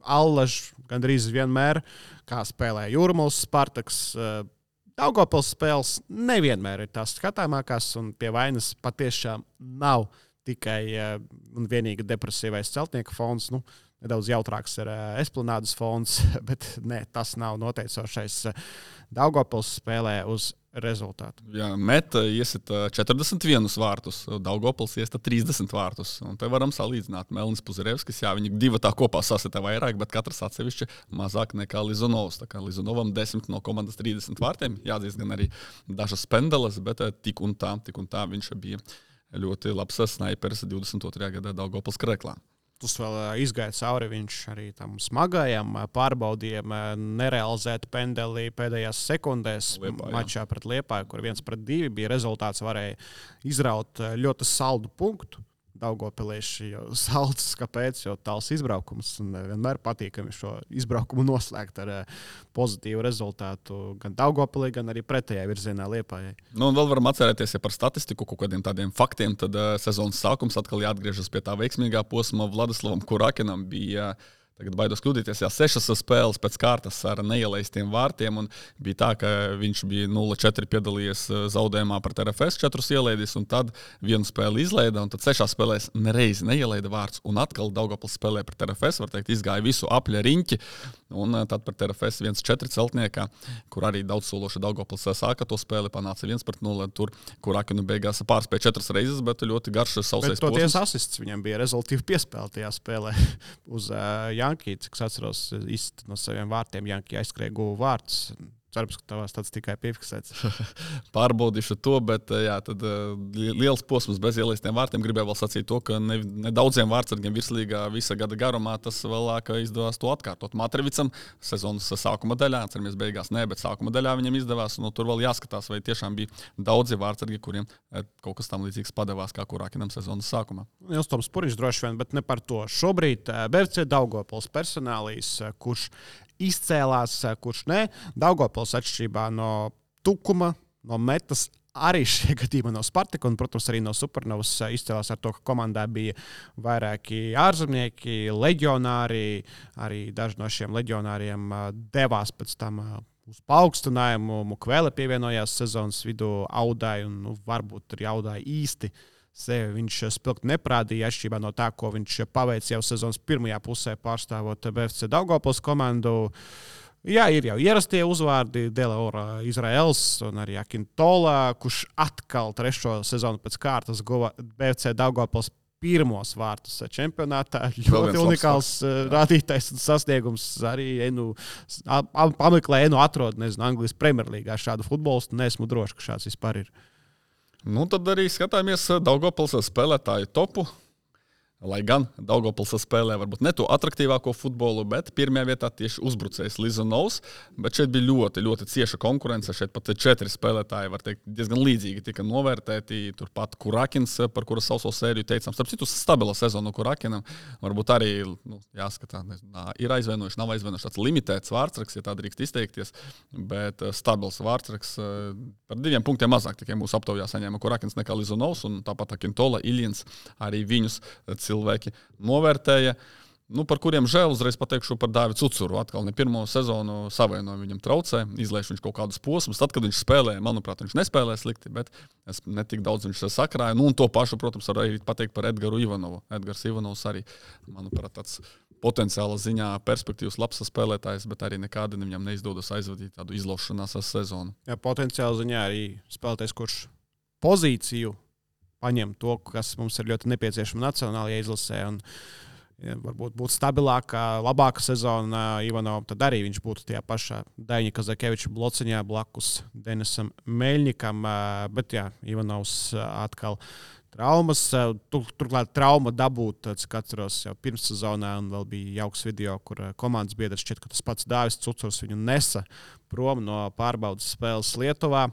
Allaž, gandrīz vienmēr, kā spēlē Jūrmals, Spartaks. Daugavpils spēles nevienmēr ir tās skatāmākās, un pie vainas patiešām nav tikai un vienīgi depresīvais celtnieka fons. Nedaudz jautrāks ir Esplanādes fons, bet ne, tas nav noteicošais. Daugavpils spēlē uz rezultātu. Jā, Meta iesita 41 vārtus, Daugavpils iesita 30 vārtus. Un te varam salīdzināt Melnis Puzarevskis. Jā, viņi divi tā kopā sasita vairāk, bet katrs atsevišķi mazāk nekā Lizanovs. Tā kā Lizanovam 10 no komandas 30 vārtiem. Jāatzīst gan arī dažas pendeles, bet tik un tā viņš bija ļoti labs snaiperis 22. gadā Daugavpils Kreklā. Tas vēl izgāja cauri viņš arī tam smagajam pārbaudījumam, nerealizēt pendeli pēdējās sekundēs mačā pret Liepāju, kur 1-2 bija rezultāts, varēja izraut ļoti saldu punktu. Daugavpilieši jau salds, kāpēc, jo tāls izbraukums, un vienmēr patīkami šo izbraukumu noslēgt ar pozitīvu rezultātu gan Daugavpilī, gan arī pretējā virzienā Liepājai. Un vēl varam atcerēties, ja par statistiku, kaut kādiem tādiem faktiem, tad sezonas sākums atkal jāatgriežas pie tā veiksmīgā posma. Vladislavam Kurakinam bija tagad baidos kļūdīties, 6 spēles pēc kārtas ar neielaistiem vārtiem, un bija tā, ka viņš bija 0-4 piedalījies zaudējumā pret RFS, 4 ielaidis, un tad 1 spēli izlaida, un tad 6 spēlēs nereizi neielaida vārds, un atkal Daugavpils spēlē pret RFS, var teikt, izgāja visu apļa riņķi, un tad pret RFS 1-4 celtniekā, kur arī daudzsološi Daugavpils sāka to spēli, panāca 1-0, tur Kurakinu beigās pārspēja 4 reizes, bet ļoti garš sausais posms. Bet toties asists viņam bija rezultīvi piespēle tajā spēlē uz Jankī, cik es atceros, no saviem vārtiem Jankī aizskrēja guva vārds. Cerams, ka tavās tāds tikai piefiksēts. Pārbaudīšu to, bet jā, tad liels posms bez ielaistiem vārtiem. Gribēju vēl sacīt to, ka ne daudziem vārdsargiem virslīgā visa gada garumā tas vēlāk izdevās to atkārtot. Matrevicam sezonas sākuma daļā, cerams, beigās ne, bet sākuma daļā viņam izdevās. Un tur vēl jāskatās, vai tiešām bija daudzi vārdsargi, kuriem kaut kas tam līdzīgs padevās kā Kurakinam sezonas sākumā. Jums Toms Puriņš droši vien, bet ne par to. Šobrīd BFC Daugavpils personālīs, kurš izcēlās, kurš ne. Daugavpils atšķirībā no Tukuma, no Metas, arī šie gadījumi no Spartaka un, protams, arī no Supernovas izcēlās ar to, ka komandā bija vairāki ārzemnieki, leģionāri. Arī daži no šiem leģionāriem devās pēc tam uz paaugstinājumu. Mukvēle pievienojās sezonas vidū Audai, un varbūt arī Audai īsti sevi viņš spilgti neprādīja, atšķirībā no tā, ko viņš paveica jau sezonas pirmajā pusē pārstāvot BFC Daugavpils komandu. Jā, ir jau ierastie uzvārdi, Delaora Izraels un arī Akintola, kurš atkal 3. sezonu pēc kārtas guva BFC Daugavpils pirmos vārtus čempionātā. Ļoti unikāls rādītājs un sasniegums. Arī pameklē, atrod, Anglijas Premjerlīgā šādu futbolistu. Neesmu droši, ka šāds vispār ir. Nu, tad arī skatāmies Daugavpils spēlētāju topu. Lai gan Daugavpils spēlē varbūt ne to atraktīvāko futbolu, bet pirmajā vietā tieši uzbrucējs Lizonovs. Bet šeit bija ļoti, ļoti cieša konkurence. Šeit pat 4 spēlētāji, var teikt, diezgan līdzīgi tika novērtēti. Turpat Kurakins, par kura sauso sēriju teicām. Starp citu, stabila sezona Kurakinam. Varbūt arī jāskatā, ir aizvainojuši, nav aizvainojuši tāds limitēts vārdsraks, ja tā drīkst izteikties. Bet stabils vārdsraks par 2 punktiem mazāk tikai mūsu aptaujā saņēma Kurakins nekā Lizonovs. Un tāpat Akintola, Iljins arī viņus cilvēki novērtēja, par kuriem žēl uzreiz pateikšu par Dāvidu Cucuru. Atkal ne pirmo sezonu savainojumu viņam traucē, izlaiž viņš kaut kādus posmus. Tad, kad viņš spēlēja, manuprāt, viņš nespēlēja slikti, bet es netik daudz viņš sakrāja. Un to pašu, protams, var arī pateikt par Edgaru Ivanovu. Edgars Ivanovs arī, manuprāt, tāds potenciāla ziņā perspektīvs labs spēlētājs, bet arī nekādi viņam neizdodas aizvadīt tādu izlaušanās sezonu. Jā, potenciāla ziņā arī spēlētājs, kurš pozīciju paņem to, kas mums ir ļoti nepieciešama nacionālajā izlasē. Un, ja varbūt būtu stabilāka, labāka sezona Ivanovam, tad arī viņš būtu tajā pašā Daņa Kazakeviča blociņā blakus Denisam Meļņikam. Bet jā, Ivanovs atkal traumas. Turklāt trauma dabūt, cik atceros, jau pirms sezonā, un vēl bija jauks video, kur komandas biedrs šķiet, ka tas pats Dāvis Cucurs viņu nesa prom no pārbaudas spēles Lietuvā.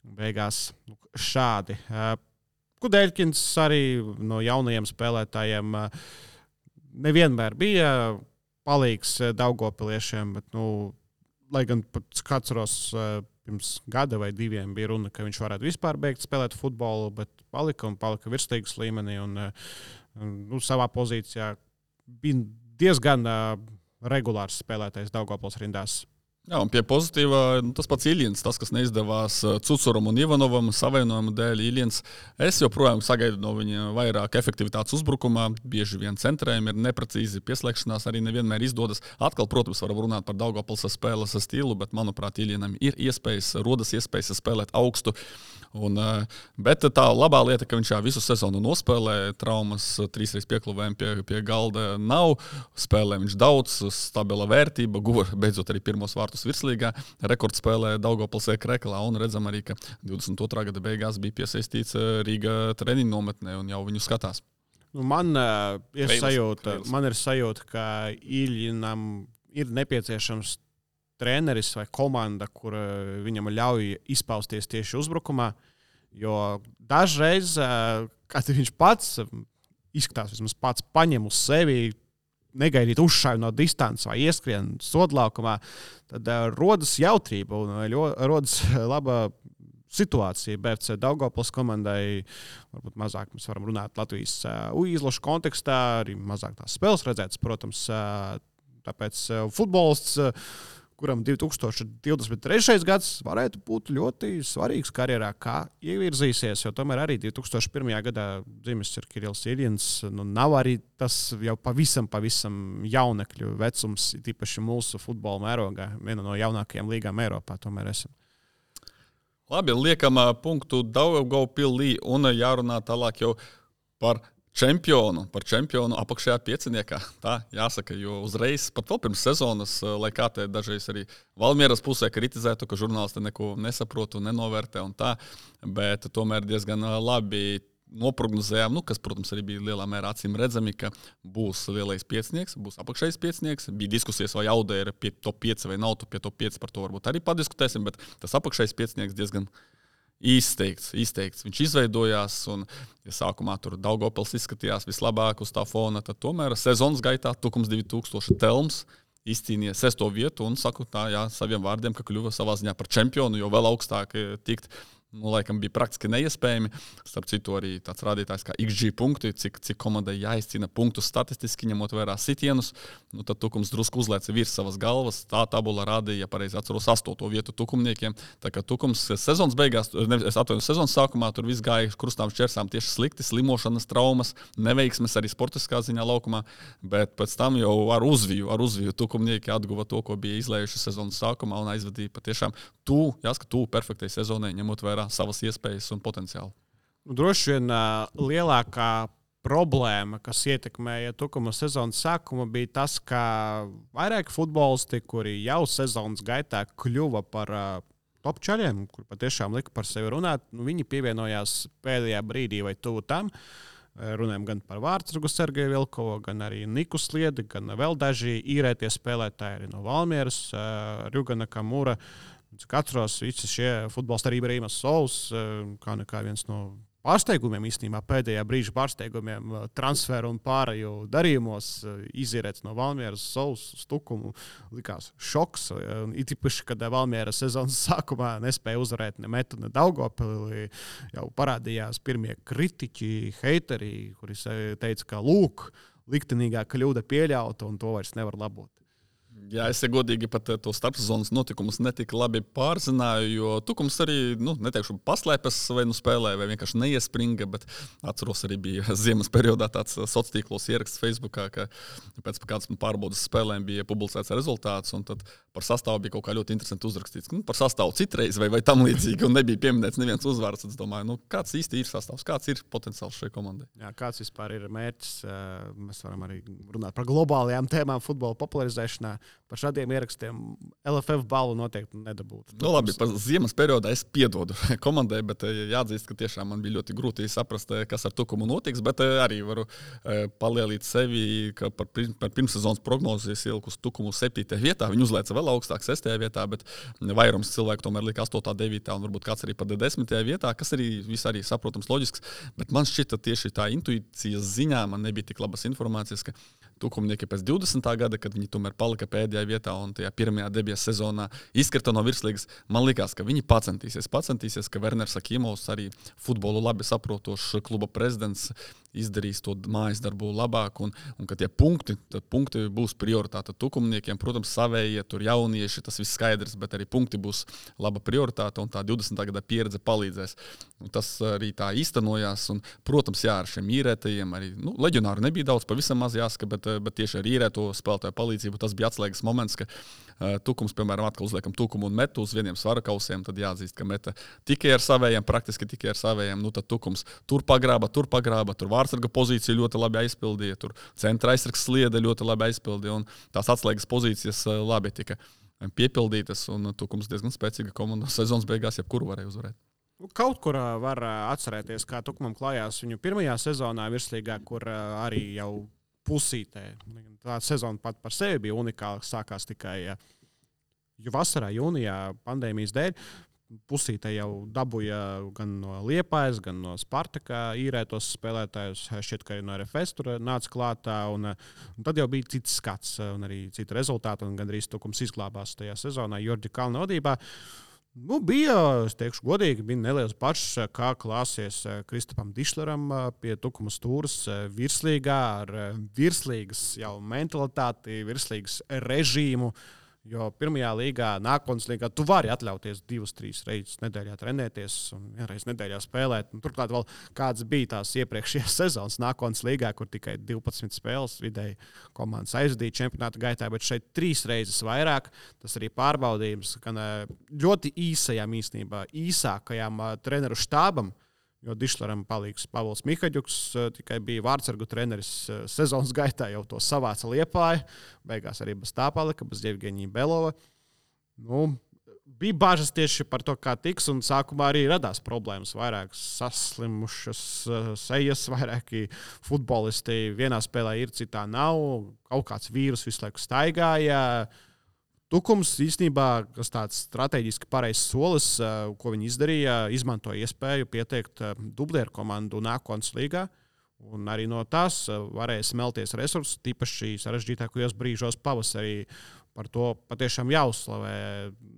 Beigās šādi. Kudeļkins arī no jaunajiem spēlētājiem nevienmēr bija palīgs daugavpiliešiem, bet, lai gan pat atceros pirms gada vai 2 bija runa, ka viņš varētu vispār beigt spēlēt futbolu, bet palika virsliigas līmenī un savā pozīcijā bija diezgan regulārs spēlētājs Daugavpils rindās. Jā, un pie pozitīvā tas pats Iljins, tas, kas neizdevās Cucuram un Ivanovam savainojuma dēļ. Iljins, es joprojām sagaidu no viņa vairāk efektivitātes uzbrukumā, bieži vien centrējumi ir neprecīzi, pieslēgšanās arī nevienmēr izdodas. Atkal, protams, varam runāt par Daugavpils spēles stilu, bet, manuprāt, Iljinam ir rodas iespējas spēlēt augstu. Bet tā labā lieta, ka viņš visu sezonu nospēlē, traumas 3 piekluvējumi pie galda nav, spēlē viņš daudz, stabila vērtība, guva beidzot arī pirmos vārtus virslīgā, rekordspēlē Daugavpils Kreklā, un redzam arī, ka 22. gada beigās bija piesaistīts Rīga treniņu nometnē un jau viņu skatās. Man ir sajūta, ka Iljinam ir nepieciešams treneris vai komanda, kur viņam ļauj izpausties tieši uzbrukumā, jo dažreiz, kad viņš pats izskatās, vismaz pats paņem uz sevi, negaidīt uzšāju no distances vai ieskrien sodlaukumā, tad rodas jautrība un rodas laba situācija. BFC Daugavpils komandai varbūt mazāk mēs varam runāt Latvijas izlašu kontekstā, arī mazāk tās spēles redzētas, protams, tāpēc futbolists, kuram 2023. gads varētu būt ļoti svarīgs karjerā, kā ievirzīsies, jo tomēr arī 2001. gadā dzimis ir Kirills Iljins, nav arī tas jau pavisam jaunekļu vecums, tīpaši mūsu futbola mērogā, viena no jaunākajām līgām Eiropā tomēr esam. Labi, liekam punktu Daugavpilī un jārunā tālāk jau par čempionu apakšējā pieciniekā. Tā jāsaka, jo uzreiz, pat vēl pirms sezonas, lai kā te dažreiz arī Valmieras pusē kritizētu, ka žurnālisti neko nesaprot un nenovērtē un tā, bet tomēr diezgan labi noprognozējām, kas, protams, arī bija lielā mērā acīm redzami, ka būs lielais piecinieks, būs apakšējais piecinieks. Bija diskusijas, vai Audē ir pie top 5 vai nav pie top 5, par to varbūt arī padiskutēsim, bet tas apakšējais piecinieks diezgan izteikts. Viņš izveidojās, un ja sākumā tur Daugavpils izskatījās vislabāk uz tā fona, tad tomēr sezonas gaitā Tukums 2000 Telms izcīnīja 6. vietu un saku tā, saviem vārdiem, ka kļuva savā ziņā par čempionu, jo vēl augstāk tikt. Laikam bija praktiski neiespējami. Starp citu, arī tāds rādītājs kā XG punkti, cik komandai jāizcīna punktus statistiski, ņemot vērā sitienus. Tad Tukums drusku uzlēca virs savas galvas. Tā tabula rādīja, ja pareizi atceros, 8. vietu tukumniekiem. Tā kā Tukums sezonas beigās, sezonas sākumā tur viss gāja krustām šķersām tieši slikti, slimošanas, traumas, neveiksmes arī sportiskā ziņā laukumā. Bet pēc tam jau ar uzviju tukumnieki atguva to, ko bija izlējuši sezonas sākumā un aizvadīja patiešām tuvu perfektai sezonai, ņemot vērā savas iespējas un potenciālu. Droši vien lielākā problēma, kas ietekmēja Tukuma sezonas sākumu, bija tas, ka vairāki futbolisti, kuri jau sezonas gaitā kļuva par top čaļiem, kur patiešām lika par sevi runāt, viņi pievienojās pēdējā brīdī vai tuvu tam. Runājam gan par Vārtsargu Sergeju Vilkovu, gan arī Niku Sliedi, gan vēl daži īrētie spēlētāji arī no Valmieras, Rjugana Kamura. Cik atceros, visi šie futbolisti arī Brīmas Sols, kā viens no pārsteigumiem īstenībā, pēdējā brīža pārsteigumiem transferu un pārēju darījumos izīrēts no Valmieras Sols uz Tukumu. Likās šoks. It īpaši, kad Valmiera sezonas sākumā nespēja uzvarēt ne Metu, ne Daugavpili. Jau parādījās pirmie kritiķi, heiteri, kuri teica, ka lūk, liktenīgā kļūda pieļauta un to vairs nevar labot. Jā, es godīgi pat to starpsezonas notikumus netik labi pārzināju, jo Tukums arī, neteikšu, paslēpes vai spēlēja, vai vienkārši neiespringa, bet atceros arī bija ziemas periodā tāds sociālos tīklos ieraksts Facebookā, ka pēc kādas pārbaudas spēlēm bija publicēts rezultāts, un tad par sastāvu bija kaut kā ļoti interesanti uzrakstīts. Par sastāvu citreiz vai tam līdzīgi, un nebija pieminēts neviens uzvārds. Tad es domāju, kāds īsti ir sastāvs, kāds ir potenciāls šai komandai. Jā, kāds vispār ir mērķis? Mēs varam arī runāt par globālajām tēmām futbola popularizēšanā. Par šādiem ierakstiem LFF balvu noteikti nedabūtu. Labi, par ziemas periodā es piedodu komandai, bet jāatzīst, ka tiešām man bija ļoti grūti saprast, kas ar Tukumu notiks, bet arī varu palielīt sevi, ka par pirmssezonas prognozes ieliku uz Tukumu 7. vietā. Viņi uzlēca vēl augstāk 6. vietā, bet vairums cilvēku tomēr lika 8., 9. un varbūt kāds arī pat 10. vietā, kas arī viss arī saprotams loģisks, bet man šķita tieši tā intuīcijas ziņā man nebija tik labas informācijas, ka Tukumnieki pēc 20. gada, kad viņi tomēr palika pēdējā vietā un tajā pirmajā debijas sezonā izkrita no virslīgas, man likās, ka viņi pacentīsies, ka Werners Akimovs, arī futbolu labi saprotošs kluba prezidents, izdarīs to mājas darbu labāk, un ka tie punkti būs prioritāte Tukumniekiem. Protams, savējie, tur jaunieši, tas viss skaidrs, bet arī punkti būs laba prioritāte, un tā 20. gada pieredze palīdzēs. Un tas arī tā īstenojās, un, protams, jā, ar šiem īrētajiem arī, leģionāru nebija daudz, pavisam maz jāsaka, bet tieši ar īrēto spēlētāju palīdzību tas bija atslēgas moments, ka Tukums, piemēram, atkal uzliekam Tukumu un Metu uz vieniem svarakausiem, tad jāatzīst, ka Meta tikai ar savējiem, praktiski tikai ar savējiem, tad Tukums tur pagrāba, tur Vārtsarga pozīciju ļoti labi aizpildīja, tur centra aizsargs Sliede ļoti labi aizpildīja, un tās atslēgas pozīcijas labi tika piepildītas, un Tukums diezgan spēcīga komanda sezonas beigās, jebkuru varēja uzvarēt. Kaut kur var atcerēties, kā Tukumam klājās viņu pirmajā sezonā virslīgā, kur arī jau pusītē. Tā sezona pat par sevi bija unikāla, sākās tikai vasarā, jūnijā pandēmijas dēļ. Pusītē jau dabūja gan no Liepājas, gan no Spartaka īrētos spēlētājus. Šķiet, ka arī no RFS tur nāca klātā. Un tad jau bija cits skats un arī citi rezultāti. Un gandrīz Tukums izglābās tajā sezonā Jorģa Kalna vadībā. Bija, es teikšu godīgi, bija neliels pašs, kā klāsies Kristapam Dišleram pie Tukuma stūras virslīgā ar virslīgas jau mentalitāti, virslīgas režīmu. Jo pirmajā līgā, nākotnes līgā, tu vari atļauties 2-3 reizes nedēļā trenēties un vienreiz nedēļā spēlēt. Un turklāt vēl kāds bija tās iepriekšējās sezonas nākotnes līgā, kur tikai 12 spēles vidēji komandas aizdīja čempionāta gaitā, bet šeit 3 reizes vairāk. Tas arī pārbaudījums, gan ļoti īsākajām treneru štābam, jo Dišleram palīgs Pavls Mihaģuks, tikai bija Vārtsargu treneris sezonas gaitā, jau to savāca Liepāja. Beigās arī bez tā palika, bez Jevgeņija Belova. Bija bažas tieši par to, kā tiks, un sākumā arī radās problēmas. Vairāk saslimušas sejas, vairāki futbolisti vienā spēlē ir, citā nav. Kaut kāds vīrus visu laiku staigāja. Tukums īstenībā, kas tāds strateģiski pareizs solis, ko viņi izdarīja, izmantoja iespēju pieteikt dublieru komandu nākotnes līgā. Un arī no tās varēja smelties resursi, tīpaši sarežģītākajos brīžos pavasarī. Par to patiešām jāuzslavē.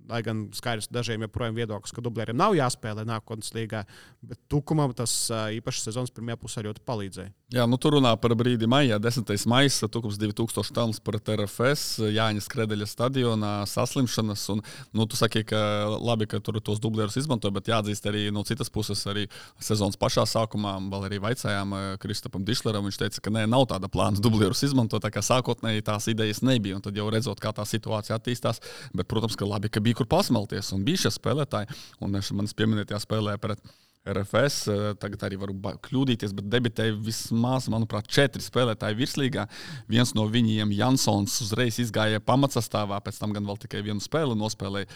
Lai gan skaidrs dažiem joprojām viedoklis, ka dublieriem nav jāspēlē nākotnes līgā, bet Tukumam tas īpaši sezonas pirmajā pusē ļoti palīdzēja. Jā, tur runā par brīdi maijā, 10. maijs, Tukums 2000 talents pret RFS, Jāņa Skredeļa stadionā, saslimšanas, un, tu saki, ka labi, ka tur tos dublierus izmantoja, bet jāatzīst arī no citas puses arī sezonas pašā sākumā, vēl arī vaicājām Kristapam Dišleram, viņš teica, ka nav tāda plāna dublierus izmantot, tā kā sākotnēji tās idejas nebija, un tad jau redzot, kā tā situācija attīstās, bet, protams, ka labi, ka bija kur pasmelties, un bija šie spēlētāji, un manis pieminētajā spēlē pret RFS, tagad arī varu kļūdīties, bet debitēja vismaz, manuprāt, 4 spēlētāji virslīgā. Viens no viņiem, Jansons, uzreiz izgāja pamatsastāvā, pēc tam gan vēl tikai vienu spēli nospēlēja.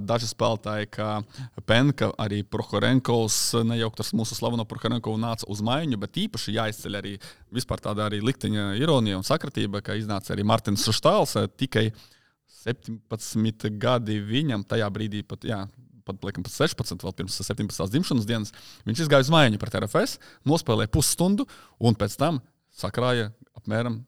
Daži spēlētāji, kā Penka, arī Prohorenkovs, nejaukt ar mūsu slaveno Prohorenkovu nāca uz maiņu, bet īpaši jāizceļ arī vispār tāda arī likteņa ironija un sakritība, ka iznāca arī Martins Štāls, tikai 17 gadi viņam tajā brīdī pat 16, vēl pirms 17. dzimšanas dienas, viņš izgāja uz maiņu pret RFS, nospēlēja pusstundu un pēc tam sakrāja apmēram,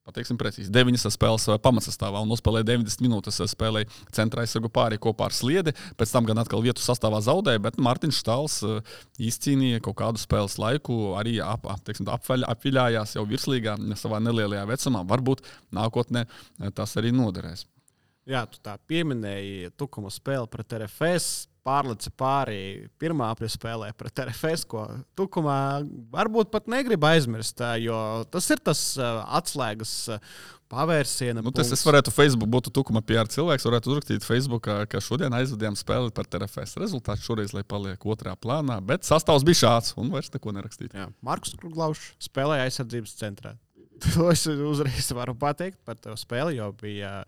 pateiksim precīzi, 9 spēles pamatsastāvā un nospēlēja 90 minūtes, spēlēja centra aizsargu pāri kopā ar Sliedi, pēc tam gan atkal vietu sastāvā zaudēja, bet Martins Štāls izcīnīja kaut kādu spēles laiku, arī apviļājās jau virslīgā savā nelielajā vecumā, varbūt nākotnē tas arī noderēs. Jā, tu tā pieminēji Tukuma spēli pret RFS, pārlica pāri pirmā spēlē pret RFS, ko Tukumā varbūt pat negrib aizmirst, jo tas ir tas atslēgas pavērsiena punkts. Es varētu Facebook, būtu Tukuma PR cilvēks, varētu uzrakstīt Facebookā, ka šodien aizvadījām spēli pret RFS. Rezultāts šoreiz, lai paliek otrā plānā, bet sastāvs bija šāds un vairs neko nerakstīt. Jā, Markus Kluglaušs spēlēja aizsardzības centrā. To es uzreiz varu pateikt par to spēli, jo bija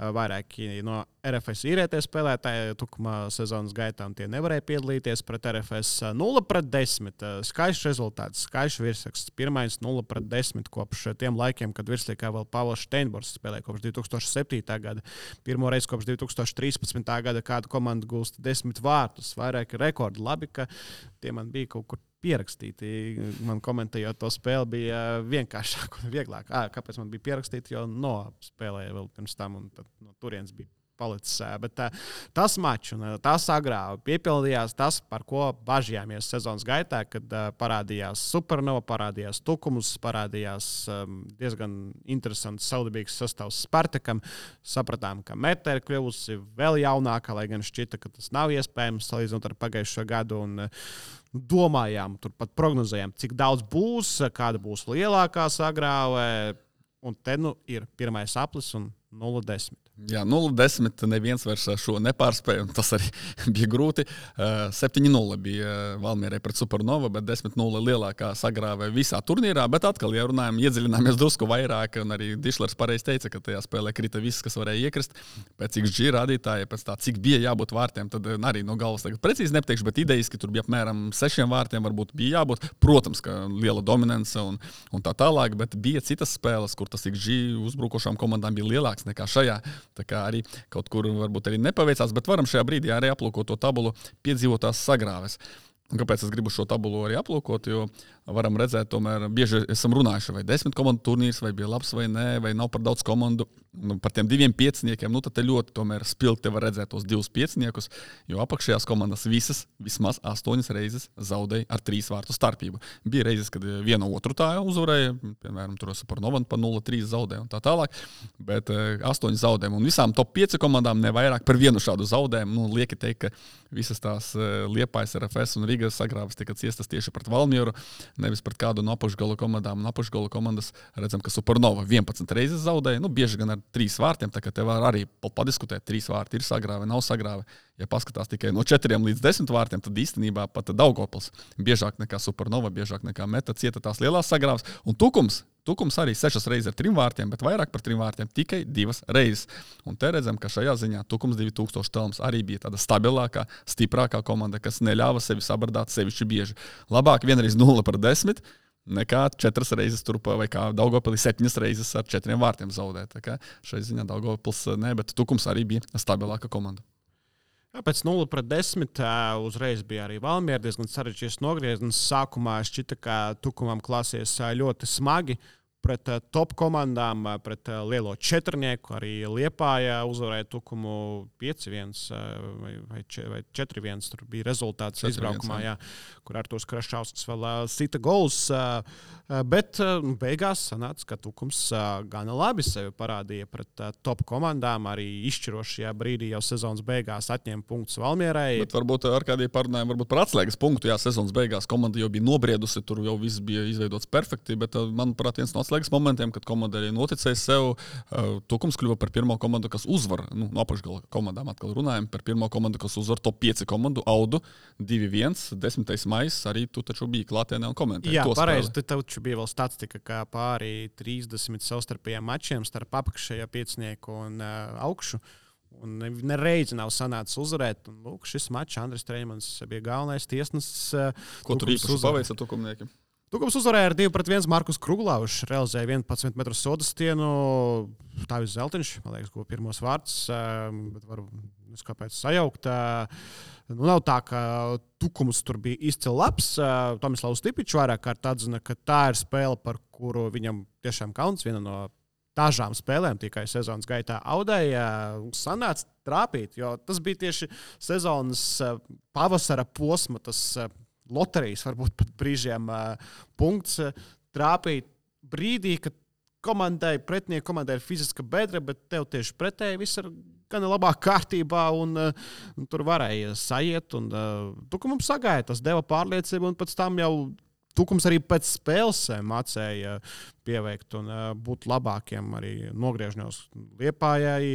vairāki no RFS īrētie spēlētāji Tukumā sezonas gaitā, un tie nevarēja piedalīties pret RFS 0-10. Skaists rezultāts, skaists virsraksts. Pirmais 0-10 kopš tiem laikiem, kad virslīgā vēl Pavels Steinbors spēlēja kopš 2007. gada. Pirmo reizi kopš 2013. gada kāda komanda gūst 10 vārtus, vairāki rekordi. Labi, ka tie man bija kaut kur pierakstīti. Man komentējot to spēli bija vienkāršāk un vieglāk. Kāpēc man bija pierakstīti, jo spēlēja vēl pirms tam un tad no turienes bija palicis. Bet tas mačs un tas agrā piepildījās tas, par ko bažījāmies sezonas gaitā, kad parādījās Supernova, parādījās Tukums, parādījās diezgan interesants saudabīgs sastāvs Spartakam. Sapratām, ka Meta ir kļuvusi vēl jaunāka, lai gan šķita, ka tas nav iespējams salīdzinot ar pagājušo gadu. Un domājām, turpat prognozējām, cik daudz būs, kāda būs lielākā sagrāve. Un te ir pirmais aplis un 0-10. Jā, 0-10 neviens vairs šo nepārspēja, un tas arī bija grūti. 7-0 bija Valmierai pret Supernova, bet 10-0 lielākā sagrāve visā turnīrā. Bet atkal, ja runājam, iedziļināmies drusku vairāk, un arī Dišlers pareizi teica, ka tajā spēlē krita viss, kas varēja iekrist. Pēc XG rādītāja, pēc tā, cik bija jābūt vārtiem, tad arī no galvas tagad precīzi nepateikšu, bet idejiski tur bija apmēram 6 vārtiem, varbūt bija jābūt. Protams, ka liela dominance un tā tālāk, bet bija citas spēles, kur tas XG uzbrukošām komandām bija lielāks nekā šajā. Tā kā arī kaut kur varbūt arī nepaveicās, bet varam šajā brīdī arī aplūkot to tabulu piedzīvotās sagrāves. Un kāpēc es gribu šo tabulu arī aplūkot, jo varam redzēt, tomēr bieži esam runājuši, vai 10 komandu turnīrs, vai bija labs vai nē, vai nav par daudz komandu. Par tiem 2 pieciniekiem, tad te ļoti tomēr spilgti var redzēt tos 2 pieciniekus, jo apakšējās komandas visas vismaz 8 reizes zaudēja ar 3 vārtu starpību. Bija reizes, kad viena otru tā uzvarēja, piemēram, tur Supernova pa 0-3 zaudēja un tā tālāk, bet 8 zaudējumu. Un visām top 5 komandām nevairāk par vienu šādu zaudējumu. Lieki teikt, ka visas tās Liepājas, RFS un Rīgas sagrāves tika ciestas tieši pret Valmieru, nevis pret kādu no apakšgala komandām. Un apakšgala komandas redzam, ka Supernova 11 reizes zaudēja, bieži gan ar 3 vārtiem, tā kā te var arī padiskutēt, 3 vārti ir sagrāve, nav sagrāve. Ja paskatās tikai no 4 līdz 10 vārtiem, tad īstenībā pat Daugavpils biežāk nekā Supernova, biežāk nekā Meta cieta tās lielās sagrāves. Un Tukums arī 6 reizes ar 3 vārtiem, bet vairāk par 3 vārtiem tikai 2 reizes. Un te redzam, ka šajā ziņā Tukums 2000 telms arī bija tāda stabilākā, stiprākā komanda, kas neļāva sevi sabardāt sevišķi bieži. Labāk vienreiz 0-10, nekā 4 reizes turpā, vai kā Daugavpilī 7 reizes ar 4 vārtiem zaudēt. Tā kā šai ziņā Daugavpils ne, bet Tukums arī bija stabilāka komanda. Jā, pēc 0-10 uzreiz bija arī Valmiera diezgan sarežģīts nogrieziens. Sākumā šķita, ka Tukumam klāsies ļoti smagi pret top komandām, pret lielo četrnieku. Arī Liepāja uzvarēja Tukumu 5-1 vai 4-1. Tur bija rezultāts izbraukumā, jā, kur Artūrs Krašausks vēl sita gols. Bet beigās sanāca, ka Tukums gana labi sevi parādīja pret top komandām. Arī izšķirošajā brīdī jau sezonas beigās atņēma punktus Valmierai. Bet varbūt ar kādiem parunājumiem, varbūt par atslēgas punktu, jā, sezonas beigās komanda jau bija nobriedusi, tur jau viss bija izveidots perfekti, bet, manuprāt, viens no atslēgas pārlieks momentiem, kad komanda arī noticēja sev. Tukums kļuva par pirmo komandu, kas uzvar. No apakšgala komandām atkal runājam par pirmo komandu, kas uzvar top 5 komandu. Audu 2-1, 10. maijs. Arī tu taču biji klātienē un komentēji. Jā, pareizi. Te taču bija vēl statistika, kā pāri 30 savstarpējiem mačiem starp apakšējo piecinieku un augšu. Un nereizi nav sanācis uzvarēt. Un, lūk, šis mačs Andris Treimans bija galvenais tiesnesis. Ko tur īpaši paveica tukumniekiem? Tukums uzvarēja ar 2-1 Markus Kruglavs, realizēja 11 metru sodastienu. Tāvis Zeltiņš, man liekas, ko pirmos vārds, bet varu kāpēc sajaukt. Nav tā, ka Tukums tur bija izcili labs. Tomislavs Stipičs vairāk kārt atzina, ka tā ir spēle, par kuru viņam tiešām kauns, viena no dažām spēlēm tikai sezonas gaitā audēja, sanāca trāpīt, jo tas bija tieši sezonas pavasara posma, tas loterijas, varbūt pat brīžiem punkts trāpīt brīdī, kad pretinieku komandai ir fiziska bedra, bet tev tieši pretēji viss ir gan labā kārtībā un tur varēja sajiet. Tukumam sagāja, tas deva pārliecību un pēc tam jau Tukums arī pēc spēles mācēja pieveikt un būt labākiem arī nogriežņos Liepājai,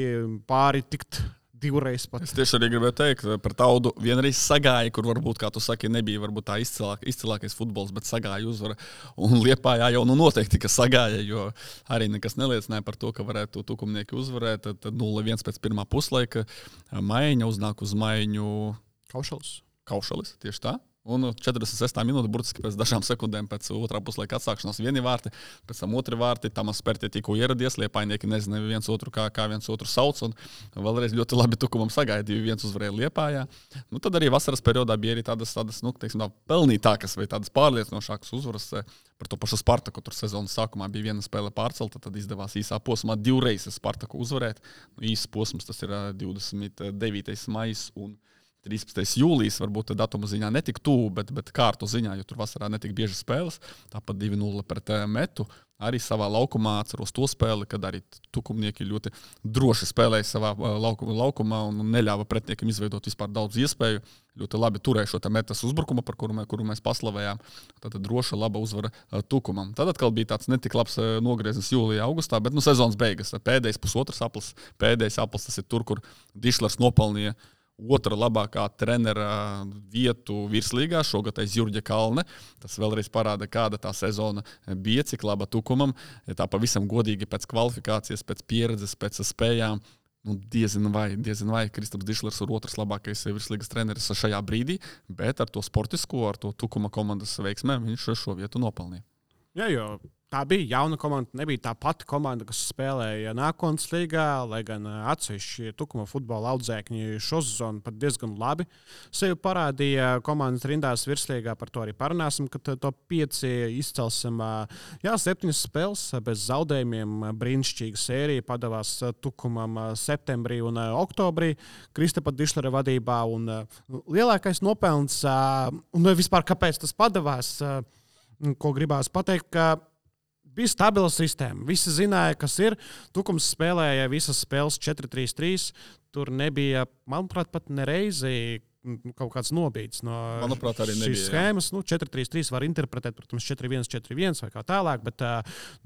pāri tikt divreiz pat. Es tieši arī gribēju teikt, par Taudu vienreiz sagāja, kur varbūt, kā tu saki, nebija varbūt tā izcilākais futbols, bet sagāja uzvara. Un Liepājā jau noteikti, ka sagāja, jo arī nekas neliecināja par to, ka varētu tukumnieki uzvarēt. Tad 0-1 pēc pirmā puslaika Maiņa uznāk uz Maiņu Kaušalis, tieši tā. Un 46. minūte, burtiski pēc dažām sekundēm pēc otrā puslaika atsākšanās vieni vārti, pēc tam otri vārti, Tamas Pertie tikko ieradies, Liepājnieki nezināja viens otru, kā viens otru sauc, un vēlreiz ļoti labi Tukumam sagāja 2-1 uzvarēja Liepājā. Tad arī vasaras periodā bija arī tādas teiksim, pelnītākas vai tādas pārliecinošākas uzvaras par to pašu Spartaku. Tur sezonas sākumā bija viena spēle pārcelta, tad izdevās īsā posmā 2 reizes Spartaku uzvarēt. Īsts posms tas ir 29. maijs un 13. jūlijas, varbūt datuma ziņā netik tuvu, bet kārtu ziņā, jo tur vasarā netik bieži spēles. Tāpat 2-0 pret Metu. Arī savā laukumā atceros to spēli, kad arī tukumnieki ļoti droši spēlēja savā laukumā un neļāva pretiniekam izveidot vispār daudz iespēju. Ļoti labi turēja šo Metas uzbrukumu, par kuru mēs paslavējām. Tātad droša, laba uzvara Tukumam. Tad atkal bija tāds netik labs nogrieznis jūlijā, augustā, bet sezonas beigas. Pēdējais pusotrs aplis, tas ir tur, kur Dišlers nopelnīja otra labākā trenera vietu virslīgā, šogad aiz Jurģa Kalne. Tas vēlreiz parāda, kāda tā sezona bija, cik laba Tukumam. Ja tā pavisam godīgi pēc kvalifikācijas, pēc pieredzes, pēc spējām. Diezin vai Kristaps Dišlers ir otrs labākais virslīgas treneris šajā brīdī, bet ar to sportisko, ar to Tukuma komandas veiksmēm viņš šo vietu nopelnīja. Jā, jo tā bija jauna komanda, nebija tā pati komanda, kas spēlēja nākotnes līgā, lai gan atsevišķi Tukuma futbola audzēkņi šo sezonu pat diezgan labi sevi parādīja komandas rindās virslīgā, par to arī parunāsim, kad to 5 izcelsim. 7 spēles bez zaudējumiem, brīnišķīga sērija padavās Tukumam septembrī un oktobrī Kristapa Dišlera vadībā, un lielākais nopelns, un vispār kāpēc tas padavās, ko gribās pateikt, ka bija stabila sistēma. Visi zināja, kas ir. Tukums spēlēja visas spēles 4-3-3. Tur nebija, manuprāt, pat nereizi kaut kāds nobīds no šīs schēmas. 4-3-3 var interpretēt, protams, 4-1-4-1 vai kā tālāk, bet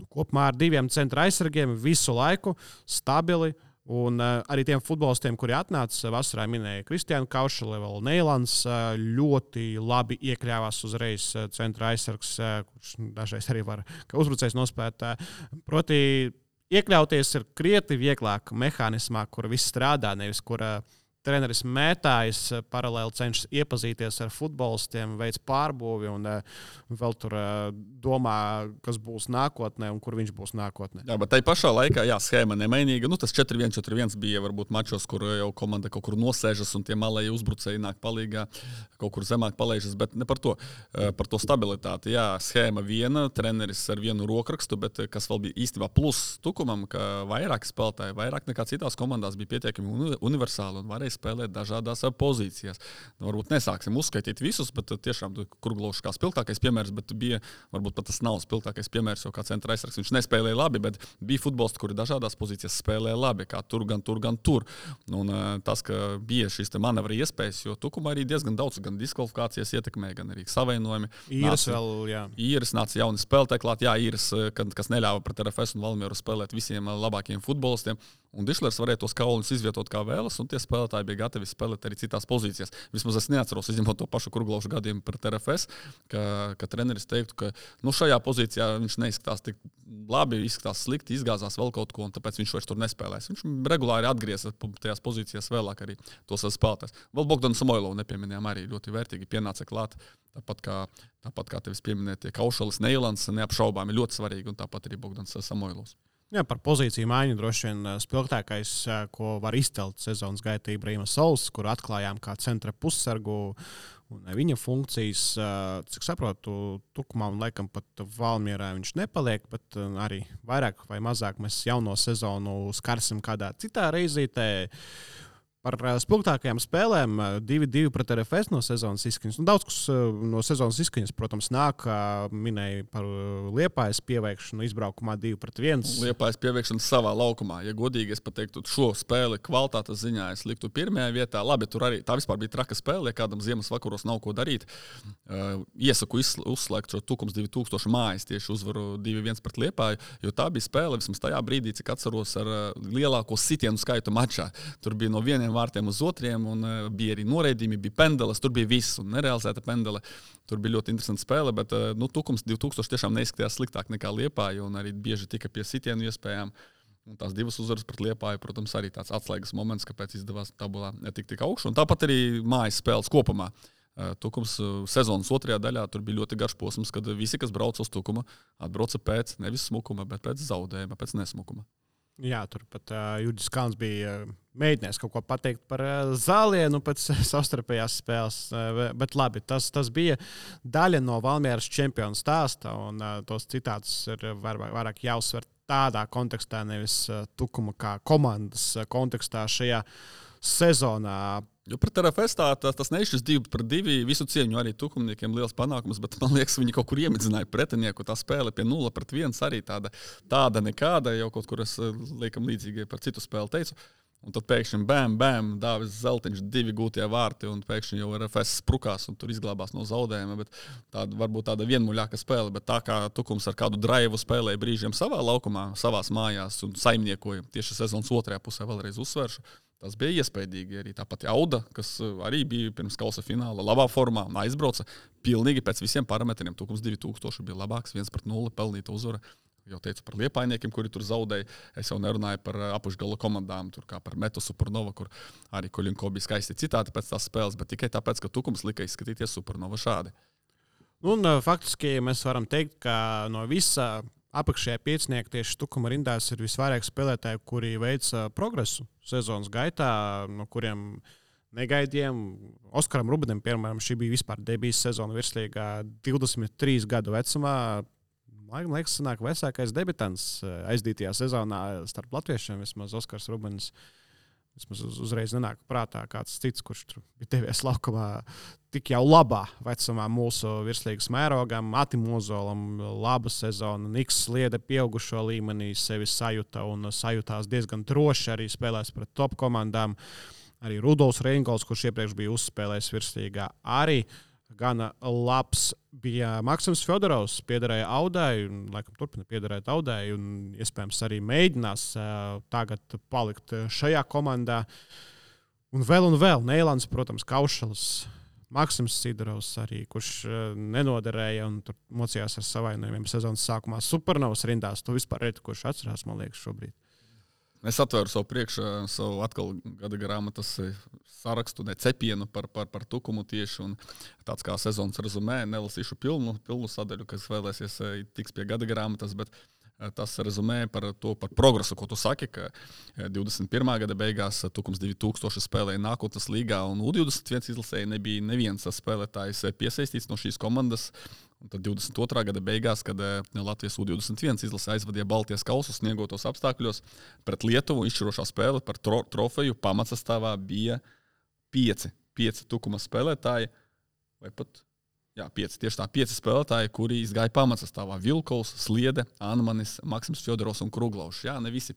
kopumā ar 2 centra aizsargiem visu laiku stabili. Un arī tiem futbolistiem, kuri atnāca vasarā, minēja Kristiānu Kaušali, vēl Neilans, ļoti labi iekļāvās uzreiz centra aizsargs, kurš dažreiz arī var kā uzbrucējs nospēt. Proti, iekļauties ir krietni vieglāk mehānismā, kur viss strādā, nevis kur treneris mētājas, paralēli cenšas iepazīties ar futbolistiem, veids pārbūvi un vēl tur domā, kas būs nākotnē un kur viņš būs nākotnē. Jā, bet tai pašā laikā, schēma nemainīga. Tas 4-1-4-1 bija varbūt mačos, kur jau komanda kaut kur nosēžas un tie malēji uzbrucēji nāk palīgā, kaut kur zemāk palaižas, bet ne par to. Par to stabilitāti. Jā, schēma viena, treneris ar vienu rokrakstu, bet kas vēl bija īstenībā plus Tukumam, ka vairāk spēlētāji, vairāk nekā citās komandās bija pietiekami universāli un varēja spēlēt dažādās pozīcijās. Varbūt nesāksim uzskaitīt visus, bet tiešām Kurglovs kā spilgtākais piemērs, bet bija, varbūt pat tas nav spilgtākais piemērs, jo kā centra aizsargs viņš nespēlēja labi, bet bija futbolisti, kuri dažādās pozīcijās spēlēja labi, kā tur, gan tur. Un tas, ka bija šīs manevra iespējas, jo Tukumā arī diezgan daudz, gan diskvalifikācijas ietekmē, gan arī savainojumi. Īris nāca jauni spēlētāji klāt, Īris, kas neļāva pret RFS un Valmieru spēlēt visiem labākajiem futbolistiem. Un Dišlers varēja tos kauliņus izvietot kā vēlas, un tie spēlētāji bija gatavi spēlēt arī citās pozīcijās. Vismaz es neatceros, izņemot to pašu Kurglovšu gadījumu pret RFS, ka treneris teiktu, ka šajā pozīcijā viņš neizskatās tik labi, izskatās slikti, izgāzās vēl kaut ko, un tāpēc viņš vairs tur nespēlēs. Viņš regulāri atgriezās tajās pozīcijās vēlāk arī tos spēlētājs. Vēl Bogdanu Samoilovu nepieminējām, arī ļoti vērtīgi pienāca klāt. Tāpat kā tevis pieminētie Kaušalis, Neilans, neapšaubāmi ļoti svarīgi, un tāpat arī Bogdans Samoilovs. Jā, par pozīciju maiņu droši vien spilgtākais, ko var izcelt sezonas gaitā Ibrahima Sols, kur atklājām kā centra pussargu un viņa funkcijas. Cik saprotu, Tukumā un laikam pat Valmierā viņš nepaliek, bet arī vairāk vai mazāk mēs jauno sezonu skarsim kādā citā reizītē. Par spilgtākajām spēlēm 2-2 pret RFS no sezonas izskaņas. Daudz kas no sezonas izskaņas, protams, nāk, minēja par Liepājas pieveikšanu izbraukumā 2-1. Liepājas pieveikšanu savā laukumā. Ja godīgi es pateiktu, šo spēli kvalitātes ziņā es liktu pirmajā vietā. Labi, tur arī tā vispār bija traka spēle, ja kādam ziemas vakaros nav ko darīt. Iesaku uzslēgt šo Tukums 2000 mājas tieši uzvaru 2-1 pret Liepāju, jo tā bija spēle vismaz tajā brīdī, cik atceros ar lielāko sitienu skaitu mačā. Tur bija no vieniem vārtiem uz otriem, un bija arī noraidījumi, bija pendeles, tur bija viss, un nerealizēta pendele. Tur bija ļoti interesanta spēle, bet Tukums 2000 tiešām neizskatījās sliktāk nekā Liepāja, un arī bieži tika pie sitienu iespējām. Un tās divas uzvaras pret Liepāju, protams, arī tāds atslēgas moments, kāpēc izdevās tabulā netikt tik augšu. Un tāpat arī mājas spēles kopumā. Tukums sezonas otrajā daļā tur bija ļoti garš posms, kad visi, kas brauca uz Tukuma, atbrauca pēc nevis smukuma, bet pēc zaudējuma, pēc nesmukuma. Jā, tur pat Juģis Kalns bija mēģinājis kaut ko pateikt par Zālienu pēc savstarpējās spēles, bet labi, tas bija daļa no Valmieras čempionu stāsta, un tos citātus ir vairāk jāuzsver tādā kontekstā, nevis Tukuma kā komandas kontekstā šajā sezonā. Jo pret RFS tas nešķis 2-2, visu cieņu arī tukumniekiem liels panākums, bet man liekas, viņi kaut kur iemidzināja pretinieku. Tā spēle pie 0-1 arī tāda nekāda, jau kaut kur es liekam līdzīgi par citu spēli teicu. Un tad pēkšņi bam, Dāvis Zeltiņš 2 gūtie vārti, un pēkšņi jau RFS sprukās un tur izglābās no zaudējuma. Bet varbūt tāda vienmuļāka spēle, bet tā kā Tukums ar kādu draivu spēlēja brīžiem savā laukumā, savās mājās un saimniekoja tieši sezonas otrajā pusē, vēlreiz uzsveršu. Tas bija iespaidīgi arī. Tāpat Auda, kas arī bija pirms kausa fināla labā formā un aizbrauca pilnīgi pēc visiem parametriem. Tukums 2000 bija labāks, 1-0 pelnīta uzvara. Jau teicu par liepājniekiem, kuri tur zaudēja. Es jau nerunāju par apakšgala komandām, tur kā par Metu Supernova, kur arī Koļinko bija skaisti citāti pēc tās spēles, bet tikai tāpēc, ka Tukums lika izskatīties Supernova šādi. Un faktiski mēs varam teikt, ka no visa apakšējā piecinieka tieši Tukuma rindās ir visvairāk spēlētāji, kuri veica progresu sezonas gaitā, no kuriem negaidījām. Oskaram Rubenim, piemēram, šī bija vispār debijas sezona virslīgā 23 gadu vecumā. Man liekas, sanāk vecākais debitants aizdītajā sezonā starp latviešiem. Vismaz Oskars Rubens uzreiz nenāk prātā kāds cits, kurš tur bija devies laukumā tik jau labā vecumā mūsu virslīgas mērogam. Atim Ozolam laba sezona, Niks Sliede pieaugušo līmenī sevi sajuta un sajūtās diezgan droši arī spēlēs pret top komandām. Arī Rudolfs Reingols, kurš iepriekš bija uzspēlējis virslīgā, arī gana labs bija. Maksims Fjodorovs piederēja Audai, un laikam turpina piederēt Audai, un iespējams arī mēģinās tagad palikt šajā komandā. Un vēl. Neilans, protams, Kaušalis, Maksims Sidorovs arī, kurš nenoderēja un tur mocījās ar savainojumiem sezonas sākumā. Supernovas rindās, to vispār redz, kurš atcerās, man liekas, šobrīd. Es atvēru savu atkal gada grāmatas sarakstu, cepienu par Tukumu tieši, un tāds kā sezonas rezumē, nelasīšu pilnu sadaļu, kas vēlēsies tiks pie gada grāmatas, bet tas rezumē par progresu, ko tu saki, ka 21. gada beigās Tukums 2000 spēlēja nākotnes līgā, un U21 izlasēja nebija neviens spēlētājs piesaistīts no šīs komandas. Un tad 22. gada beigās, kad Latvijas U21 izlase aizvadīja Baltijas kausu sniegotos apstākļos pret Lietuvu, izšķirošā spēle par trofeju pamatsastāvā bija 5 Tukuma spēlētāji, vai pat 5 spēlētāji, kuri izgāja pamatsastāvā. Vilkovs, Sliede, Anmanis, Maksims Fjodorovs un Kruglovs. Jā, ne visi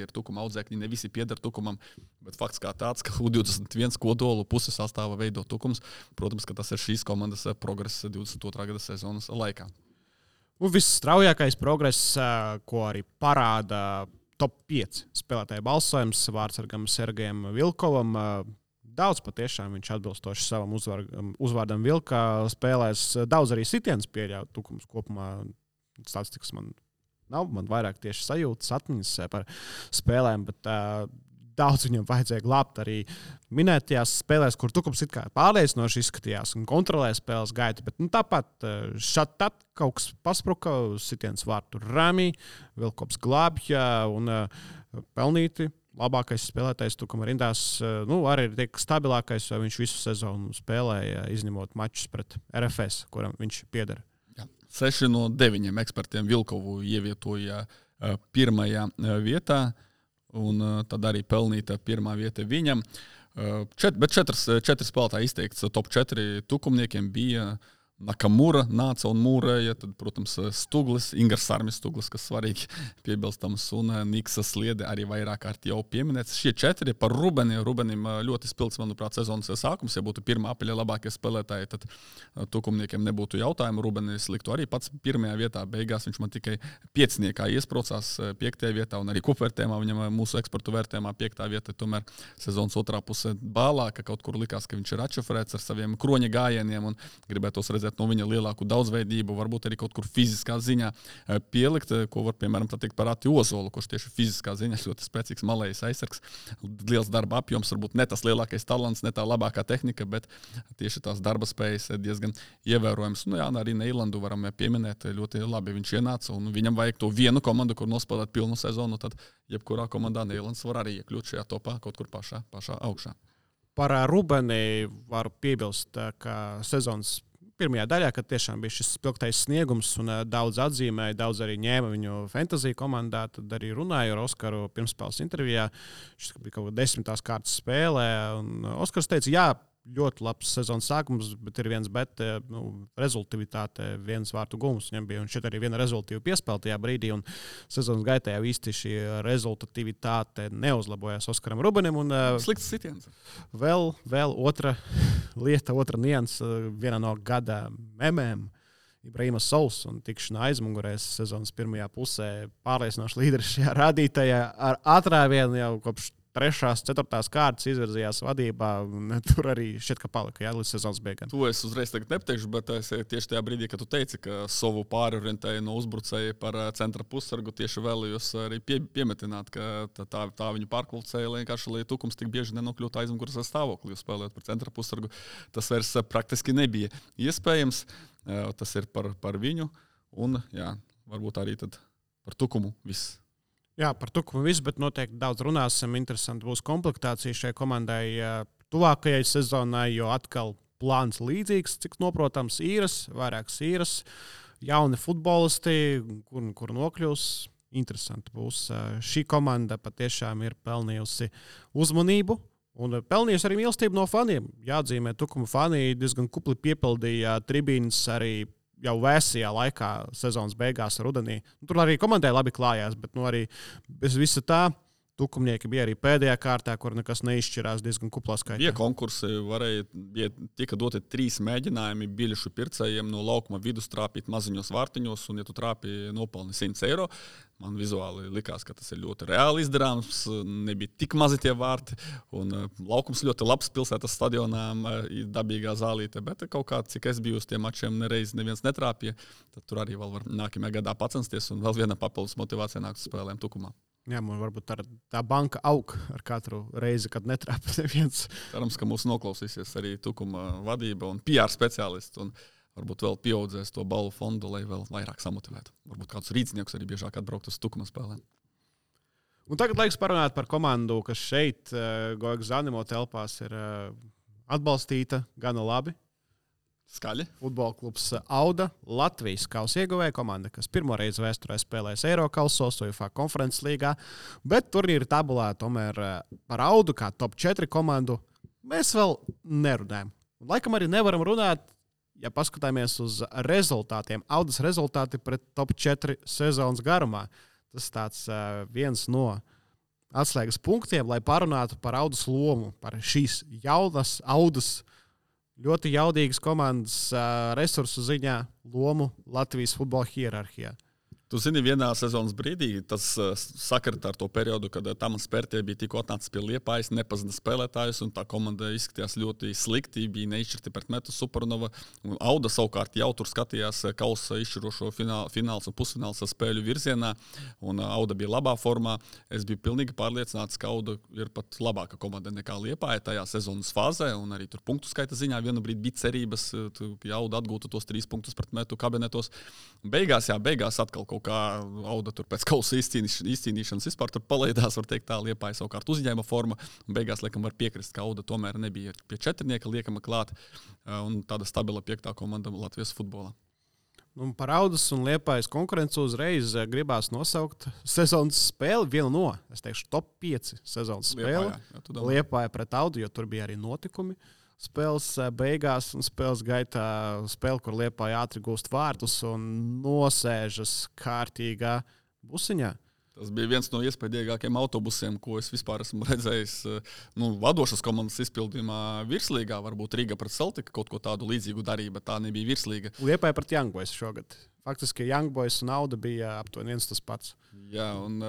ir Tukuma audzēkņi, ne visi pieder Tukumam, bet fakts kā tāds, ka U21 kodolu puses sastāvā veido Tukums. Protams, ka tas ir šīs komandas progress 22. gada sezonas laikā. Un viss straujākais progress, ko arī parāda top 5 spēlētāju balsojums vārdsargam Sergejam Vilkovam. Daudz patiešām viņš atbilstoši savam uzvārdam Vilkā spēlēs. Daudz arī sitiens pieļauj Tukums kopumā. Statistikas man nav, man vairāk tieši sajūtas, atmiņas par spēlēm, bet daudz viņam vajadzēja glābt arī minētajās spēlēs, kur Tukums it kā pārliecinoši izskatījās un kontrolēja spēles gaitu, bet tāpat šat kaut kas paspruka, sitiens vārtu Rami, Vilkops glābja un pelnīti. Labākais spēlētājs Tukuma rindās, arī ir tiek stabilākais, jo viņš visu sezonu spēlēja, izņemot mačus pret RFS, kuram viņš pieder. 6 no 9 ekspertiem Vilkovu ievietoja pirmajā vietā, un tad arī pelnīta pirmā vieta viņam. Bet 4 spēlētāji izteikts top 4 tukumniekiem bija Nakamura nāca un mūrēja, tad, protams, Stuglis, Ingars Sarmis Stuglis, kas svarīgi piebilstams, un Niksa Sliede arī vairāk kārt jau pieminēts. Šie 4 par Rubenim ļoti spilgts, manuprāt, sezonas sākums. Ja būtu pirmā apaļa labākie spēlētāji, tad tukumniekiem nebūtu jautājumu. Rubenis liktu arī pats pirmajā vietā. Beigās viņš man tikai 5. iesprocās 5. vietā, un arī kupvērtējumā viņam mūsu eksportu vērtējumā 5. vieta. Tomēr sezonas otrā puse bālā, ka kaut kur likās, ka viņš ir atšifrēts ar saviem kroņa gājieniem un gribētos redzēt no viņa lielāku daudzveidību, varbūt arī kaut kur fiziskā ziņā pielikt, ko var, piemēram, teikt par Ati Ozolu, kurš tieši fiziskā ziņā ļoti spēcīgs malējs aizsargs. Liels darba apjoms, varbūt ne tas lielākais talants, ne tā labākā tehnika, bet tieši tās darba spējas diezgan ievērojams. Arī Neilandu varam pieminēt, ļoti labi viņš ienāca, un viņam vajag to vienu komandu, kur nospēlēt pilnu sezonu, tad jebkurā komandā Neilands var arī iekļūt šajā topā kaut kur pašā augšā. Par Rubeni varu piebilst, ka sezonas pirmajā daļā, kad tiešām bija šis spilgtais sniegums un daudz atzīmēja, daudz arī ņēma viņu fantasy komandā, tad arī runāju ar Oskaru pirmspēles intervijā. Šis bija kaut kā 10. kārtas spēlē, un Oskars teica, jā, ļoti labs sezonas sākums, bet ir viens bet, rezultatīvitāte, viens vārtu gums viņam bija, un šeit arī viena rezultatīva piespēle tajā brīdī, un sezonas gaitā jau īsti šī rezultatīvitāte neuzlabojās Oskaram Rubenim. Slikts sitiens. Vēl otra lieta, otra nianse, viena no gada memēm. Ibrahima Sauls un tikšana aizmugurēs sezonas pirmajā pusē pārliecinoši līderis šajā rādītājā ar atrāvienu jau kopš 3. 4. kārtas izvirzījās vadībā, un tur arī šķiet, ka palika līdz sezonas beigām. To es uzreiz tagad nepateikšu, bet es tieši tajā brīdī, kad tu teici, ka savu pārorientēju no uzbrucēja par centra pussargu, tieši vēlējos arī piemetināt, ka tā viņu pārkvalificēja, vienkārši, lai Tukums tik bieži nenokļūtu aizmugures stāvoklī, spēlēt par centra pussargu. Tas vairs praktiski nebija iespējams. Tas ir par viņu, un varbūt arī tad par Tukumu viss. Jā, par Tukumu viss, bet noteikti daudz runāsim. Interesanti būs komplektācija šai komandai tuvākajai sezonai, jo atkal plāns līdzīgs, cik noprotams, vairākas īras, jauni futbolisti, kur nokļūs. Interesanti būs. Šī komanda patiešām ir pelnījusi uzmanību un pelnījusi arī mīlestību no faniem. Jāatzīmē, Tukuma fani diezgan kupli piepildīja tribīnes arī jau vēsajā laikā sezonas beigās rudenī. Tur arī komandai labi klājās, bet arī bez visa tā Tukumnieki bija arī pēdējā kārtā, kur nekas neizšķirās diezgan kuplā skaitā. Bija konkursi, tika doti 3 mēģinājumi biļešu pircējiem no laukuma vidus trāpīt maziņos vārtiņos, un ja tu trāpi nopelni 100 eiro, man vizuāli likās, ka tas ir ļoti reāli izdarāms, nebija tik mazi tie vārti, un laukums ļoti labs pilsētas stadionā, dabīgā zālīte, bet kaut kā, cik es biju uz tiem mačiem, nereiz neviens netrāpīja, tad tur arī vēl var nākamajā gadā pacensties, un vēl viena papildus motivācija nāk uz spēlēm Tukumā. Jā, man varbūt tā banka aug ar katru reizi, kad netrāpa neviens. Cerams, ka mūs noklausīsies arī Tukuma vadība un PR speciālisti, un varbūt vēl pieaudzēs to balvu fondu, lai vēl vairāk samotivētu. Varbūt kādus rīcniekus arī biežāk atbraukt uz Tukuma spēlēm. Un tagad laiks parunāt par komandu, kas šeit, Goiga Zanimo telpās, ir atbalstīta gana labi. Skaļi. Futbola klubs Auda, Latvijas kausa ieguvēja komanda, kas pirmo reizi vēsturē spēlēs Eirokausos, UEFA konferences līgā, bet turnīra tabulā tomēr par Audu kā top 4 komandu mēs vēl nerunājam. Un laikam arī nevaram runāt, ja paskatāmies uz rezultātiem. Audas rezultāti pret top 4 sezonas garumā. Tas tāds viens no atslēgas punktiem, lai parunātu par Audas lomu, par šīs jaunas Audas ļoti jaudīgas komandas resursu ziņā lomu Latvijas futbola hierarhijā. Tu zini, vienā sezonas brīdī tas sakarta ar to periodu, kad Tamans Pērtie bija tikko atnācis pie Liepājas, nepazina spēlētājus, un tā komanda izskatījās ļoti slikti, bija neizšķirti pret Metu Supernova. Auda savukārt jau tur skatījās kausa izšķirošo fināls un pusfināls spēļu virzienā, un Auda bija labā formā. Es biju pilnīgi pārliecināts, ka Auda ir pat labāka komanda nekā Liepāja tajā sezonas fāzē, un arī tur punktu skaita ziņā vienu brīdi bija cerības, ka Auda atgūtu tos 3 punktus pret Metu kabinetos. Beigās atkal kā Auda tur pēc kausa izcīnīšanas vispār tur palaidās, var teikt tā, Liepāja savukārt uzņēma formu, un beigās, laikam, var piekrist, ka Auda tomēr nebija pie 4 liekama klāt, un tāda stabila 5. komanda Latvijas futbolā. Un par Audas un Liepājas konkurenci uzreiz gribās nosaukt sezonas spēli, vienu no, es teikšu, top 5 sezonas spēli. Liepāja pret Audu, jo tur bija arī notikumi. Spēles beigās un spēles gaitā spēle, kur Liepāja ātri gūst vārtus un nosēžas kārtīgā busiņā. Tas bija viens no iespaidīgākajiem autobusiem, ko es vispār esmu redzējis vadošas komandas izpildījumā virslīgā. Varbūt Riga pret Celtiku kaut ko tādu līdzīgu darīja, bet tā nebija virslīga. Liepāja pret Young Boys šogad. Faktiski Young Boys un Auda bija aptuveni viens tas pats. Jā, un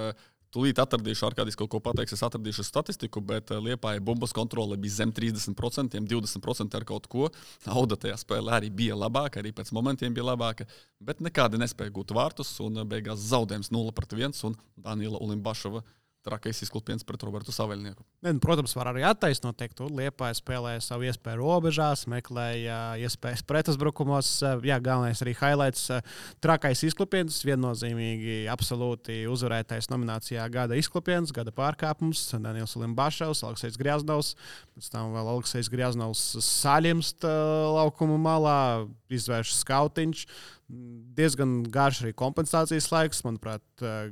tūlīt atradīšu, Arkādijs kaut ko pateiks, es atradīšu statistiku, bet Liepāja bumbas kontrole bija zem 30%, 20% ar kaut ko. Auda tajā spēlē arī bija labāka, arī pēc momentiem bija labāka, bet nekādi nespēja gūt vārtus, un beigās zaudējums 0-1, un Daniela Ulimbašova trakais izklupiens pret Robertu Saveļnieku. Protams, var arī attaisnot, teikt, Liepāja spēlēja savu iespēju robežās, meklēja iespējas pretuzbrukumos. Jā, galvenais arī highlights. Trakais izklupiens, viennozīmīgi absolūti uzvarētais nominācijā gada izklupiens, gada pārkāpums. Daniels Ulimbašovs, Aleksejs Grjaznovs, pēc tam vēl Aleksejs Grjaznovs saļimst laukuma malā, izvērš skautiņš. Diezgan garš arī kompensācijas laiks, manuprāt,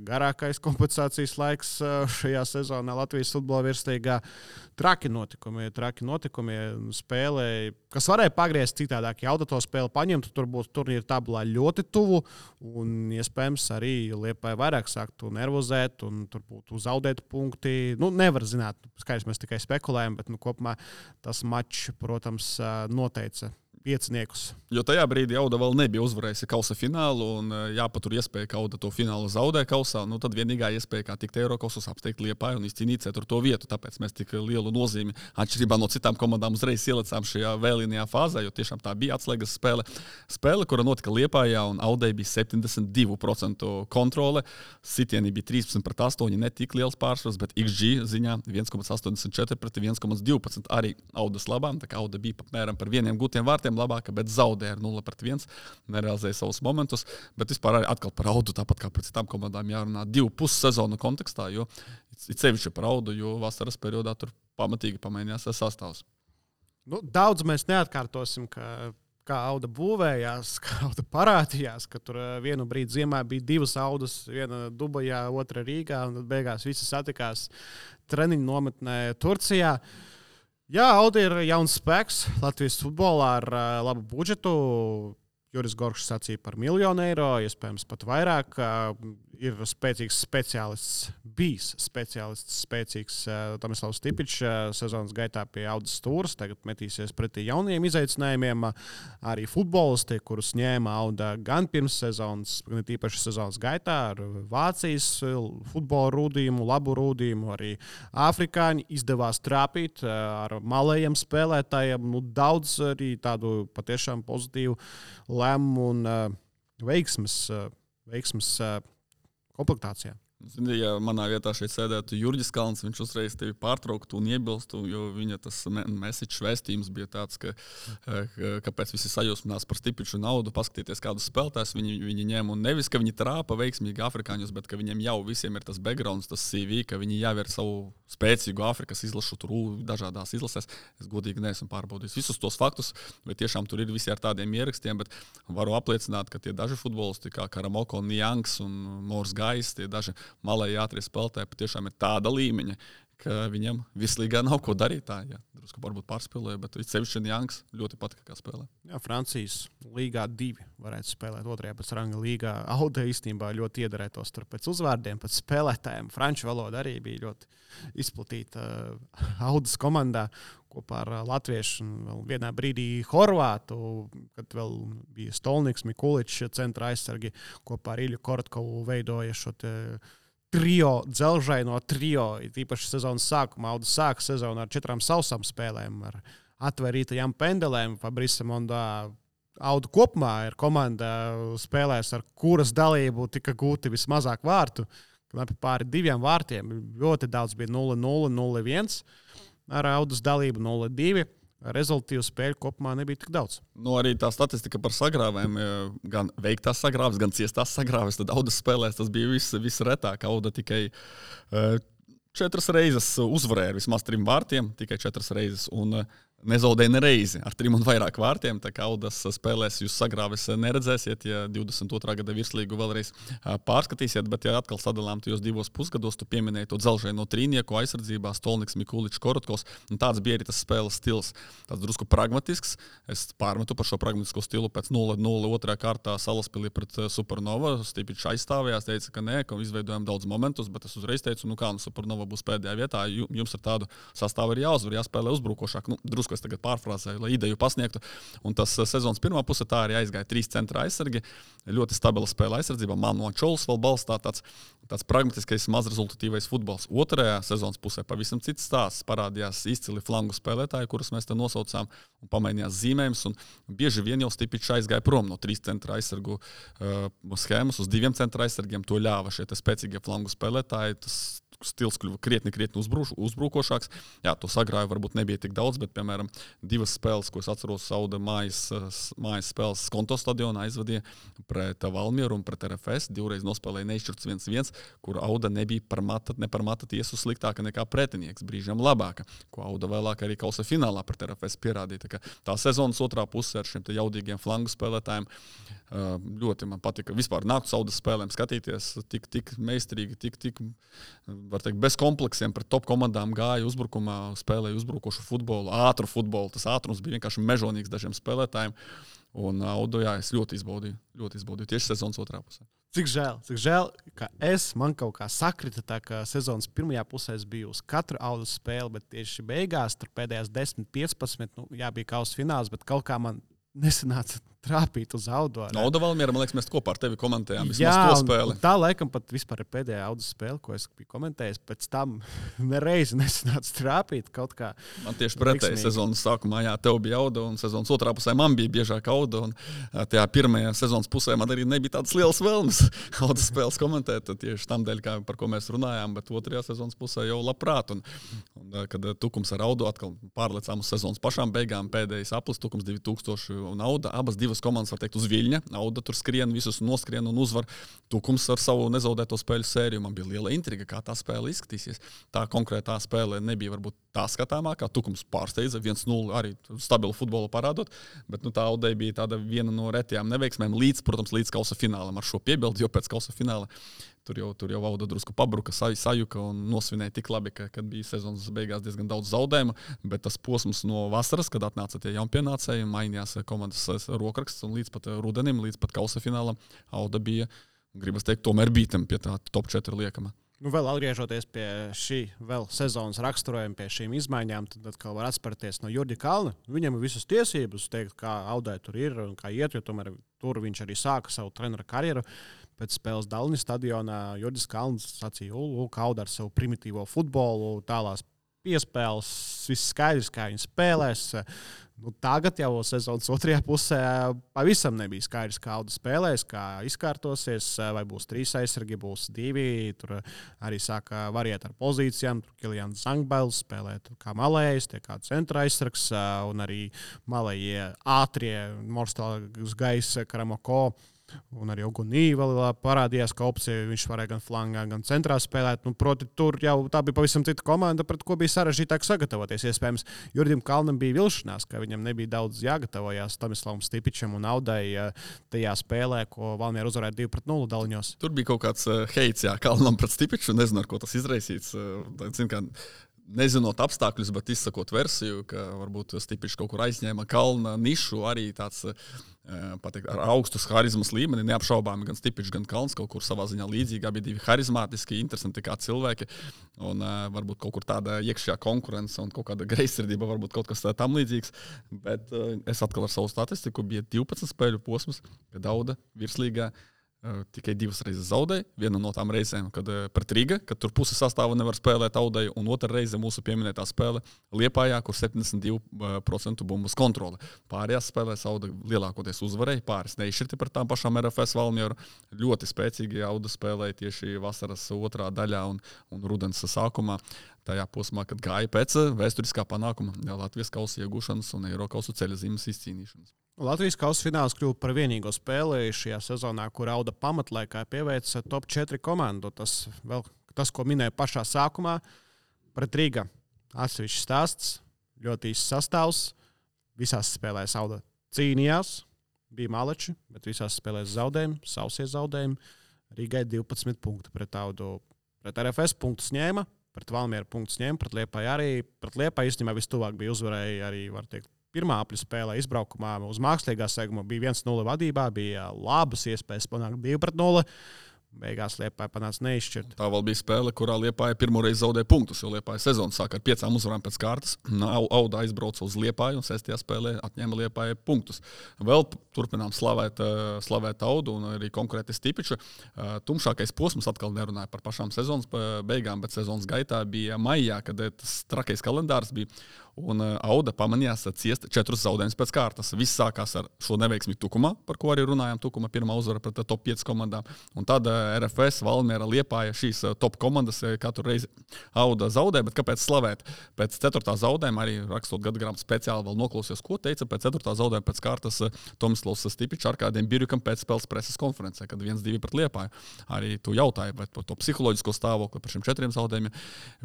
garākais kompensācijas laiks šajā sezonā Latvijas futbola virslīgā. Traki notikumi spēlē, kas varēja pagriezt citādāk. Ja Auda to spēli paņemtu, tur būtu turnīra tabulā ļoti tuvu, un iespējams arī Liepāja vairāk sāktu nervozēt, un tur būtu zaudēti punkti. Nevar zināt, skaidrs, mēs tikai spekulējam, bet kopumā tas mačs, protams, noteica pieciniekus. Jo tajā brīdī Auda vēl nebija uzvarējusi kausa finālu, un jāpatur iespēja, ka Auda to finālu zaudē kausā. Tad vienīgā iespēja, kā tikt Eirokausos, apsteigt Liepāju un izcīnīt 4. vietu. Tāpēc mēs tik lielu nozīmi, atšķirībā no citām komandām, uzreiz ielicām šajā vēlīnajā fāzē, jo tiešām tā bija atslēgas spēle. Spēle, kura notika Liepājā, un Audai bija 72% kontrole. Sitieni bija 13-8, ne tik liels pārsvars, bet XG ziņā 1,84 pret 1,12 arī Audas labām. Tā kā Auda bija apmēram par 1 gūtiem vārtiem labāka, bet zaudēja ar 0-1, nerealizēja savus momentus, bet vispār arī atkal par Audu, tāpat kā par citām komandām jārunā 2,5 sezonu kontekstā, jo sevišķi par Audu, jo vasaras periodā tur pamatīgi pamainījās sastāvs. Daudz mēs neatkārtosim, kā Auda būvējās, kā Auda parādījās, ka tur vienu brīdi ziemā bija 2 Audas, viena Dubajā, otra Rīgā, un tad beigās visi satikās treniņu nometnē Turcijā. Jā, Auda ir jauns spēks Latvijas futbolā ar labu budžetu. Juris Gorkšs sacīja par 1 000 000 eiro, iespējams pat vairāk. Ir spēcīgs speciālists, bijis spēcīgs Tomislavs Stipičs sezonas gaitā pie Audas stūres. Tagad metīsies pretī jauniem izaicinājumiem. Arī futbolisti, kurus ņēma Auda gan pirms sezonas, gan tīpaši sezonas gaitā ar Vācijas futbola rūdījumu, labu rūdījumu. Arī afrikāņi izdevās trāpīt ar malējiem spēlētājiem. Daudz arī tādu patiešām pozitīvu lēmumu un veiksmes komplektācijā. Zini, ja manā vietā šeit sēdētu Jurģis Kalns, viņš uzreiz tevi pārtrauktu un iebilstu, jo viņa tas message vēstījums bija tāds, kāpēc visi sajūsminās par Stipiču un Audu, paskatieties kādus spēlētājus viņi ņem, un nevis, ka viņi trāpa veiksmīgi afrikāņus, bet ka viņiem jau visiem ir tas backgrounds, tas CV, ka viņi jau ir savu spēcīgu Afrikas izlašu tur dažādās izlasēs. Es godīgi neesmu pārbaudījis visus tos faktus, bet tiešām tur ir visi ar tādiem ierakstiem, bet varu apliecināt, ka tie daži futbolisti, kā Karamoko, Niangs un Mors Gais, tie daži malēji ātrie spēlētāji patiešām ir tāda līmeņa, ka viņam vislīgā nav ko darīt. Tā, jā, drusku varbūt pārspēlēja, bet sevišķi Janks ļoti patika, kā spēlē. Jā, Francijas līgā 2 varētu spēlēt otrajā pēc ranga līgā. Auda īstenībā ļoti iedarētos tur pēc uzvārdiem, pēc spēlētājiem. Franču valoda arī bija ļoti izplatīta Audas komandā kopā ar latviešu un vēl vienā brīdī Horvātu, kad vēl bija Stolniks, Mikuličs, centra aizsargi kopā ar Ilju Korotkovu veidoja šo trio, dzelžaino trio. Īpaši sezonas sākumā Auda sāka sezonu ar 4 sausām spēlēm, ar atvērītajām pendelēm. Fabrice Mondā Auda kopumā ir komanda spēlēs, ar kuras dalību tika gūti vismazāk vārtu. Pāri 2 vārtiem. Ļoti daudz bija 0-0, 0-1. Ar Audas dalību 0-2. Rezultātu spēļu kopumā nebija tik daudz. Arī tā statistika par sagrāvēm, gan veiktās sagrāves, gan ciestās sagrāves, tad Audas spēlēs tas bija visretāk. Auda tikai 4 reizes uzvarēja ar vismaz 3 vārtiem, tikai 4 reizes. Un nezaudēja nereizi ar 3 un vairāk vārtiem. Tā kā Audas spēlēs jūs sagrāves neredzēsiet, ja 22. gada virslīgu vēlreiz pārskatīsiet, bet ja atkal sadalām tajos 2 pusgados, tu pieminēji to dzelžaino trīnieku aizsardzībā, Stolniks, Mikuličs, Korotkovs, un tāds bija arī tas spēles stils. Tāds drusku pragmatisks. Es pārmetu par šo pragmatisko stilu pēc 0-0 otrā kārtā Salaspilī pret Supernova. Stipičs aizstāvējās, teica, ka nē, ka izveidojam daudz momentus, bet es uzreiz teicu, Supernova būs pēdējā vietā, jums ar tādu sastāvu ir jāuzvar, jāspēlē uzbrukošāk. Drusku es tagad pārfrāzēju, lai ideju pasniegtu. Un tas sezonas pirmā puse tā arī aizgāja 3 centra aizsargi. Ļoti stabila spēle aizsardzībā. Manu Čols vēl balstā tāds pragmatiskais, mazrezultatīvais futbols. Otrajā sezonas pusē pavisam cits stāsts. Parādījās izcili flangu spēlētāji, kurus mēs te nosaucām, un pamainījās zīmējums. Un bieži vien jau Stipičs aizgāja prom no 3 centra aizsargu schēmas uz 2 centra aizsargiem. To ļāva šie spēcīgie flangu spēlētāji. Tas stils kļuva krietni uzbrukošāks. Jā, to sagrāju varbūt nebija tik daudz, bet, piemēram, 2 spēles, ko es atceros, Auda mājas spēles Skonto stadionā aizvadīja pret Valmieru un pret RFS. 2 reiz nospēlēja neizšķirts 1-1, kur Auda nebija ne par mata tiesu sliktāka nekā pretinieks, brīžiem labāka, ko Auda vēlāk arī kausa finālā pret RFS pierādīja. Tā sezonas otrā puse ar šiem jaudīgiem flangu spēlētājiem ļoti man patika. Vispār nāktu Audas spēlēm skatīties tik meistarīgi, tik var teikt, bez kompleksiem pret top komandām gāja uzbrukumā, spēlēja uzbrukošu futbolu, ātru futbolu. Tas ātrums bija vienkārši mežonīgs dažiem spēlētājiem. Un Audu, jā, es ļoti izbaudīju tieši sezonas otrā pusē. Cik žēl, ka man kaut kā sakrita tā, ka sezonas pirmajā pusē es biju uz katru Audas spēli, bet tieši beigās, tur pēdējās 10-15, bija kausa fināls, bet kaut kā man nesanāca trāpīt uz Audu. Auda Valmiera, man liekas, mēs kopā ar tevi komentējām vismaz to spēli. Tā laikam pat vispār ir pēdējā Audas spēle, ko es biju komentējis. Pēc tam nereizi nesanāca trāpīt kaut kā. Man tieši pretēji sezonas sākumā, jā, tev bija Auda, un sezonas otrā pusē man bija biežāk Auda, un tajā pirmajā sezonas pusē man arī nebija tādas lielas vēlmes Audas spēles komentēt, tieši tam dēļ, par ko mēs runājām, bet otrajā sezonas pusē jau labprāt. Un kad Tukums ar Audu atkal pārlecām uz sezonas pašām beigām, pēdējais aplis Tukums 2000 un Auda, abas 2 komandas, var teikt, uz viļņa. Auda tur skrien, visus noskrien un uzvar. Tukums ar savu nezaudēto spēļu sēriju. Man bija liela intriga, kā tā spēle izskatīsies. Tā konkrētā spēle nebija varbūt tā skatāmākā. Tukums pārsteidza 1-0 arī stabilu futbolu parādot, bet tā Audai bija tāda viena no retajām neveiksmēm līdz kausa finālam. Ar šo piebildi, jo pēc kausa fināla tur jau Auda drusku pabruka, sajuka un nosvinēja tik labi, kad bija sezonas beigās diezgan daudz zaudējumu, bet tas posms no vasaras, kad atnāca tie jaunpienācēji, mainījās komandas rokraksts un līdz pat rudenim, līdz pat kausa finālam Auda bija, gribas teikt, tomēr bītam pie tā top 4 liekama. Vēl atgriežoties pie šī sezonas raksturojuma, pie šīm izmaiņām, tad atkal var atspērties no Jurģa Kalna. Viņam ir visas tiesības teikt, kā Audai tur ir un kā iet, jo tomēr tur viņš arī sāka savu trenera karjeru. Pēc spēles Dalnis stadionā Jurģis Kalns sacīja, ka Auda ar savu primitīvo futbolu, tālās piespēles, viss skaidrs, kā viņi spēlēs. Tagad jau sezonas otrajā pusē pavisam nebija skaidrs, kā Auda spēlēs, kā izkārtosies, vai būs 3 aizsargi, būs 2. Tur arī sāka variēt ar pozīcijām. Tur Kilians Zangbels spēlē kā malējs, tie kā centra aizsargs, un arī malējie ātrie Morstāls gaisa Karamoko. Un arī Ogunī vēl parādījās, ka opcija viņš varēja gan flangā, gan centrā spēlēt. Proti, tur jau tā bija pavisam cita komanda, pret ko bija sarežģītāk sagatavoties. Iespējams, Jurģim Kalnam bija vilšanās, ka viņam nebija daudz jāgatavojās Tomislavam Stipičam un Audai tajā spēlē, ko Valmiera uzvarēja 2-0 Daliņos. Tur bija kaut kāds heits, Kalnam pret Stipiču, nezinu, ar ko tas izraisīts. nezinot apstākļus, bet izsakot versiju, ka varbūt Stipičs kaut kur aizņēma kalna nišu, arī tāds pateikt, ar augstus harizmas līmeni, neapšaubāmi gan Stipičs, gan Kalns kaut kur savā ziņā līdzīgi, abi divi harizmātiski, interesanti kā cilvēki, un varbūt kaut kur tāda iekšējā konkurence un kaut kāda greizsirdība, varbūt kaut kas tam līdzīgs, bet es atkal ar savu statistiku bija 12 spēļu posms, kad Auda virslīgā tikai 2 reizes zaudēja. Viena no tām reizēm, kad pret Riga, kad tur puse sastāva nevar spēlēt Audai, un otra reize mūsu pieminētā spēle Liepājā, kur 72% bumbas kontrole. Pārējās spēlēs Auda lielākoties uzvarēja, pāris neizšķirti par tām pašām RFS Valmieru. Ļoti spēcīgi Auda spēlēja tieši vasaras otrā daļā un rudens sākumā. Tajā posmā, kad gāja pēc vēsturiskā panākuma Latvijas kausa iegūšanas un Eirokausu ceļa zīmes izcīnīšanas. Latvijas kausa fināls kļuva par vienīgo spēli šajā sezonā, kur Auda pamatlaikā pieveica top 4 komandu. Tas, ko minēju pašā sākumā, pret Riga atsevišķs stāsts, ļoti īsts sastāvs. Visās spēlēs Auda cīnījās, bija maleči, bet visās spēlēs zaudējumi, sausie zaudējumi. Rigai 12 punkti pret Audu. Pret RFS punktus ņēma, pret Valmieru punktus ņēma, pret Liepāju arī. Pret Liepāju īstenībā vistuvāk bija uzvarēja arī, var teikt, pirmā apļu spēlē izbraukumā uz mākslīgā seguma bija 1-0 vadībā, bija labas iespējas panākt 2-0. Beigās Liepāja panāca neizšķirt. Tā vēl bija spēle, kurā Liepāja pirmo reizi zaudēja punktus, jo Liepāja sezonu sāka ar 5 uzvarām pēc kārtas. Auda aizbrauca uz Liepāju un 6. spēlē atņēma Liepāja punktus. Vēl turpinām slavēt Audu un arī konkrēti Stipiču. Tumšākais posms atkal nerunāja par pašām sezonas beigām, bet sezonas gaitā bija maijā, kad tas trakais kalendārs bija. Un Auda pamanījās ciest 4 zaudējumus pēc kārtas. Viss sākās ar šo neveiksmi Tukumā, par ko arī runājām. Tukuma pirmā uzvara pret top 5 komandām. Un tad RFS, Valmiera, Liepāja šīs top komandas katru reizi Auda zaudē. Bet kāpēc slavēt? Pēc 4. zaudējuma, arī rakstot gadgrāmatu speciāli vēl noklausījos, ko teica pēc 4. zaudējuma pēc kārtas Tomislavs Stipičs ar kādiem Birjukam pēc spēles preses konferencē, kad 1-2 pret Liepāju. Arī tu jautāji par to psiholoģisko stāvokli par šiem 4 zaudējumiem.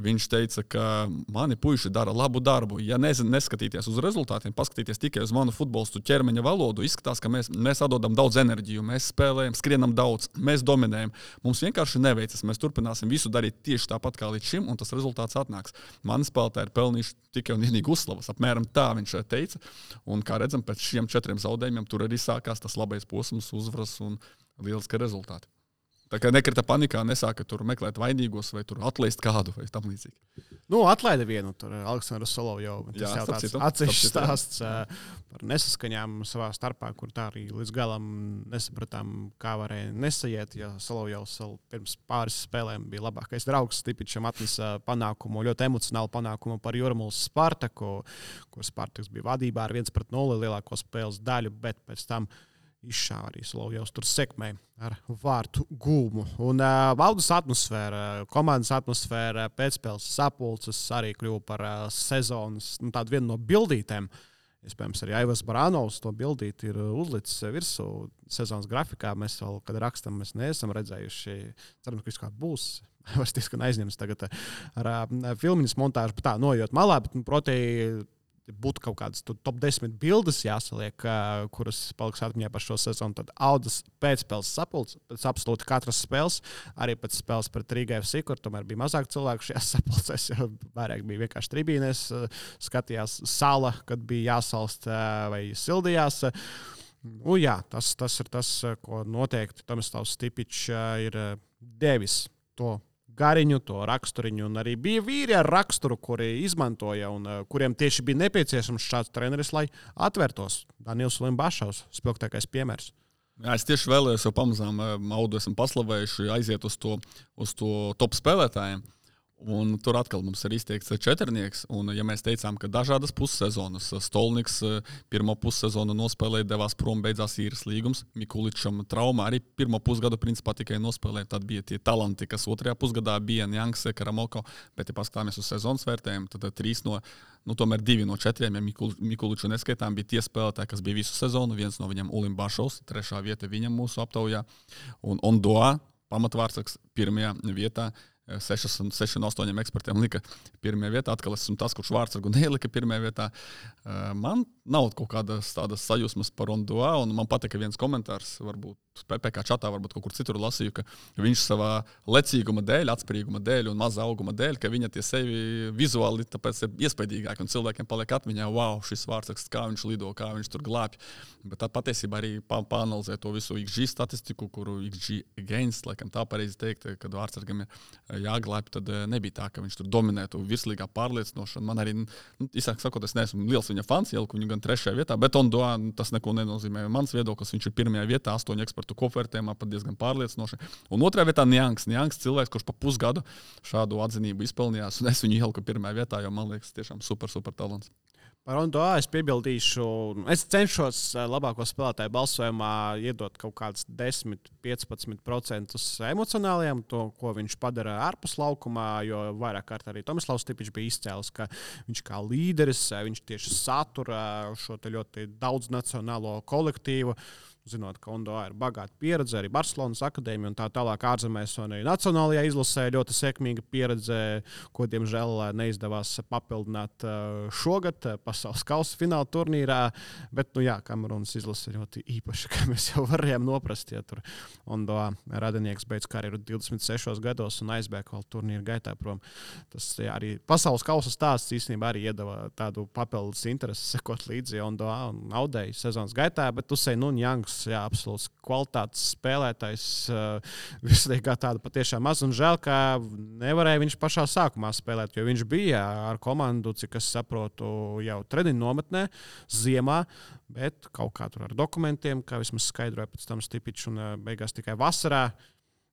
Viņš teica, ka mani puiši dara labu darbu. Ja neskatīties uz rezultātiem, paskatīties tikai uz manu futbolistu ķermeņa valodu, izskatās, ka mēs atdodam daudz enerģiju, mēs spēlējam, skrienam daudz, mēs dominējam. Mums vienkārši neveicas, mēs turpināsim visu darīt tieši tāpat kā līdz šim, un tas rezultāts atnāks. Mani spēlētāji ir pelnījuši tikai un vienīgi uzslavas. Apmēram tā viņš teica. Un kā redzam, pēc šiem 4 zaudējumiem tur arī sākās tas labais posms, uzvaras un lieliski rezultāti. Tā kā nekrita panikā, nesāka tur meklēt vainīgos vai tur atlaist kādu vai tam līdzīgi. Atlaida vienu, tur Aleksandru Solovjovu. Tas jau tāds atsevišķs stāsts par nesaskaņām savā starpā, kur tā arī līdz galam nesapratām, kā varēja nesaiet, ja Solovjovs pirms pāris spēlēm bija labākais draugs. Stipičam atnesa panākumu, ļoti emocionālu panākumu par Jūrmālas Spartaku, kur Spartaks bija vadībā ar 1-0 lielāko spēles daļu, bet pēc tam izšāva arī Solovjovs tur sekmēja ar vārtu gūmu. Un Audas atmosfēra, komandas atmosfēra, pēcspēles sapulces arī kļuva par sezonas tādu vienu no bildītēm. Iespējams, arī Aivars Barānovs to bildīt ir uzlicis virsū sezonas grafikā. Mēs vēl, kad rakstam, mēs neesam redzējuši. Ceram, ka viss kā būs. Aivars diezgan aizņems tagad ar filmiņas montāžu, bet tā noiet malā, bet, proti, būtu kaut kādas top 10 bildes jāsaliek, kuras paliks atmiņā par šo sezonu. Tad Audas pēcspēles sapulces, pēc absolūti katras spēles, arī pēc spēles pret Riga FC, kur tomēr bija mazāk cilvēku šajās sapulcēs, jo vairāk bija vienkārši tribīnēs, skatījās sala, kad bija jāsalst vai sildījās. Jā, tas ir tas, ko noteikti Tomislavs Stipičs ir devis to gariņu, to raksturiņu, un arī bija vīri ar raksturu, kuri izmantoja un kuriem tieši bija nepieciešams šāds treneris, lai atvērtos. Daniels Limbašovs, spilgtākais piemērs. Jā, es tieši vēlējos, jo pamazām Audu esam paslavējuši aiziet uz to top spēlētājiem. Un tur atkal mums ir izteikts 4. Un, ja mēs teicām, ka dažādas pussezonas, Stolniks pirmo pussezonu nospēlēja, devās prom, beidzās īres līgums, Mikuličam trauma arī pirmo pusgadu principā tikai nospēlēja, tad bija tie talanti, kas otrajā pusgadā bija Janks, Karamoko, bet ja paskatāmies uz sezonas vērtējumu, tad 2 no 4, ja Mikuliču neskaitām, bija tie spēlētāji, kas bija visu sezonu, viens no viņam Ulim Bašovs, 3. vieta viņam mūsu aptaujā, un Ondoa, pamatvārdsargs, 1. vietā. 6 no 8 ekspertiem lika 1. vietā. Atkal esmu tas, kurš vārdsargu nelika 1. vietā. Man nav kaut kādas tādas sajūsmas par Ondoa, un man patika viens komentārs, varbūt PPC čatā, varbūt kaut kur citur lasīju, ka viņš savā lecīguma dēļ, atspērīguma dēļ un maza auguma dēļ, ka viņa tie sevi vizuāli tāpēc ir iespaidīgāki un cilvēkiem paliek atmiņā, wow, šis vārdsaksts, kā viņš lido, kā viņš tur glābj. Bet tad patiesībā arī pāanalizē to visu XG statistiku, kuru XG gains, laikam tā pareizi teikt, kad vārdsargam ir jāglābj, tad nebija tā, ka viņš tur dominētu virslīgā pārliecinošanu. Man arī, īsāk sakot, es neesmu liels viņa fans, ieliku viņu gan 3. vietā, bet Ondoa tas neko nenozīmē. Mans viedoklis, viņš ir 1. vietā, 8 ekspertu kopvērtējumā, pat diezgan pārliecinoši. Un 2. vietā Niangs cilvēks, kurš pa pusgadu šādu atzinību izpelnījās, un es viņu ieliku 1. vietā, jo man liekas tiešām super talants. Par Ondoa es piebildīšu, es cenšos labāko spēlētāju balsojumā iedot kaut kādus 10–15% emocionāliem, to, ko viņš padara ārpus laukumā, jo vairāk kārt arī Tomislavs Stipičs bija izcēlis, ka viņš kā līderis, viņš tieši satura šo te ļoti daudznacionālo kolektīvu. Zinot, ka Ondoa ir bagāta pieredze, arī Barcelonas akadēmija un tā tālāk ārzemēs un arī nacionālajā izlasē ļoti sekmīga pieredze, ko, diemžēl, neizdevās papildināt šogad pasaules kausa fināla turnīrā. Bet, Kamerunas izlase ir ļoti īpaša, kā mēs jau varējām noprast, ja tur Ondoa radinieks beidz karjeru 26 gados un aizbēg vēl turnīra gaitā prom. Tas arī pasaules kausa stāsts īstenībā arī iedeva tādu papildus interesi sekot līdzi Ondoa un Audei sezonas gaitā, bet Usei Nunjangs, absolūts kvalitātes spēlētājs, vislīgā tāda patiešām maz, un žēl, ka nevarēja viņš pašā sākumā spēlēt, jo viņš bija ar komandu, cik es saprotu, jau treniņu nometnē ziemā, bet kaut kā tur ar dokumentiem, kā vismaz skaidroja pēc tam Stipičs, un beigās tikai vasarā.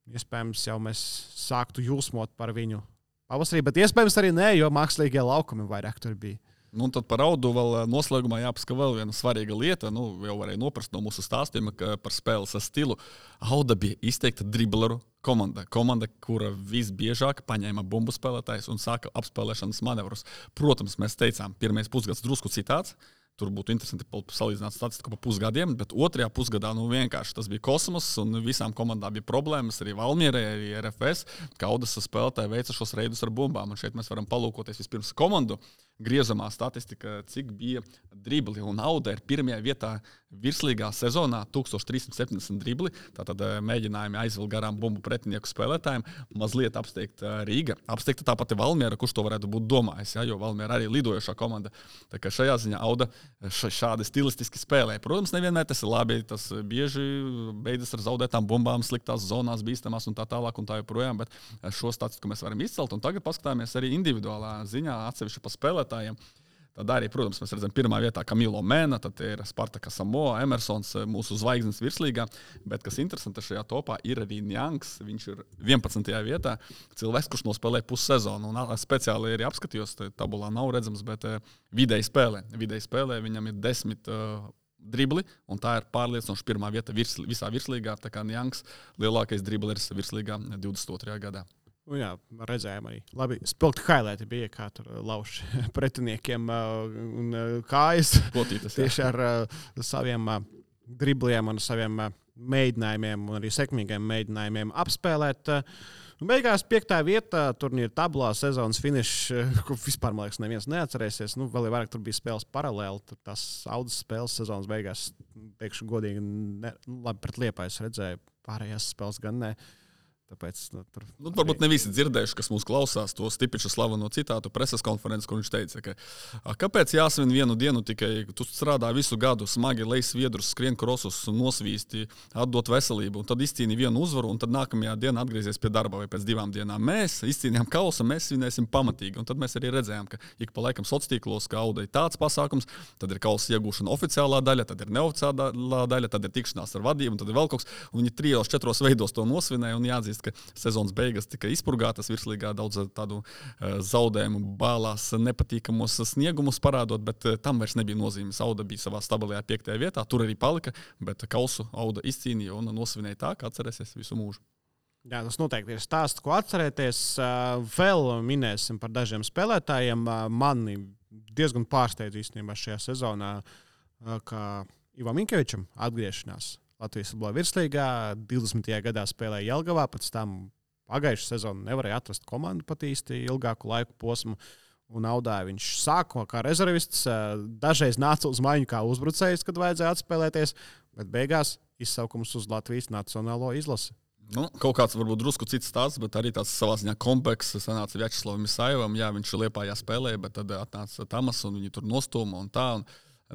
Iespējams, jau mēs sāktu jūsmot par viņu pavasarī, bet iespējams arī nē, jo mākslīgie laukumi vairāk tur bija. Un tad par Audu vēl noslēgumā jāpasaka vēl viena svarīga lieta. Jau varēja noprast no mūsu stāstiem, ka par spēles stilu Auda bija izteikta dribleru komanda. Komanda, kura visbiežāk paņēma bumbu spēlētājus un sāka apspēlēšanas manevrus. Protams, mēs teicām, pirmais pusgads drusku citāds. Tur būtu interesanti salīdzināt statistiku pa pusgadiem, bet 2. pusgadā vienkārši tas bija kosmos, un visām komandām bija problēmas, arī Valmierai, arī RFS, ka Audas spēlētāji veica šos reidus ar bumbām. Un šeit mēs varam palūkoties vispirms komandu griezamā statistika, cik bija dribli. Un Auda ir 1. vietā virslīgā sezonā 1370 dribli. Tātad mēģinājumi aizvilkt garām bumbu pretinieku spēlētājiem. Mazliet apsteigta Rīga. Apsteigta tāpat ir Valmiera, kurš to varētu būt domājis, jo Valmiera arī lidojošā komanda. Tā kā šajā ziņā Auda šādi stilistiski spēlē. Protams, nevienmēr tas ir labi. Tas bieži beidzas ar zaudētām bumbām, sliktās zonās, bīstamās un tā tālāk un tā joprojām. Bet šo statistiku mēs varam izcelt. Un tagad paskatāmies arī individuālā ziņā atsevišķi pa spēlētājiem. Tad arī, protams, mēs redzam 1. vietā Camilo Mena, tad ir Spartaka Samoa, Emersons, mūsu zvaigznes virslīgā. Bet, kas interesanti šajā topā, ir arī Niangs. Viņš ir 11. vietā. Cilvēks, kurš nospēlē pussezonu. Un speciāli arī apskatījos, tabulā nav redzams, bet vidēji spēlē. Vidēji spēlē viņam ir 10 dribli, un tā ir pārliecinoši 1. vieta visā virslīgā. Tā kā Niangs lielākais dribleris virslīgā 22. gadā. Jā, redzējām arī. Labi, spilgti highlighti bija, kā tur lauž pretiniekiem un kājas. Potītas, tieši ar saviem dribliem un saviem mēģinājumiem un arī sekmīgiem mēģinājumiem apspēlēt. Beigās 5. vieta turnīra tablā, sezonas finišs, ko vispār, man liekas, neviens neatcerēsies. Vēl vairāk tur bija spēles paralēli. Tur tās Audas spēles sezonas beigās, teikšu godīgi, labi pret Liepāju redzēju, pārējās spēles gan ne. Tāpēc, varbūt ne visi dzirdējuši, kas mūs klausās, to Stipiča slaveno citātu preses konferences, kur viņš teica, ka kāpēc jāsvin vienu dienu tikai, tu strādā visu gadu, smagi lej sviedrus, skrien krosus, nosvīsti, atdot veselību, un tad izcīni vienu uzvaru, un tad nākamajā dienā atgriezies pie darba vai pēc 2 dienām. Mēs izcīnījām kausa, mēs svinēsim pamatīgi, un tad mēs arī redzējām, ka ik pa laikam sociālos, ka Audai tāds pasākums, tad ir kausa iegūšana oficiālā daļa, tad ir neoficiālā daļa, tad ir tikšanās ar vadību, un tad ir vēl kaut kas, un viņi 3-4 veidos to nosvinēja un jāatzīst, ka sezonas beigas tika izpurgātas virslīgā, daudz tādu zaudējumu bālās, nepatīkamos sniegumus parādot, bet tam vairs nebija nozīmes. Auda bija savā stabilajā 5. vietā, tur arī palika, bet kausu Auda izcīnīja un nosvinēja tā, ka atcerēsies visu mūžu. Jā, tas noteikti ir stāsts, ko atcerēties. Vēl minēsim par dažiem spēlētājiem. Mani diezgan pārsteidz īstenībā šajā sezonā, ka Ivam Minkevičam atgriešanās Latvijas futbola virslīgā 20. gadā spēlēja Jelgavā, pēc tam pagājušā sezonu nevarēja atrast komandu pat īsti ilgāku laiku posmu. Un Audā viņš sāka kā rezervists, dažreiz nāca uz maiņu kā uzbrucējs, kad vajadzēja atspēlēties, bet beigās izsaukums uz Latvijas nacionālo izlasi. Nu, kaut kāds varbūt drusku cits stāsts, bet arī tāds savā ziņā komplekss. Sanāca Vjačeslavam Isaivam, jā, viņš Liepājā spēlēja, bet tad atnāca Tamas un viņi tur nostūma un tā. Un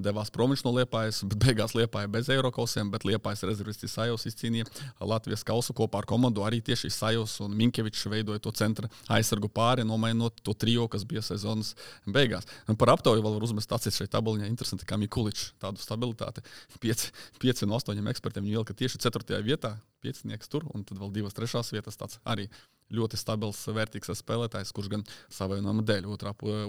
devās prom no Liepājas, bet beigās Liepāja bez Eirokausiem, bet Liepājas rezervists Isajovs izcīnīja Latvijas kausu kopā ar komandu. Arī tieši Isajovs un Minkevičs veidoja to centra aizsargu pāri, nomainot to trio, kas bija sezonas beigās. Un par aptauju vēl var uzmest acis šeit tabuliņā. Interesanti, kā Mikuličs tādu stabilitāti. 5 no 8 ekspertiem viņu ielika tieši 4. vietā, 5 tur, un tad vēl 2 3. vietas tāds arī ļoti stabils, vērtīgs spēlētājs, kurš gan savainojuma dēļ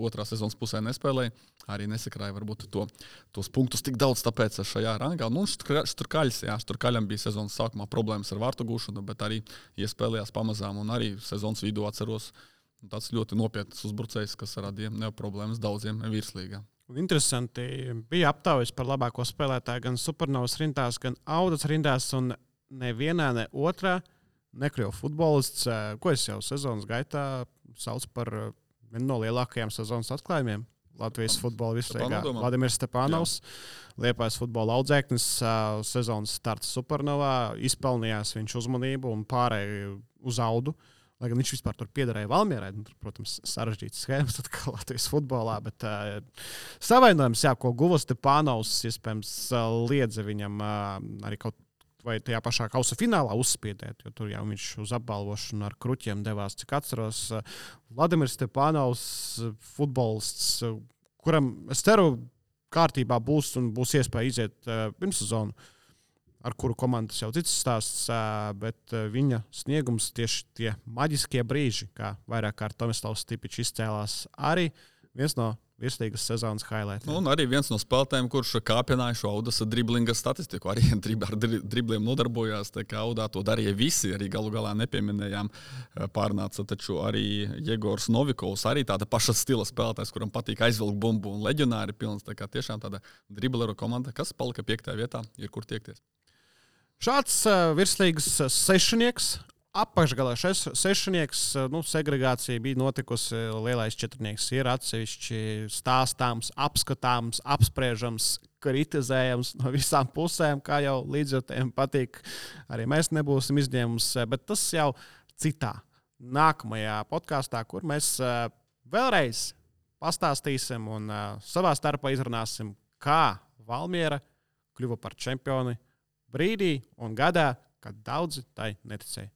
otrā sezonas pusē nespēlēja. Arī nesakrāja varbūt tos punktus tik daudz, tāpēc šajā rangā. Nu, Šturkaļam bija sezonas sākumā problēmas ar vārtu gūšanu, bet arī iespēlējās pamazām un arī sezonas vidū atceros tāds ļoti nopietns uzbrucējs, kas radīja problēmas daudziem virslīgā. Interesanti, bija aptaujas par labāko spēlētāju gan Supernovas rindās, gan Audas rindās, un nevienā, ne otrā nekļuva futbolists, ko es jau sezonas gaitā saucu par vienu no lielākajiem sezonas atklājumiem Latvijas futbola virslīgā. Vladimirs Stepanovs, Liepājas futbola audzēknis, sezonas starts Supernovā, izpelnījās viņš uzmanību un pārēja uz Audu. Lai gan viņš vispār tur piederēja Valmierai, protams, sarežģītas schēmas atkal Latvijas futbolā, bet savainojums, ko guva Stepanovs, iespējams, liedza viņam arī kaut vai tajā pašā kausa finālā uzspiedēt, jo tur jau viņš uz apbalvošanu ar kruķiem devās, cik atceros. Vladimirs Stepanovs, futbolists, kuram, es ceru, kārtībā būs un būs iespēja iziet pirmssezonu, ar kuru komandas jau cits stāsts, bet viņa sniegums tieši tie maģiskie brīži, kā vairāk kārt Tomislavs Stipičs izcēlās, arī viens no virslīgas sezonas highlightiem. Un arī viens no spēlētājiem, kurš kāpināja šo Audas driblinga statistiku, arī ar dribliem nodarbojās, tā kā Audā to darīja visi, arī galu galā nepieminējām, pārnāca taču arī Jegors Novikovs, arī tāda paša stila spēlētājs, kuram patīk aizvilkt bumbu un leģionāri pilns, tā kā tiešām tāda dribleru komanda, kas palika 5. vietā, ir kur tiekties. Šāds virslīgas sešnieks, apakšgalā sešnieks, segregācija bija notikusi, lielais četrnieks ir atsevišķi stāstāms, apskatāms, apspriežams, kritizējams no visām pusēm, kā jau līdzjūtējiem patīk. Arī mēs nebūsim izņēmums, bet tas jau citā nākamajā podkāstā, kur mēs vēlreiz pastāstīsim un savā starpā izrunāsim, kā Valmiera kļuva par čempioni brīdī un gadā, kad daudzi tai neticēja.